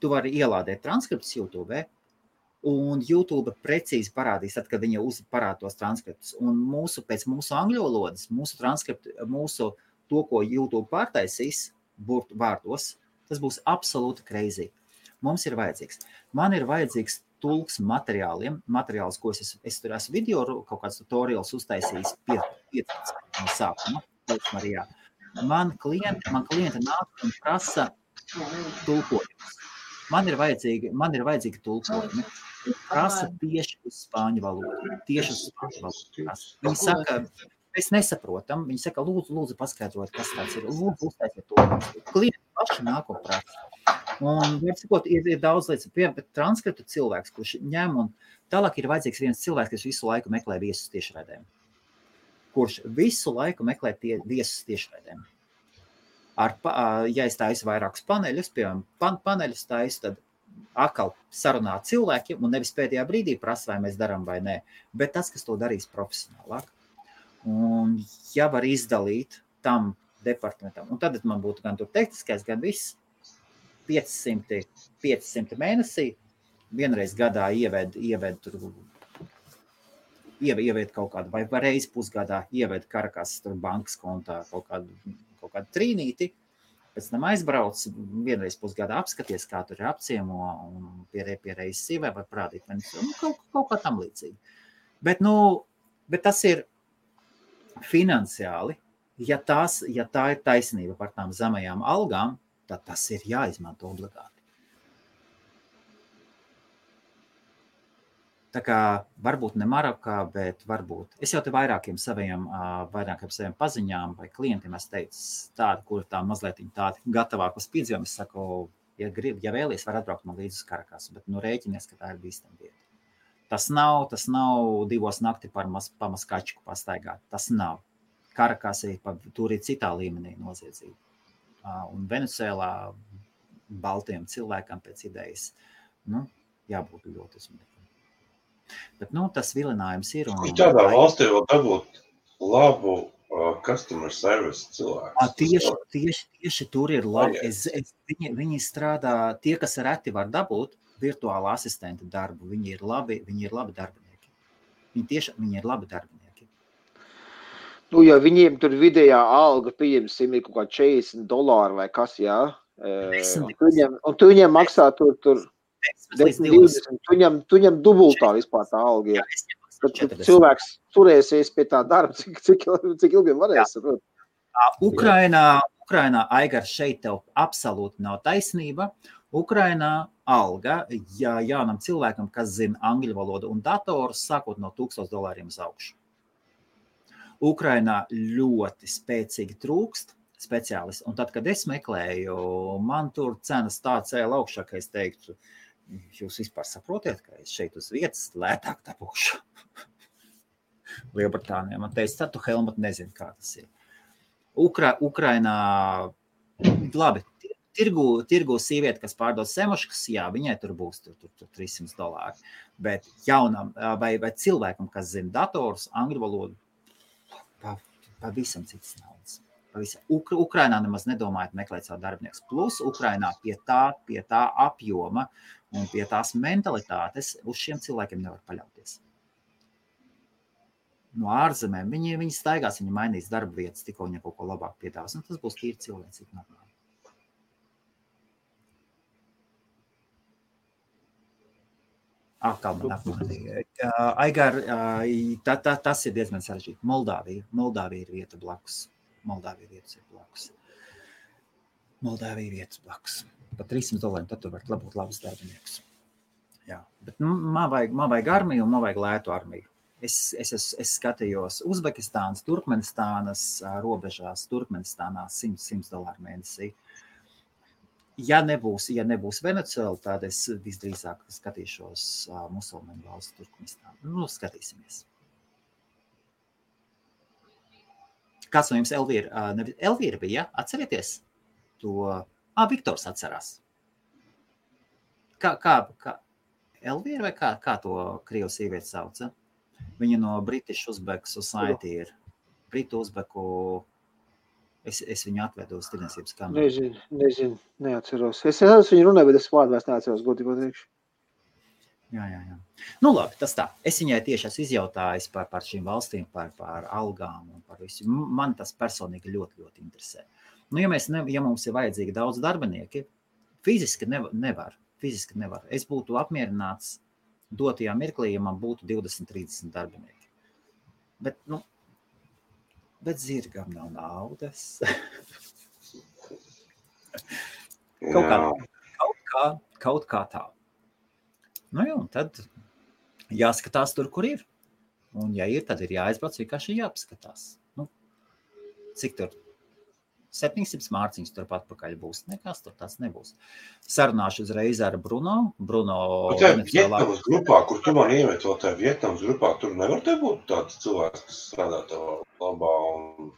tu vari ielādēt transkripts YouTube, un YouTube precīzi parādīs, tad, kad viņa parāda tos transkriptus. Un pēc mūsu angļu valodas, to, ko YouTube pārtaisīs vārdos, tas būs absolūti crazy. Mums ir vajadzīgs. Man ir vajadzīgs tulks materiāls, ko es tur esmu video, kaut kāds tutorials uztaisījis 15 no sākuma. Man klienti nāk un prasa tulkojumus. Man ir vajadzīgi tulkojumi. Prasa tieši uz spāņu valodu. Viņi saka, mēs nesaprotam. Viņi saka, lūdzu paskaidrot, kas tāds ir. Lūdzu uztaisiet to. Klienti paši nāk un prasa. Un, ir daudz lietas, bet transkriptu cilvēks, kurš ņem un tālāk ir vajadzīgs viens cilvēks, kas visu laiku meklē viesus tiešraidēm. Kurš visu laiku meklē viesus tiešraidēm. Ja es taisu vairākus paneļus, piemēram, paneļus taisu, tad atkal sarunā cilvēkiem un nevis pēdējā brīdī prasa, vai mēs darām vai nē, bet tas, kas to darīs profesionālāk. Un ja var izdalīt tam departamentam, un tad man būtu gan tur tehniskais, gan viss, 500 mēnesī, vienreiz gadā ieved kaut kādu, vai reizi pusgadā ieved Karakas bankas kontā kaut kādu trīnīti, pēc tam aizbrauc, vienreiz pusgadā apskaties, kā tur ir apciemo, un pie reizes sīvē var parādīt, kaut kā tam līdzīgi. Bet tas ir finansiāli, ja tā ir taisnība par tām zemajām algām, tad tas ir jāizmanto obligāti. Tā kā varbūt ne Marokā, bet varbūt. Es jau te vairākiem saviem paziņām vai klientiem es teicu tādu, kur tā mazliet tādi gatavāk uz piedzīvumu. Es saku, ja vēlies, var atbraukt man līdz uz Karakasu, bet rēķinies, ka tā ir bīstama vieta. Tas nav 2 nakti pamaskačku pastaigāt. Tas nav. Karakasī tur ir citā līmenī noziedzība. Un Venecuēlā baltiem cilvēkam pēc idejas, jābūt ļoti uzmanīgiem. Bet, tas vilinājums ir. Kur tādā valstī vēl dabūt labu customer service cilvēku? Tieši tur ir labi. Viņi strādā, tie, kas reti var dabūt virtuāla asistenta darbu, viņi ir labi darbinieki. Viņi ir labi darbinieki. Ja viņiem tur vidējā alga, pieņemsim, ir kaut kā $40 vai kas, jā? Un tu viņiem maksā tur 10-20, tu viņam dubultā vispār tā alga. Tad cilvēks turēsies pie tā darba, cik ilgi varēs. Ukrainā, Aigar, šeit tev absolūti nav taisnība. Ukrainā alga, ja jaunam cilvēkam, kas zina angļu valodu un datorus, sākot no $1000 uz augšu. Ukrainā ļoti spēcīgi trūkst speciālisti. Un tad, kad es meklēju, man tur cenas tā cēla augšā, ka es teiktu, jūs vispār saprotiet, ka es šeit uz vietas lētāk dabūšu. Lielbritānijā. Man teica, tu Helmut nezini, kā tas ir. Ukrainā, labi, tirgu sīvieti, kas pārdod semuškas, jā, viņai tur būs tur $300. Bet jaunam vai cilvēkam, kas zina dators, angļu valodu, pavisam cits naudas. Ukrainā nemaz nedomājot meklēt savu darbiniekus. Plus Ukrainā pie tā apjoma un pie tās mentalitātes uz šiem cilvēkiem nevar paļauties. No ārzemēm viņi staigās, viņi mainīs darba vietas, tikko viņi kaut ko labāk piedāvās. Un tas būs tīri cilvēcīgi normāli. Aigar, tas ir diezgan sarežģīti. Moldāvija ir vieta blakus. Moldāvija ir vietas blakus. Par $300 tad tu var labūt labus darbiniekus. Jā, bet man vajag armiju un man vajag lētu armiju. Es skatījos Uzbekistānas, Turkmenistānas robežās, Turkmenistānā $100 mēnesī. Ja nebūs Venecuēla, tad es visdrīzāk skatīšos musulmaņu valsts Turkmenistānu. Skatīsimies. Kāds no jums Elvīra bija, atcerieties? To, Viktors atcerās. Kā Elvīra vai kā to krievu sīvieti sauca? Viņa no British Uzbek Society ir. Britu Uzbeku, es viņu atvedu uz tirdzniecības kameru. Nezinu, neatceros. Es viņu runāju, bet es vārdu vairs neatceros, godīgi teikšu. Jā. Nu labi, tas tā. Es viņai tieši esmu izjautājis par šīm valstīm, par algām un par visu. Man tas personīgi ļoti, ļoti interesē. Nu, ja mums ir vajadzīgi daudz darbinieki, fiziski nevar. Es būtu apmierināts dotajā mirklī, ja man būtu 20-30 darbinieki. Bet zirgam nav naudas. Kaut kā tā. Nu jā, un tad jāskatās tur, kur ir. Un ja ir, tad ir jāaizbrauc, vienkārši jāpaskatās. Nu, cik tur? 700 mārciņas turpat pakaļ būs. Nekas tur tāds nebūs. Sarunāšu uzreiz ar Bruno. Vietnamas grupā, kur tu man iemet vēl tajā Vietnamas grupā, tur nevar te būt tāds cilvēks, kas strādā tavā labā un...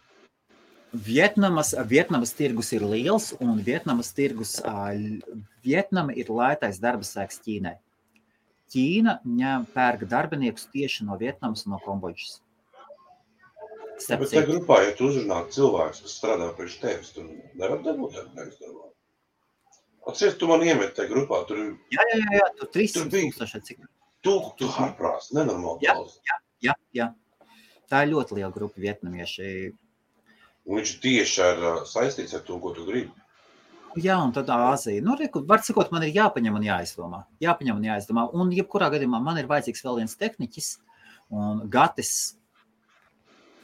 Vietnamas tirgus ir liels un Vietnama ir lētais darba spēks Ķīnai. Ķīna pērk darbiniekus tieši no Vietnamas un no Kambodžas. Bet tajā grupā, ja tu uzrunāt cilvēks, kas strādā priekš tevis, tu nevar dabūt darbinieks darbā. Atceries, tu man iemet tajā grupā, tur... Jā, tur 300 cik. Tu ārprās, nenormāli daudz. Jā. Tā ir ļoti liela grupa vietnamieši. Un viņš tieši saistīts ar to, ko tu gribi. Jā, un tad Āzija. Nu, var sakot, man ir jāpaņem un jāizdomā. Un jebkurā gadījumā man ir vajadzīgs vēl viens tehniķis, un Gatis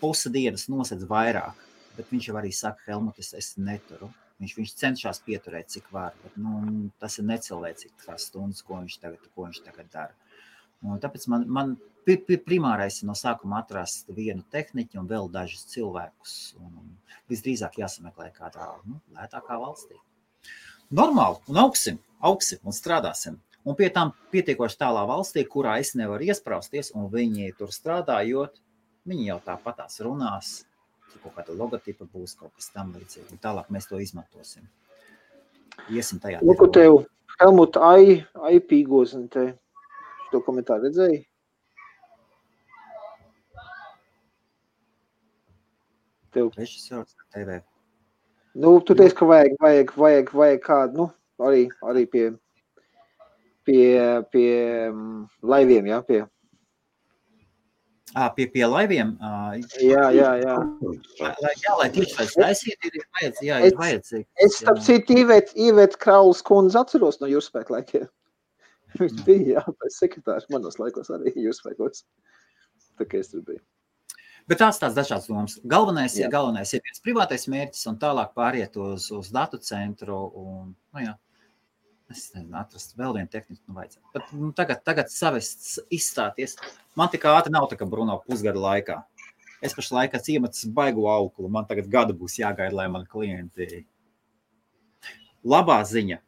pusi dienas nosedz vairāk, bet viņš jau arī saka, Helmut, es neturu. Viņš cenšas pieturēt, cik var, bet tas ir necilvēcīgi tās stundas, ko viņš tagad dara. Un tāpēc man primārais no sākuma atrast vienu tehniķu un vēl dažus cilvēkus. Un visdrīzāk jāsameklē kādā lētākā valstī. Normāli, un augsim un strādāsim. Un pie tām pietiekoši tālā valstī, kurā es nevaru iesprausties, un viņi tur strādājot, viņi jau tāpatās runās, kaut kāda logotipa būs, kaut kas tam līdzīgi. Tālāk mēs to izmantosim. Iesim tajā. Lūk, tev, Helmut, pīgozini te. To komentāru redzēji? Tev. Režisors TV. Nu, tu teici, ka vajag kādu, arī pie laiviem, jā, pie... Pie laiviem? Jā. Lai tieši tāds taisīt, ir vajadzīgi. Es starp citu Ivēt Krauls kundze atceros no jūrspēku laikiem. Viņš bija, pēc sekretārs manos laikos arī jūrspēkos. Tā kā es tur biju. Bet tās dažādas domas. Galvenais ir viens privātais mērķis un tālāk pāriet uz datu centru un, es nezinu, atrast vēl vienu tehniku, vajadzētu. Bet tagad savest izstāties. Man tik ātri nav tā kā Bruno pusgada laikā. Es pašlaik esmu iemetis baigu auklu. Man tagad gadu būs jāgaida, lai mani klienti. Labā ziņa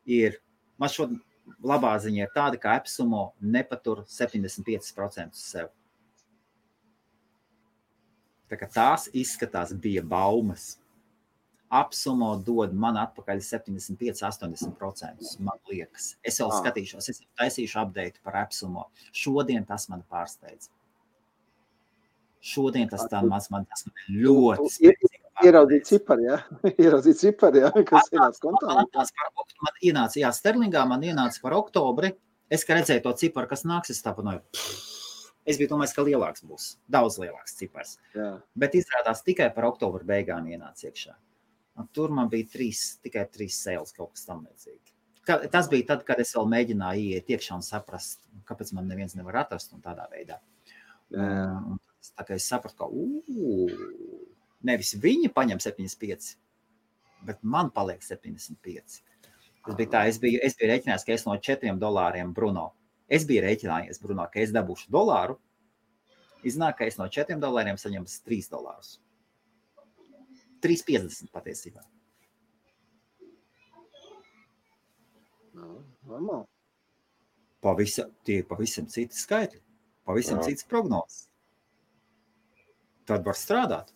ir tāda, ka AppSumo nepatur 75% sev. Tā kā tās izskatās bija baumas. AppSumo dod man atpakaļ 75-80%, man liekas. Es vēl skatīšos, es taisīšu update par AppSumo. Šodien tas man pārsteidz. Šodien tas man ļoti spēcīgi. Ieraudzīt cipari, ja? Kas ienāca kontā? Man ienāca, sterlingā man ienāca par oktobri. Es, ka redzēju to ciparu, kas nāks, es tāpanoju. Es biju domājis, ka lielāks būs. Daudz lielāks cipars. Jā. Bet izrādās tikai par oktobru beigām ienāca iekšā. Un tur man bija tikai 3 sales kaut kas tam līdzīgi. Tas bija tad, kad es vēl mēģināju ieiet iekšā un saprast, kāpēc man neviens nevar atrast un tādā veidā. Un tā kā es sapratu, ka nevis viņi paņem 75, bet man paliek 75. Tas bija tā, es biju rēķinājis, ka es no $4 Bruno. Es biju rēķinājies, Bruno, ka es dabūšu $1. Iznāk, ka es no $4 saņemu $3. 3,50 patiesībā. Normāli. Tie pavisam citi skaitļi, pavisam citas prognozes. Tad var strādāt.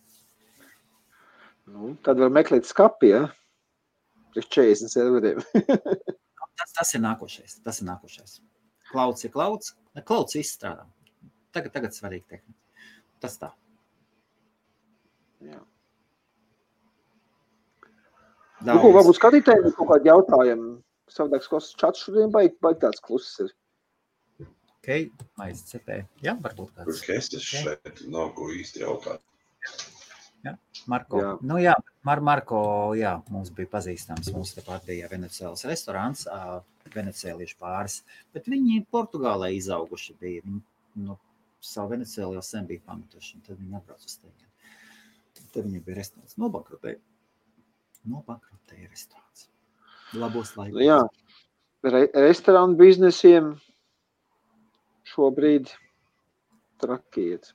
Tad var meklēt skapi, ja? Priekš 40 serveriem. Tas ir nākošais. Klauds ir klauds. Klauds izstrādā. Tagad svarīgi tehnika. Tas tā. Jā. Varbūt skatītājiem kaut kādi jautājumi. Savādāks čats šodien baigi tāds kluss ir. Ok, maiz cepē. Jā, varbūt tāds. Es šeit nav ko īsti jautāt. Jā, Marko. Jā. Marko, mums bija pazīstams. Mums tepat bija Venecēlas restorāns, venecēliešu pāris. Bet viņi Portugālē izauguši bija. Viņi savu Venecēlu jau sen bija pametuši. Tad viņi atbrauc uz tevi. Tad viņi bija restorāns. Nobankrotēja restorāns. Labos laikos. Jā, restorānu biznesiem šobrīd trakiet.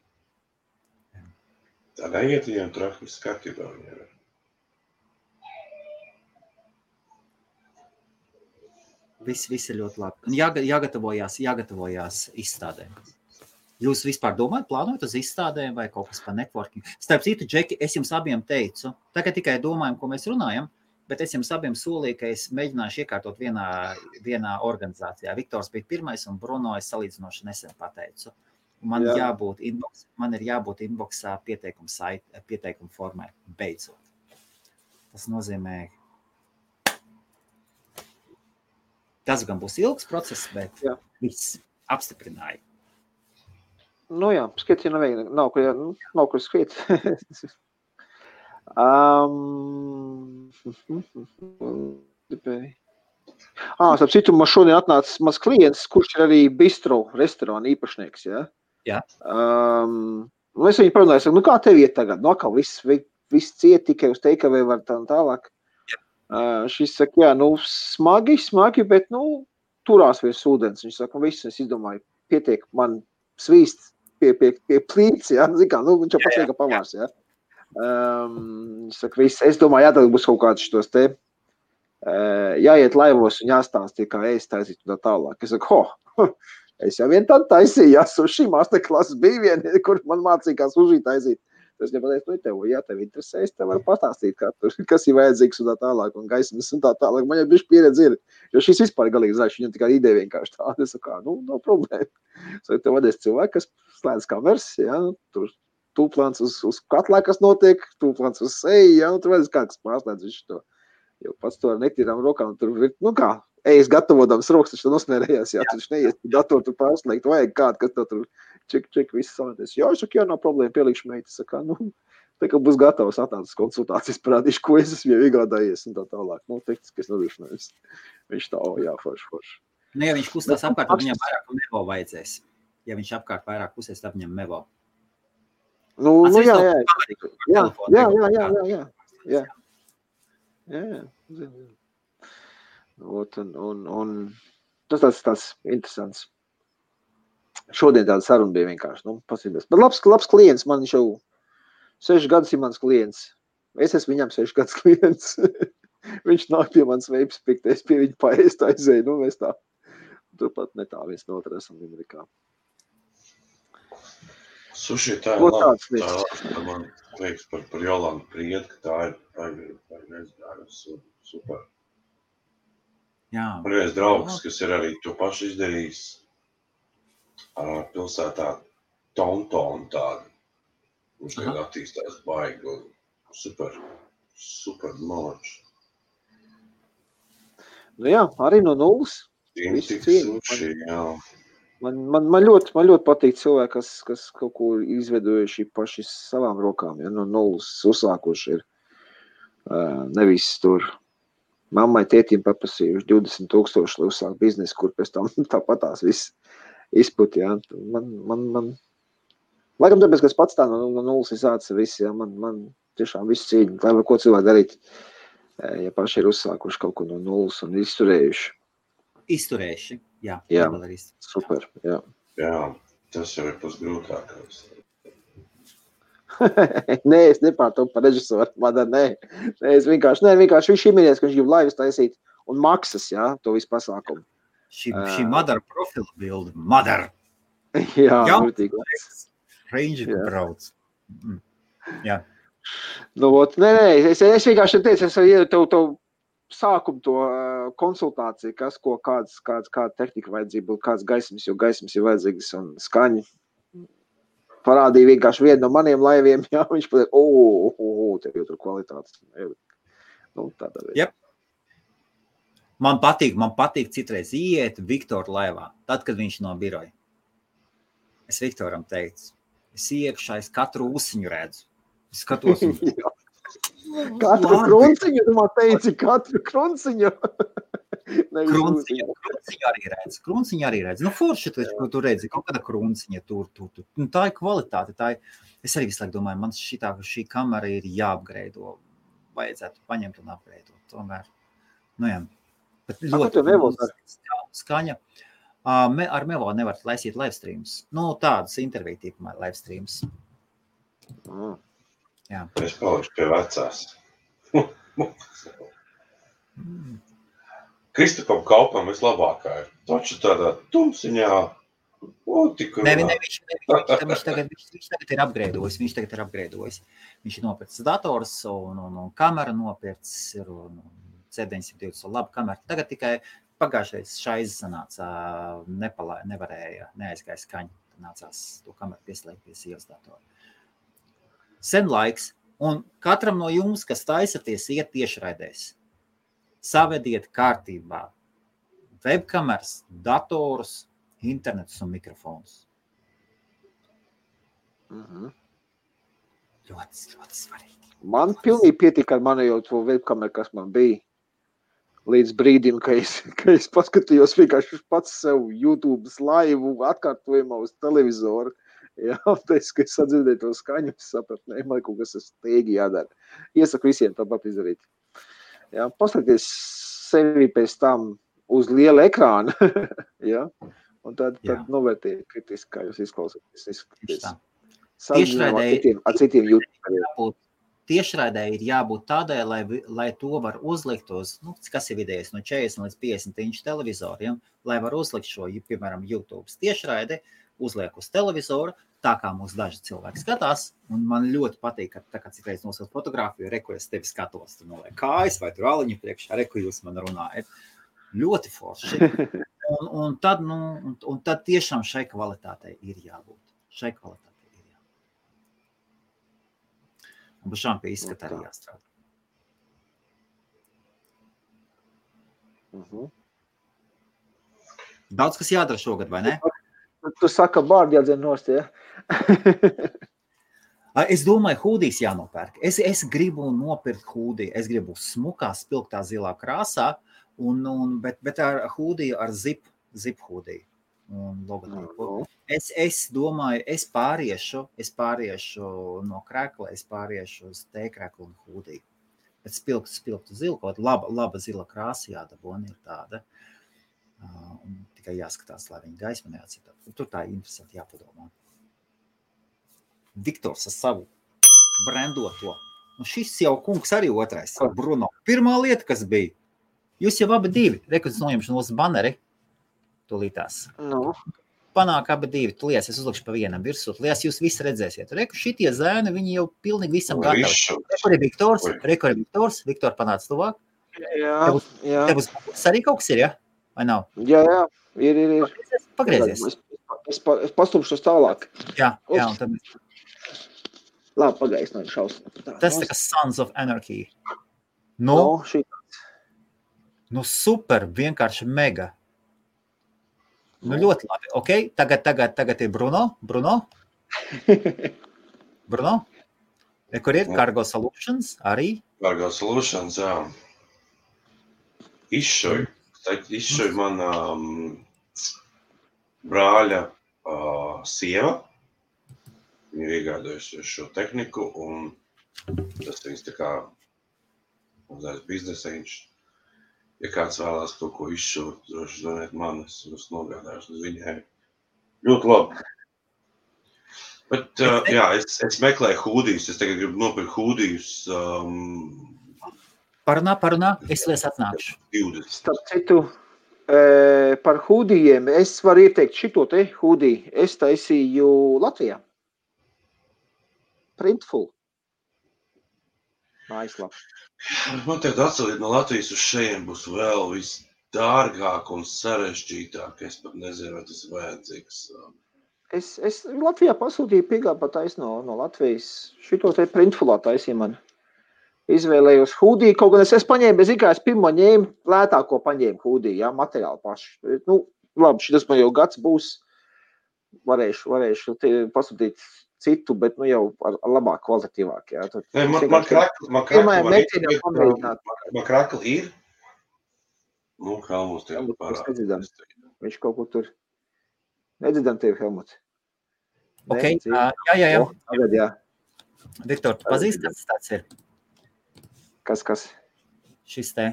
Tā neiet viņiem traki skatībā viņiem. Viss ir ļoti labi. Un jāgatavojās izstādēm. Jūs vispār domājat, plānojat uz izstādēm vai kaut kas par networking? Starp citu, Džeki, es jums abiem teicu, tagad tikai domājam, ko mēs runājam, bet es jums abiem solīju, ka es mēģināšu iekārtot vienā organizācijā. Viktors bija pirmais un Bruno es salīdzinoši nesen pateicu. Man ir jābūt inboxā pieteikuma formai beidzot. Tas nozīmē, tas gan būs ilgs process, bet viss apstiprināja. Skriet, ja nav kur skriet. Starp citu, man šodien atnāca maz klients, kurš ir arī bistro restorāna īpašnieks, ja? Jā. Es viņu parunāju, saku, kā tev iet tagad? Atkal viss ciet, tikai uz takeaway var tā un tālāk. Šis saka, smagi, bet, turās virs ūdens. Viņš saka, viss, es izdomāju, pietiek man svīst pie plīts, ja? Zikā, viņš jau pats lieka pamārs, ja? Viņš saka, viss, es domāju, tad būs kaut kāds šitos te, jāiet laivos un jāstāstīja, kā ēst taisīt un tā tālāk. Es saku, es jau vien tad taisīju, suši masterklases bija viena, kur man mācīja, kā suši taisīt. Es nepateicu, tev interesē, es tev varu pastāstīt, kas ir vajadzīgs un tā tālāk, un gaismas un tā tālāk. Man jau bišķi pieredze ir, jo šis vispār galīgi zināšu, viņam tikai ideja vienkārši tāda. Es saku, nav problēma. Tev vadēs cilvēki, kas slēdz kameras, ja, tur tūplāns uz katlā, kas notiek, tūplāns uz seju, ja, tur vadēs kā, kas pārslēdz visu to. Jo pats to ar netīrām rokām, tur ir, ejas gatavodams rokas, taču nosmērējās, jā, tu taču neies datoru tur pārslēgt, vajag kādu, kas to tur ček, viss savāties. Jā, es saku, nav problēma, pielikšu meitas, saka, tā kā būs gatavs atnācis konsultācijas, parādīšu, ko es esmu jau iegādājies un tā tālāk. Tehniskais nodrošinājums. Viņš tā, forši. Ja viņš kustās apkārt, tad viņam vairāk mevo vajadzēs. Ja viņš apkārt vairāk kusies, tad viņam mevo. Jā. Un tas tāds interesants. Šodien tāda saruna bija vienkārši, pasīdās. Bet labs klients, man viņš jau 6 gadus ir mans klients. Es esmu viņam 6 gadus klients. Viņš nāk pie manas veipas pikties, pie viņa paēst aizēju, mēs tā. Turpat ne tā viens no otru esam Amerikā. Suši, tā ir labi. Tā man liekas par Jolandu Priedu, ka tā ir nezinājusi super. Jā. Man viens draugs, kas ir arī to pašu izdarījis pilsētā Tonton tādu. Viņš tagad attīstās baigi un super malāči. Nu jā, arī no nulles. Suši, jā. Man ļoti patīk cilvēki, kas kaut ko izveidojuši paši savām rokām, ja no nulles uzsākuši ir. Nevis tur mammai, tētim paprasījuši 20,000, lai uzsāk biznesu, kur pēc tam tāpatās viss izput, jā. Man laikam tāpēc, ka es pats tā no nulles izāca viss, jā, man tiešām viss cīņa, lai var ko cilvēki darīt, ja paši ir uzsākuši kaut ko no nulles un izturējuši. Izturējuši, jā. Jā, super, jā. Jā, tas jau ir pats grūtākais. Nē, es nepārtopu par režisoru, nē, es vienkārši viņš iminies, ka viņš grib laivas taisīt un maksas, jā, to visu pasākumu. Šī Madara profila bilde, Madara. Jā, vērtīgi. Range, ka brauc. Jā. Nu, nē, es vienkārši teicu, es iedu tev sākumu to konsultāciju, kāda tehnika vajadzība, kāds gaismas, jo gaismas ir vajadzīgas un skaņi. Parādīja vienkārši vienu no maniem laiviem, jā, viņš pateica, tev jau tur kvalitātes. Nu, tādā veidā. Yep. Man patīk citreiz iet Viktora laivā, tad, kad viņš no biroja. Es Viktoram teicu, es iekšā, es katru ūsiņu redzu. Es skatos un... Katru krunciņu, tu man teici, katru krunciņu. Krunciņu arī redz. Nu, forši, ko tu redzi, kaut kāda krunciņa tur. Nu, tā ir kvalitāte. Es arī visu laiku domāju, man šī kamera ir jāapgreido. Vajadzētu paņemt un apgreidot. Tomēr, nu jā. Bet ļoti skaņa. Ar Mevo nevar laisīt live streams. Nu, tādas interviju tipumā live streams. Jā. Es palikšu pie vecās. Kristupam Kaupam vislabākā ir. Taču tādā tumsiņā. Viņš tagad ir apgreidojis. Viņš ir nopircis dators un kamera nopircis un C920 labu kameru. Tagad tikai pagājušais šais sanāca, neaizgāja skaņa. Nācās to kameru pieslēgt pie sievas datora. Sen laiks, un katram no jums, kas taisaties, iet tiešraidēs. Savediet kārtībā webkameras, datorus, internetus un mikrofonus. Ļoti svarīgi. Man pilnīgi pietika ar mani jau to webkameru, kas man bija. Līdz brīdim, ka es paskatījos vienkārši pats sev YouTube laivu atkārtojumā uz televizoru. Jā, teicu, ka es sadzirdēju to skaņu, es sapratu, man kaut kas steigi jādara. Iesaku visiem tāpat izdarīt. Jā, paskaties sevi pēc tam uz liela ekrāna, jā, un tad novērtējiet kritiski, kā jūs izklausāties. Ar citiem YouTuberiem. Tiešraidē ir jābūt tādai, lai to var uzlikt uz, kas ir vidējais, no 40 līdz 50 inču televizoriem, lai var uzlikt šo, piemēram, YouTube tiešraidi, uzliek uz televizoru, tā kā mūs daži cilvēki skatās, un man ļoti patīk, ka tā kā citreiz nosūt fotogrāfiju, reku es tevi skatos, tur noliek kājas vai tur aliņu priekšā, reku jūs man runājat. Ļoti forši. Un tad tiešām šai kvalitātei ir jābūt. Un pašām pie izskata arī jāstrādā. Daudz, kas jādara šogad, vai ne? Tu saka, bārdi jādzen nost, ja? Es domāju, hūdijas jānopērk. Es gribu nopirkt hūdiju. Es gribu smukā, spilgtā zilā krāsā, bet ar hūdiju, ar zip hūdiju. Un logotipu. Es domāju, es pāriešu no krekla, es pāriešu uz T-kreklu un hūdiju. Bet spilgtu zilu, kaut laba zila krāsa jādabona ir tāda. Un tikai jāskatās, lai viņi gaismu neatcita. Tur tā interesanti jāpadomā. Viktors ar savu brandoto. Nu šis jau kungs arī otrais. Bruno. Pirmā lieta, kas bija. Jūs jau abi divi. Rekurds noņemšu no banneri. Tūlītās. Nu. Panāk abi divi. Tūlījās es uzlikšu pa vienam virsū. Tūlījās jūs visi redzēsiet. Reku šitie zēni, viņi jau pilnīgi visam gatavi. Rekur ir Viktors. Viktor panāc tuvāk. Jā. Tev uz arī kaut kas ir, ja? Vai nav? Jā. Ir. Pagriezies. Es pastumšu tālāk. Jā, un tad... Labi, pagājis no šausmas. Tas tā kā Sons of Anarchy. Nu, super, vienkārši mega. Nu, ļoti labi. Ok, tagad ir Bruno. Bruno? Kur ir? Cargo Solutions arī? Cargo Solutions, jā. Izšoju man brāļa sieva. Viņi ir iegādājuši šo tehniku, un tas viņas tā kā mazais biznesiņš. Ja kāds vēlās kaut ko izšūt, droši zvaniet man, es nogādājuši uz viņai. Ļoti labi. Bet, jā, es meklēju hūdijus, es tagad gribu nopirkt hūdijus. Parunā, es lies atnākšu. 20. Starp citu, par hūdijiem, es varu ieteikt šito te hūdiju. Es taisīju Latvijā. Printful. Mājaslapa. Man tagad atceliet no Latvijas uz šeit būs vēl visdārgāk un sarežģītāk. Es pat nezinu, vai tas ir vajadzīgs. Es Latvijā pasūtīju piegādu patais no Latvijas. Šito te printfulā taisīja man. Izvēlējos hūdiju, kaut gan es paņēmu, es pirmo ņēmu, lētāko paņēmu hūdiju, jā, materiāli paši. Nu, labi, šitas man jau gads būs. Varēšu pasūtīt citu, bet nu jau ar labāk kvalitatīvāk, jā. Man krakli ir. Nu, Helmuts tev parāda. Viņš kaut kur tur. Nedzirdam tevi, Helmuts. Ok, jā. Tagad, jā. Viktor, tu pazīsti, kas tāds ir? Kas? Šis te.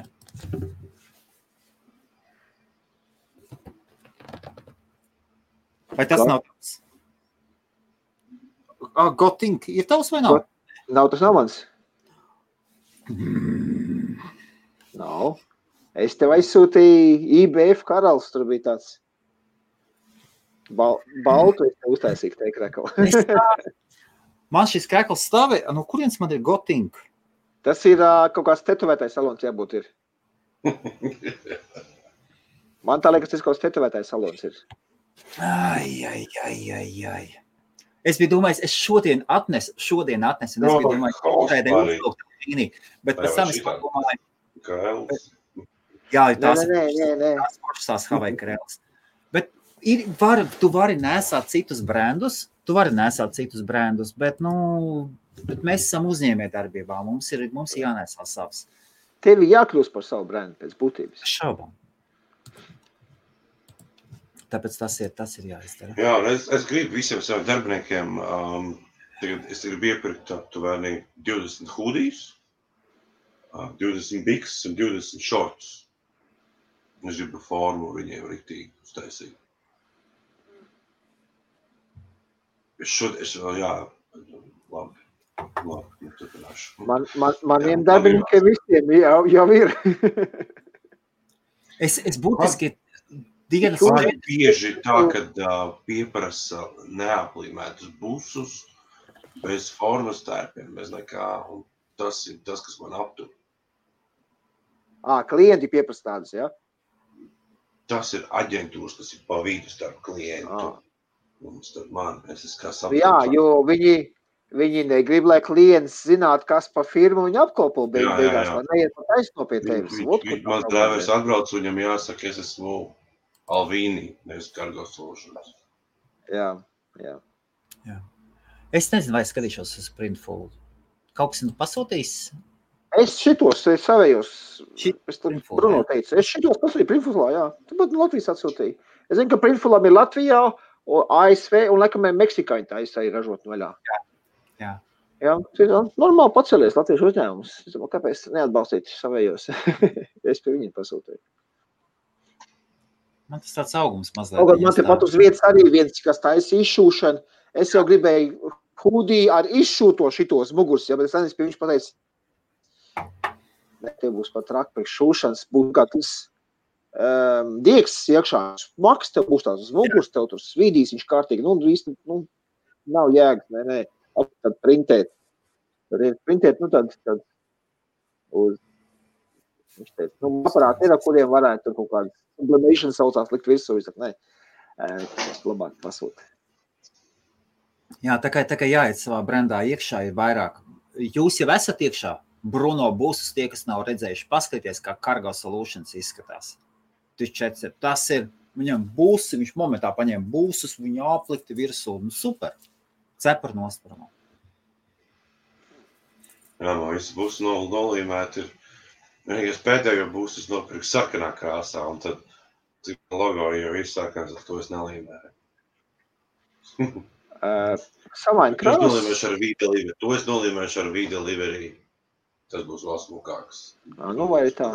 Vai tas nav tavs? Gotink, ir tavs vai nav? Tas nav mans. Nav. Es tev aizsūtīju IBF karalis, tur bija tāds baltu, es tev uztaisīju te krekali. Man šis krekals stāvē, no kurienes man ir Gotink? Tas ir kaut kāds tetovētais salons, jābūt ir. Man tā liekas, tas kaut kāds tetovētais salons ir. Ai. Es biju domājis, es šodien atnesu, un es biju domājis, bet pēc tam es padomāju. Jā, tās pašas Havai Karels. Bet tu vari nesāt citus brandus, bet, bet mēs esam uzņēmē darbībā, mums ir jānesā savs. Tevi jākļūst par savu brandu pēc būtības. Šaubām. Tāpēc tas ir jāizdara. Jā, es gribu visiem saviem darbiniekiem, es gribu iepirkt aptuveni 20 hūdijas, 20 biks un 20 šortus. Es gribu formu viņiem riktīgi uztaisīt. Labi, turpināšu. Maniem darbiniekiem visiem jau ir. Es būtiski dienas bieži tā, kad pieprasa neaplīmētus busus, bez formas tērpiem, bez nekā, un tas ir tas, kas man aptur. Klienti pieprasa tādas, jā? Tas ir aģentūras, kas ir pa vidu starp klientu. Un starp man, es esmu kā saprotu. Jā, jo viņi negrib, lai klients zinātu, kas pa firmu viņi apkopo beigās, lai neiet pa taisno pie tevis. Mans drēvers atbrauc, viņam jāsaka, es esmu Alvīni, nevis Cargo Solutions. Jā. Es nezinu, vai skatīšos uz Printful. Kaut kas pasūtījis? Es šitos savējos, Bruno teica, es šitos pasūtīju Printfulā, jā. Tu pat Latvijas atsūtīji. Es zinu, ka Printfulam ir Latvijā, ASV un laikam Meksikāņi tā arī ražot vaļā. Jā. Jā, normāli pacelies latviešu uzņēmumus. Kāpēc neatbalstīt savējos? Es pie viņiem pasūtīju. Man tas tāds augums mazliet. Kaut man te pat uz vietas arī viens, kas taisa izšūšanu. Es jau gribēju hudī ar izšūto šitos mugus, bet es nezinu, pie viņš pateica, ne, te būs pat traki priekš šūšanas, būs kā tas dieks iekšā. Maks tev būs tās uz mugus, tev tur svīdīs, viņš kārtīgi, īsti, nav jēgas, ne, tad printēt. Printēt, tad uz, viņš teica, aparāti ir, ar kuriem varētu tur kaut kādu sublimation saucās likt virsū, viņš saka, tas labāk pasūt. Jā, tā kā jāiet savā brendā iekšā ir vairāk. Jūs jau esat iekšā, Bruno būsus, tie, kas nav redzējuši, paskaties, kā Cargo Solutions izskatās. Tas ir, viņam būsi, viņš momentā paņēma būsus, viņu aplikti virsū, super, cepar nosparamo. Jā, man visi būs nolīmēti ir, vienīgais pēdējo būs, es nopirku sarkanā krāsā, un tad logo jau ir sarkans, ar to es nelīmēju. Samaini krāsas. To es nolīmēšu ar V-Delivery. Tas būs vēl smukāks. Vai tā?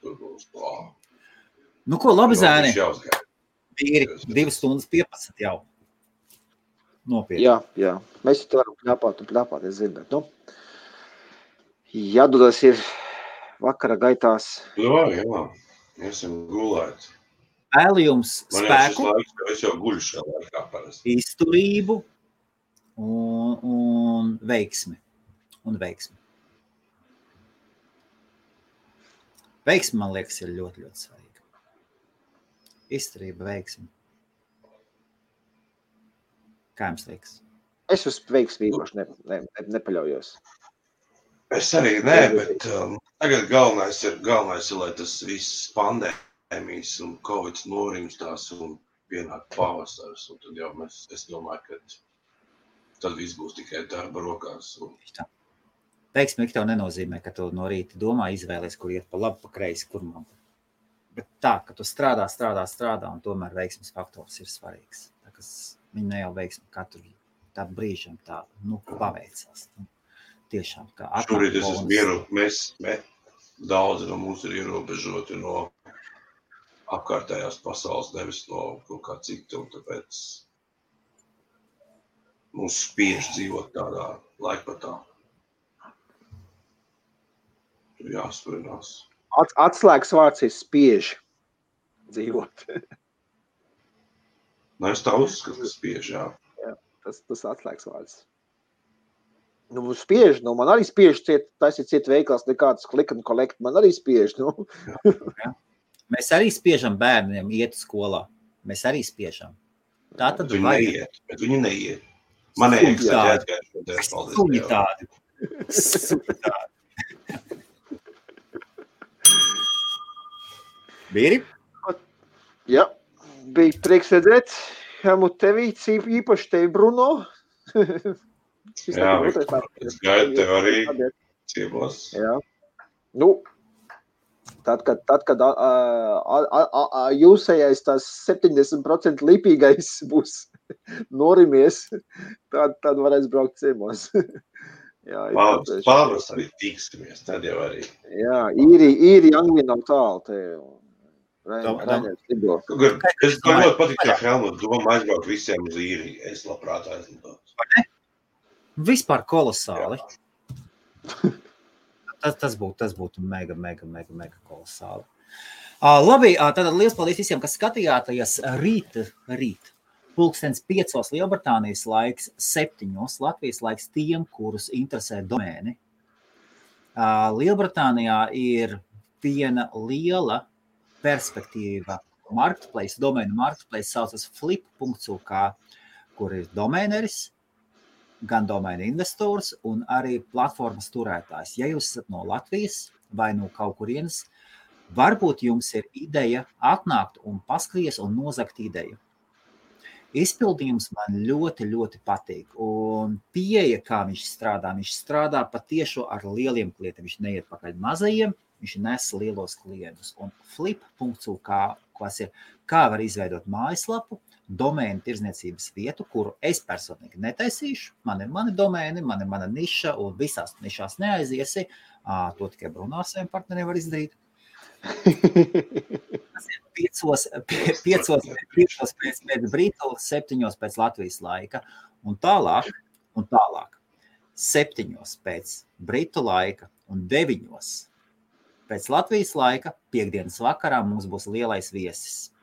Tur būs klā. Nu ko, labi zēni? Vīri, 2 stundas 15 jau. Nopietni. Jā. Mēs te varam pļāpāt, es zinu, bet, jādodas ir vakara gaitās. Jā, esam gulēt. Vēlu jums spēku, es jau guļu šā laikā parasti. Izturību un veiksmi. Veiksmi, man liekas, ir ļoti, ļoti svarīga. Izturība, veiksmi. Kā jums liekas? Es uz veiksmi īpaši nepaļaujos. Es arī nē, bet tagad galvenais ir, lai tas viss pandēmijas un Covid norimstās un pienāk pavasars. Un tad jau es domāju, ka tad viss būs tikai darba rokās. Veiksmi tev nenozīmē, ka tu no rīta domā izvēlies, kur iet pa labi, pa kreisi, kur man. Bet tā, ka tu strādā, un tomēr veiksmes faktors ir svarīgs. Tā, kas viņi ne jau veiksmi katru tādu brīžam tā, paveicās. Tiešām, kā atnāk. Šorīt es esmu mieru, mēs daudzi no mums ir ierobežoti no apkārtējās pasaules, nevis no kaut kā cita, un tāpēc mums spiež dzīvot tādā laikpatā. Tur jāsprinās. Atslēgas vārds ir spiež dzīvot. Es tā uzskatu, spiež, jā. Jā, tas atslēgas vārds. Spiež, man arī spiež taisīt ciet veikals, nekāds click and collect, man arī spiež, Jā. Mēs arī spiežam bērniem iet skolā. Mēs arī spiežam. Tā tad viņi neiet, bet viņi neiet. Man neieksēt, Suņi tādi. Bīri? Jā, bija prieks redzēt. Helmut tevi, īpaši tevi, Bruno. Jā, es gaidu tev arī ciemos. Jā. Tad, kad jūsējais tās 70% lipīgais būs norimies, tad varēs braukt ciemos. Pavasarī tiksimies, tad jau arī. Jā, īri Anglija nav tālu te. Es ļoti patīk, ka Helmut doma aizbraukt visiem uz īriju. Es labprāt aizlidot. Vispār kolosāli. Tas būtu mega kolosāli. Labi, tad liels paldies visiem, kas skatījāties rīt. 5:00 Lielbritānijas laiks, 7:00 Latvijas laiks tiem, kurus interesē domēni. Lielbritānijā ir viena liela perspektīva marketplace, domēnu marketplace saucas flip.uk, kur ir domēneris, gan domēna investors un arī platformas turētājs. Ja jūs esat no Latvijas vai no kaut kurienes, varbūt jums ir ideja atnākt un paskries un nozagt ideju. Izpildījums man ļoti, ļoti patīk. Un pieeja, kā viņš strādā patiešo ar lieliem klientiem. Viņš neiet pakaļ mazajiem, viņš nes lielos klientus. Un flip.uk, kas ir, kā var izveidot mājaslapu, domēnu tirdzniecības vietu, kuru es personīgi netaisīšu. Man ir mani domēni, man ir mana niša, un visās nišās neaiziesi. To tikai Bruno ar saviem partneriem var izdarīt. Tas ir 5 pēc Britu, 7 pēc Latvijas laika, un tālāk 7 pēc Britu laika un 9 pēc Latvijas laika piekdienas vakarā mums būs lielais viesis.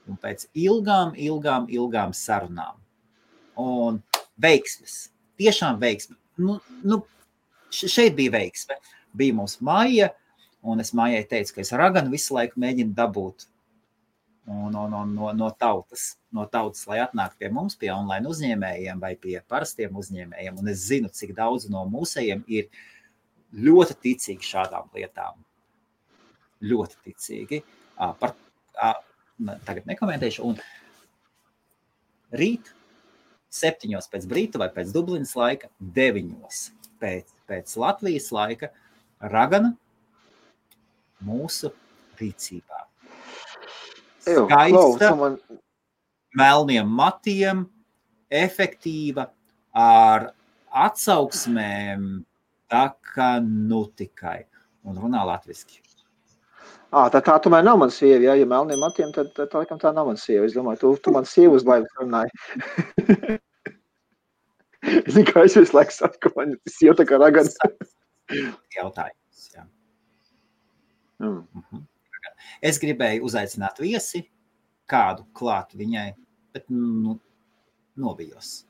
Un pēc ilgām sarunām. Un veiksmes, tiešām veiksme. Šeit bija veiksme. Bija mums Maija, un es Maijai teicu, ka es raganu visu laiku mēģinu dabūt no tautas, lai atnāk pie mums, pie online uzņēmējiem vai pie parastiem uzņēmējiem. Un es zinu, cik daudz no mūsējiem ir ļoti ticīgi šādām lietām. Ļoti ticīgi. Tagad nekomentēšu. Un rīt 7 pēc Brita vai pēc Dublinas laika, 9 pēc Latvijas laika, ragana mūsu rīcībā. Skaista, melniem matiem, efektīva, ar atsauksmēm, tā kā tikai. Un runā latviski. Tā tomēr nav man sieva, ja melniem matiem, tad laikam tā nav man sieva. Es domāju, tu man sievu uz laivas runāji. Es zinu, kā es visu laiku saku, man sieva tā kā ragana. Jautājums, jā. Es gribēju uzaicināt viesi, kādu klāt viņai, bet novijos.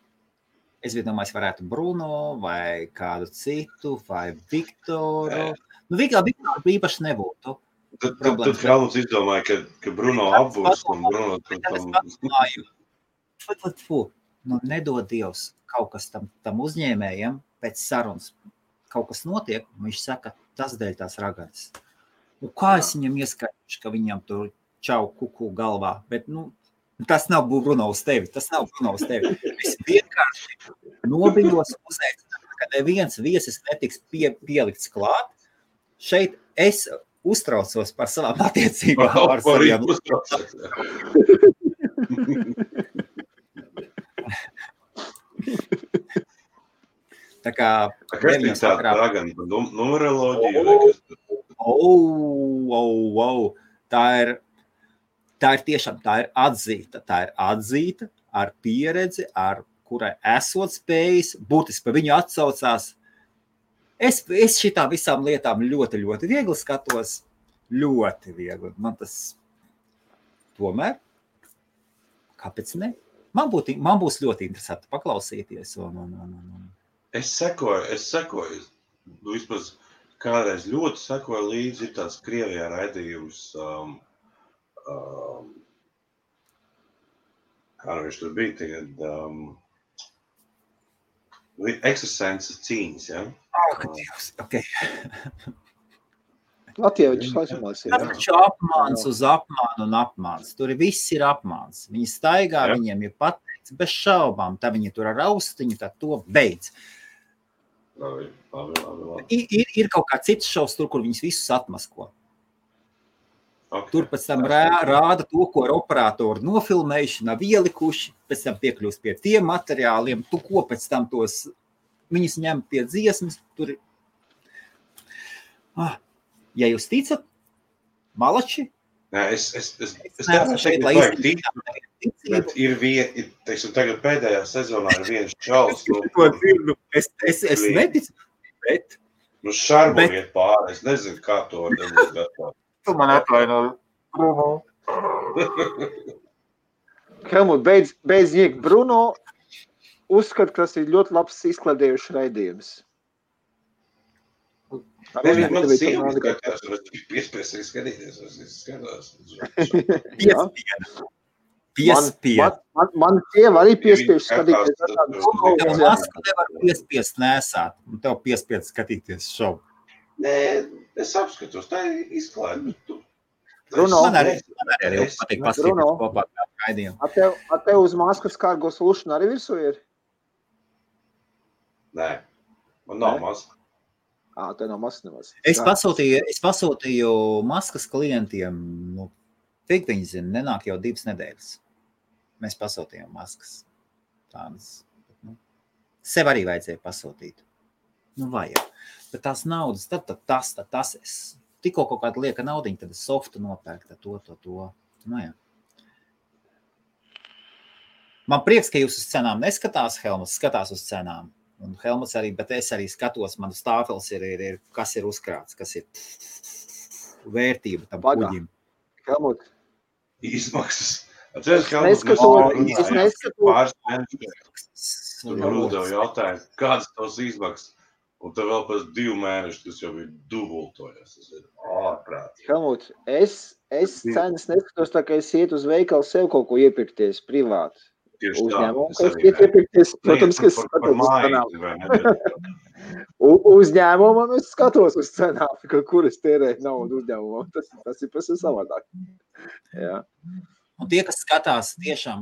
Es domāju, es varētu Bruno vai kādu citu, vai Viktoru. Viktoru īpaši nebūtu. Tad Helmuts izdomāja, ka Bruno apbūs un Bruno... Nedod Dievs kaut kas tam uzņēmējiem pēc sarunas. Kaut kas notiek, un viņš saka, tas dēļ tās raganas. Kā es viņam ieskaidrošu, ka viņam tur čau kuku galvā, bet tas nav Bruno uz tevi, Es vienkārši nobijos uzaicināt, ka neviens viesis netiks pielikts klāt. Šeit es uztraucos par savām attiecībām ar saviem. Tā kā neviens sakrā. Numeroloģija. Tā ir tiešām, tā ir atzīta ar pieredzi, ar kurai esot spējis, būtiski pa viņu atsaucās. Es šitām visām lietām ļoti, ļoti viegli skatos. Ļoti viegli. Man tas tomēr, kāpēc ne? Man būs ļoti interesanti paklausīties. Es sekoju. Vismaz kādreiz ļoti sekoju līdzi, ir tāds Krievijā raidījums, kā viņš tur bija tagad, ekstrasenses cīņas, ja? Okay. Latvievičs laikamās ir. Taču apmāns uz apmānu un apmāns. Tur viss ir apmāns. Viņi staigā, viņiem ir pateikts bez šaubām. Tā viņi tur ar austiņu, tā to beidz. Labi. Ir kaut kā cits šovs tur, kur viņus visus atmasko. Okay. Tur pēc tam rāda to, ko ar operatoru nofilmējuši, nav ielikuši, pēc tam piekļūst pie tiem materiāliem, tu ko pēc tam tos viņus ņem pie dziesmas, tur ir. Ja jūs ticat, malači? Nē, es šeit bet ir teiksim, tagad pēdējā sezonā ir viens čals. Es neticu, bet... Šarbuļiet pāri, es nezinu, kā to var dabūt. Tu man atvainoji. Helmut, beidz ņiegt Bruno, uzskat, ka tas ir ļoti labs izkladējuši raidījums. Man sieva skatās, un es piespiesīgi skatīties, es skatās. Man sieva arī piespiež skatīties. Tev masku nevar piespiest nesāt, un tev piespied skatīties šovu. Nē, es apskatos, tā ir izklāde. Bruno, man arī patīk paskatīties kopā ar raidījumu. A tev uz maskas kārgos lūšana arī virsū ir? Nē, man nav maska. Tev nav maskas nemaz. Es pasūtīju maskas klientiem, cik viņi zina, nenāk jau 2 nedēļas. Mēs pasūtījām maskas. Tādas. Sev arī vajadzēja pasūtīt. Vajag. Bet tās naudas, tad tas es tikko kaut kāda lieka naudiņa, tad softu nopērkt to. Nu, jā. Man prieks, ka jūs uz cenām neskatās, Helmuts skatās uz cenām. Un Helmuts arī, bet es arī skatos, man stāfels ir kas ir uzkrāts, kas ir vērtība tam kuģim. Helmuts. Izmaksas. Es neskatos. Tur uzdevu jautājumu, kādas tavs izmaksas? Un tev vēl pēc 2 mēneši, tas jau ir dubultojas. Tas ir ārprātīgi. Helmuts, es cenas neskatos, tā kā es iet uz veikalu sev kaut ko iepirkties privāti. Uzņēmumu, ka es iet iepirkties, protams, ka es skatos uz cenām. Uzņēmumam es skatos uz cenām, kur es tērēju naudu uzņēmumam. Tas ir pēc savādāk. Jā. Un tie, kas skatās tiešām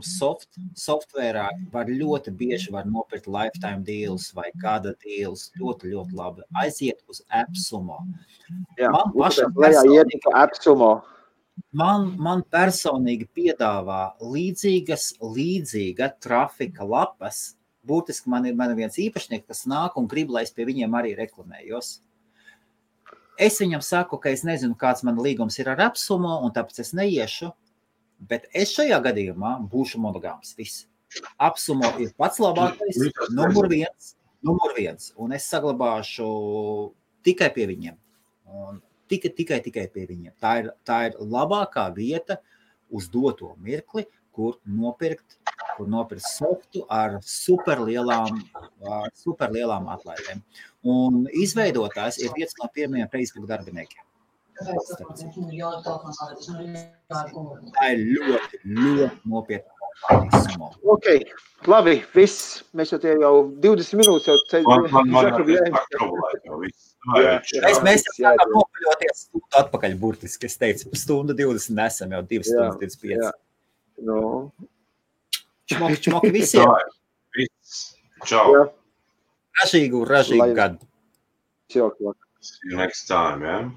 softverā, ļoti bieži var nopirkt lifetime deals vai gada deals. Ļoti, ļoti labi. Aiziet uz AppSumo. Jā, man personīgi piedāvā līdzīga trafika lapas. Būtiski man ir viens īpašnieks, kas nāk un grib, lai es pie viņiem arī reklamējos. Es viņam saku, ka es nezinu, kāds man līgums ir ar AppSumo, un tāpēc es neiešu. Bet es šajā gadījumā būšu monogāms. Viss. AppSumo ir pats labākais, numur viens. Un es saglabāšu tikai pie viņiem. Un tikai pie viņiem. Tā ir labākā vieta uz doto mirkli, kur nopirkt softu ar superlielām atlaidēm. Un izveidotājs ir viens no pirmajiem Facebook darbiniekiem. Tā ir ļoti, ļoti nopietna. Ok, labi, viss. Mēs jau 20 minūtes jau Mēs sākam nopaļoties stundu atpakaļ burtiski. Es teicu, stundu 20 nesam jau 2 stundas 25. No. Čmoki visiem. Čau. Ražīgu gadu. See you next time, yeah?